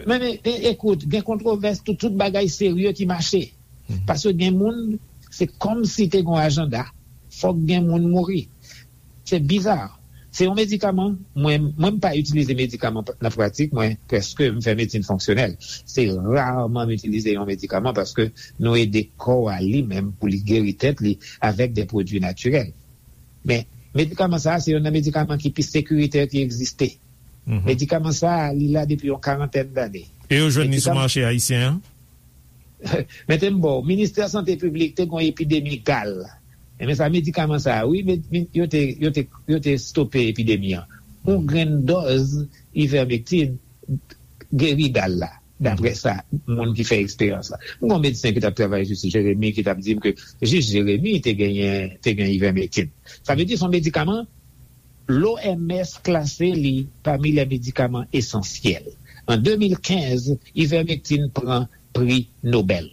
Men, men, e, ekout, gen kontwovès, tout, tout bagay serye ki mache. Paske gen moun, se kòmsi te gen yon ajanda, fòk gen moun mouri. Se biza. Se yon medikaman, mwen, mwen m pa itilize medikaman nan pratik mwen, prèske m fè medsin fonksyonèl. Se raman m itilize yon medikaman paske nou ede kò a li menm pou li geri tèt li avèk de pwodui natirèl. Men, medikaman sa a, se youn nan medikaman ki pi sekiritè ki egziste. Medikaman sa a, li la depi yon karantèn dane. E yo jwenn li sou mache ayisyen an? Mete m ba w, Ministè Sante Piblik te gen yon epidemi gal. Enben sa, medikaman sa a, wi, men, men, yo te, yo te, yo te stope epidemi an. Yon grenn dòz ivermectin geri gal la, daprè sa, moun ki fè eksperyans la. M gen yon medsen ki t ap travay jis Jeremi, ki t ap di m ke jis Jeremi te genyen, te gen ivermectin. Sa vle di, se yon medikaman, l'O M S klase li pami les médicaments essentiels. An de mil kenz, ivermectin pran pri Nobèl.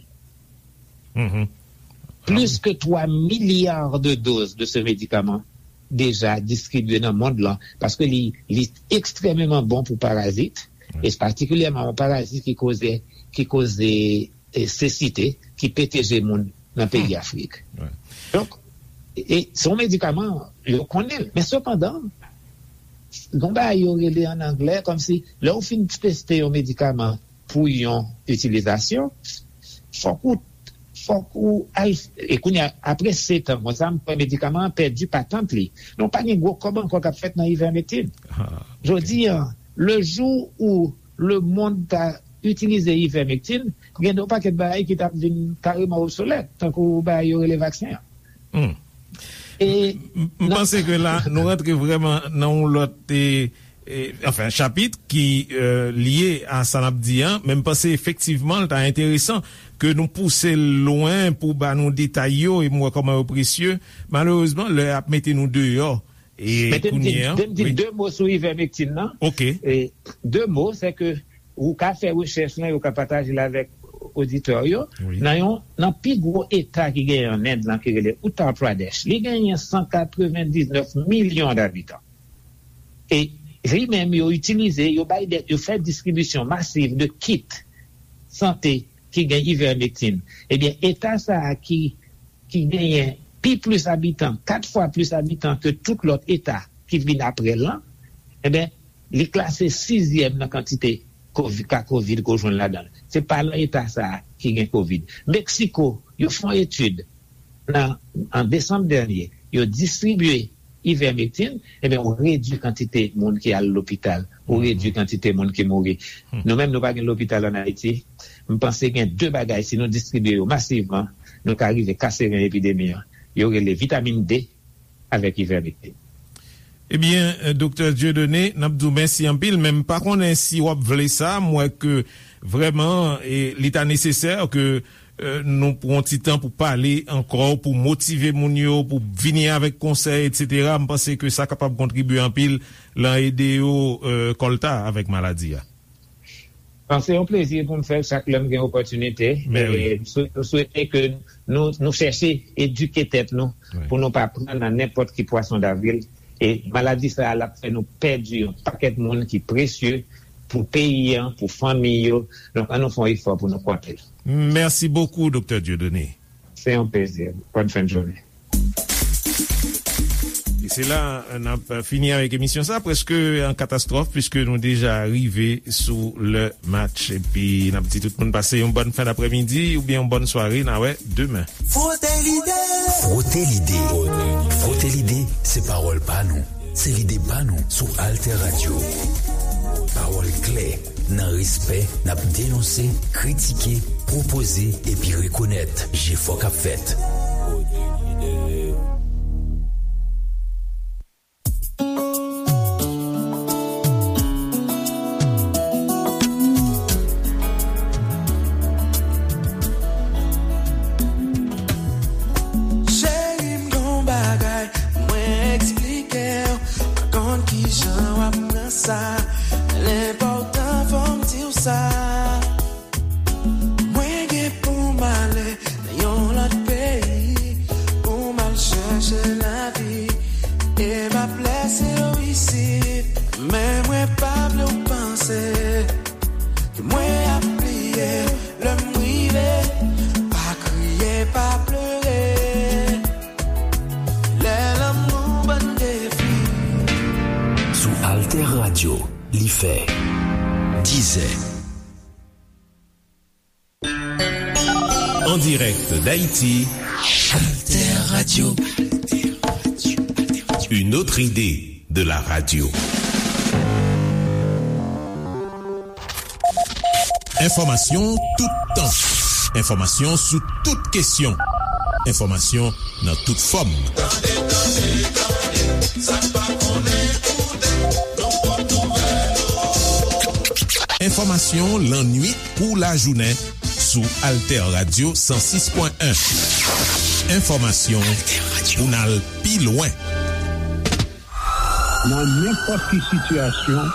Plis ke twa milya de doz de se medikaman deja distribye nan mond lan, paske li, li ekstrèmeman bon pou parazit, e patikilyèman yon parazit ki koze, ki koze, e, sesite, ki pete je moun nan peyi Afrik. Donk, e, e se yon medikaman, yo konnen l. Men sepandan, gon bagay yo rele an anglè, kòmsi, lè w fin teste yon medikaman pou yon itilizasyon, fòk ou, fòk ou al, e kounye a, apre sèt an konsa, m kwè medikaman an pèdi patant li. Donk, pa gen gwo kòb ankò k ap fèt nan ivermectin. Jodi a, le jou où le monde ta itilize ivermectin, gen yon pakèt bagay ki t ap vin kareman obsolèt, tankou bagay yo rele vaksen an. E m, m panse ke la, nou rantre vrèman nan yon lòt, e, e, anfen, chapit ki, e, lye a sa n ap di an, men m panse efektivman l ta enteresan ke nou pouse l lwen pou ba nou detay yo, e m wè kòman yo presye. Malerezman, lè ap mete nou deyò, e kounye a, de mo sou ivermectin nan. Ok. E, de mo, se ke ou ka fè rechèch lan, yo ka pataje l avèk oditè yo. Nan yon, nan pi gwo eta ki genyen an End lan, ki rele Uttar Pradesh, li genyen san katrevendiznèf milyon dabitan. E li menm, yo itilize, yo bay de, yo fè distribisyon masiv de kit sante ki gen ivermectin. Ebyen, eta sa a ki, ki genyen pi plis abitan, kat fwa plis abitan ke tout lòt eta ki vin apre l lan, ebyen, li klase sizyèm nan kantite kovi-, ka kovid ke w jwenn ladan l. Se pa nan eta sa a ki gen kovid. Meksiko, yo fè yon etid nan, an desanm dènye, yo distribye ivermectin, ebyen, ou redui kantite moun ki al lopital, ou redui kantite moun ki mouri. Nou menm, nou pa gen lopital ann Ayiti. M panse gen de bagay, si nou distribye yo masivman, nou ka rive kase ren epidemi an. Yo rele vitamin D avèk ivermectin. Ebyen, Doktè Dieudonné, n ap di w mèsi anpil, men m pa konnen si w ap vle sa. M wè ke vrèman, e, li ta nesesè ke, e, nou pran yon ti tan pou pale ankò, pou motive moun yo, pou vini avèk konsèy, etsetera. M panse ke sa kapab kontribye anpil lan ede yo, e, kòlta avèk maladi a. Bon, se yon plezi pou m fè l chak lè m gen opòtinite. Men wi. E m swe-, m swete ke nou, nou chèche edike tèt nou pou nou pa pran nan nenpòt ki pwason davril. E maladi sa a, l ap fè nou pèdi yon pakèt moun ki presye pou peyi an, pou fanmi yo. Donk, ann nou fè yon efò pou nou konte. Mèsi bokou, Doktè Dieudonné. Se yon plezi. Bòn fen de jounen. Se la n ap fini avèk emisyon sa, prèske an katastwòf, piske nou deja rive sou lè match. Epi n ap di tout moun pase yon bòn fen daprèmidi oubyen yon bòn sware. N a wè demen. Frote lide. Frote lide. Frote lide, se pawòl pa nou. Se lide pa nou sou Alter Radio. Pawòl klè, nan respè, n ap denonse, kritike, pwopoze epi rekonèt jefò k ap fèt. Cheri, m gon bagay mwen eksplike w. Pa konn kijan w ap pran sa. L enpòtan fò m di w sa. Mwen gen pou m ale nan yon lòt peyi pou m al chèche lavi. E m ap lèse w isit. Men mwen pa vle w panse ke mwen ap bliye w lè m rive. Pa kriye, pa plere. Lè lanmou ban defi. Sou Alter Radio, li fè dizè. En direct d'Haïti, Alter Radio. Une autre idée de la radio. Enfòmasyon toutan. Enfòmasyon sou tout kesyon. Enfòmasyon nan tout fòm. Tande, tande, tande, sa n pa konnen koute, nan pòt nouvèl. Enfòmasyon lannuit kou lajounen sou Alter Radio san sis pwen en. Enfòmasyon pou n al pi lwen. Nan nenpòt ki sitiyasyon,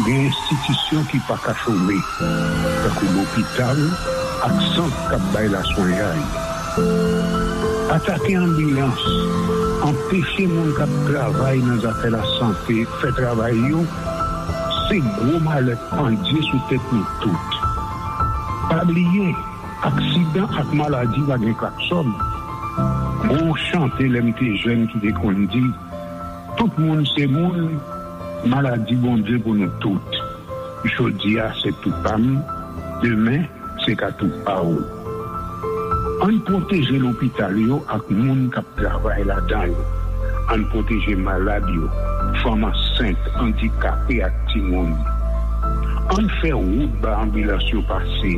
gen enstitisyon ki pa ka chome, tankou lopital ak sant k ap bay laswenyay. Atake anbilans, anpeche moun k ap travay nan zafè lasante fè travay yo, se gwo malè k pandye sou tèt nou tout. Pa bliye, aksidan ak maladi pa gen klaksòn. Gon chante lè m te jèn ki te konn di, tout moun se moun, maladi Bondye pou nou tout. Jodi a se tou pa m, demen se ka tou pa w. Ann pwoteje lopital yo ak moun k ap travay ladan yo. Ann pwoteje malad yo, fanm ansent, andikape ak timoun. Ann fè wout ba anbilans yo pase.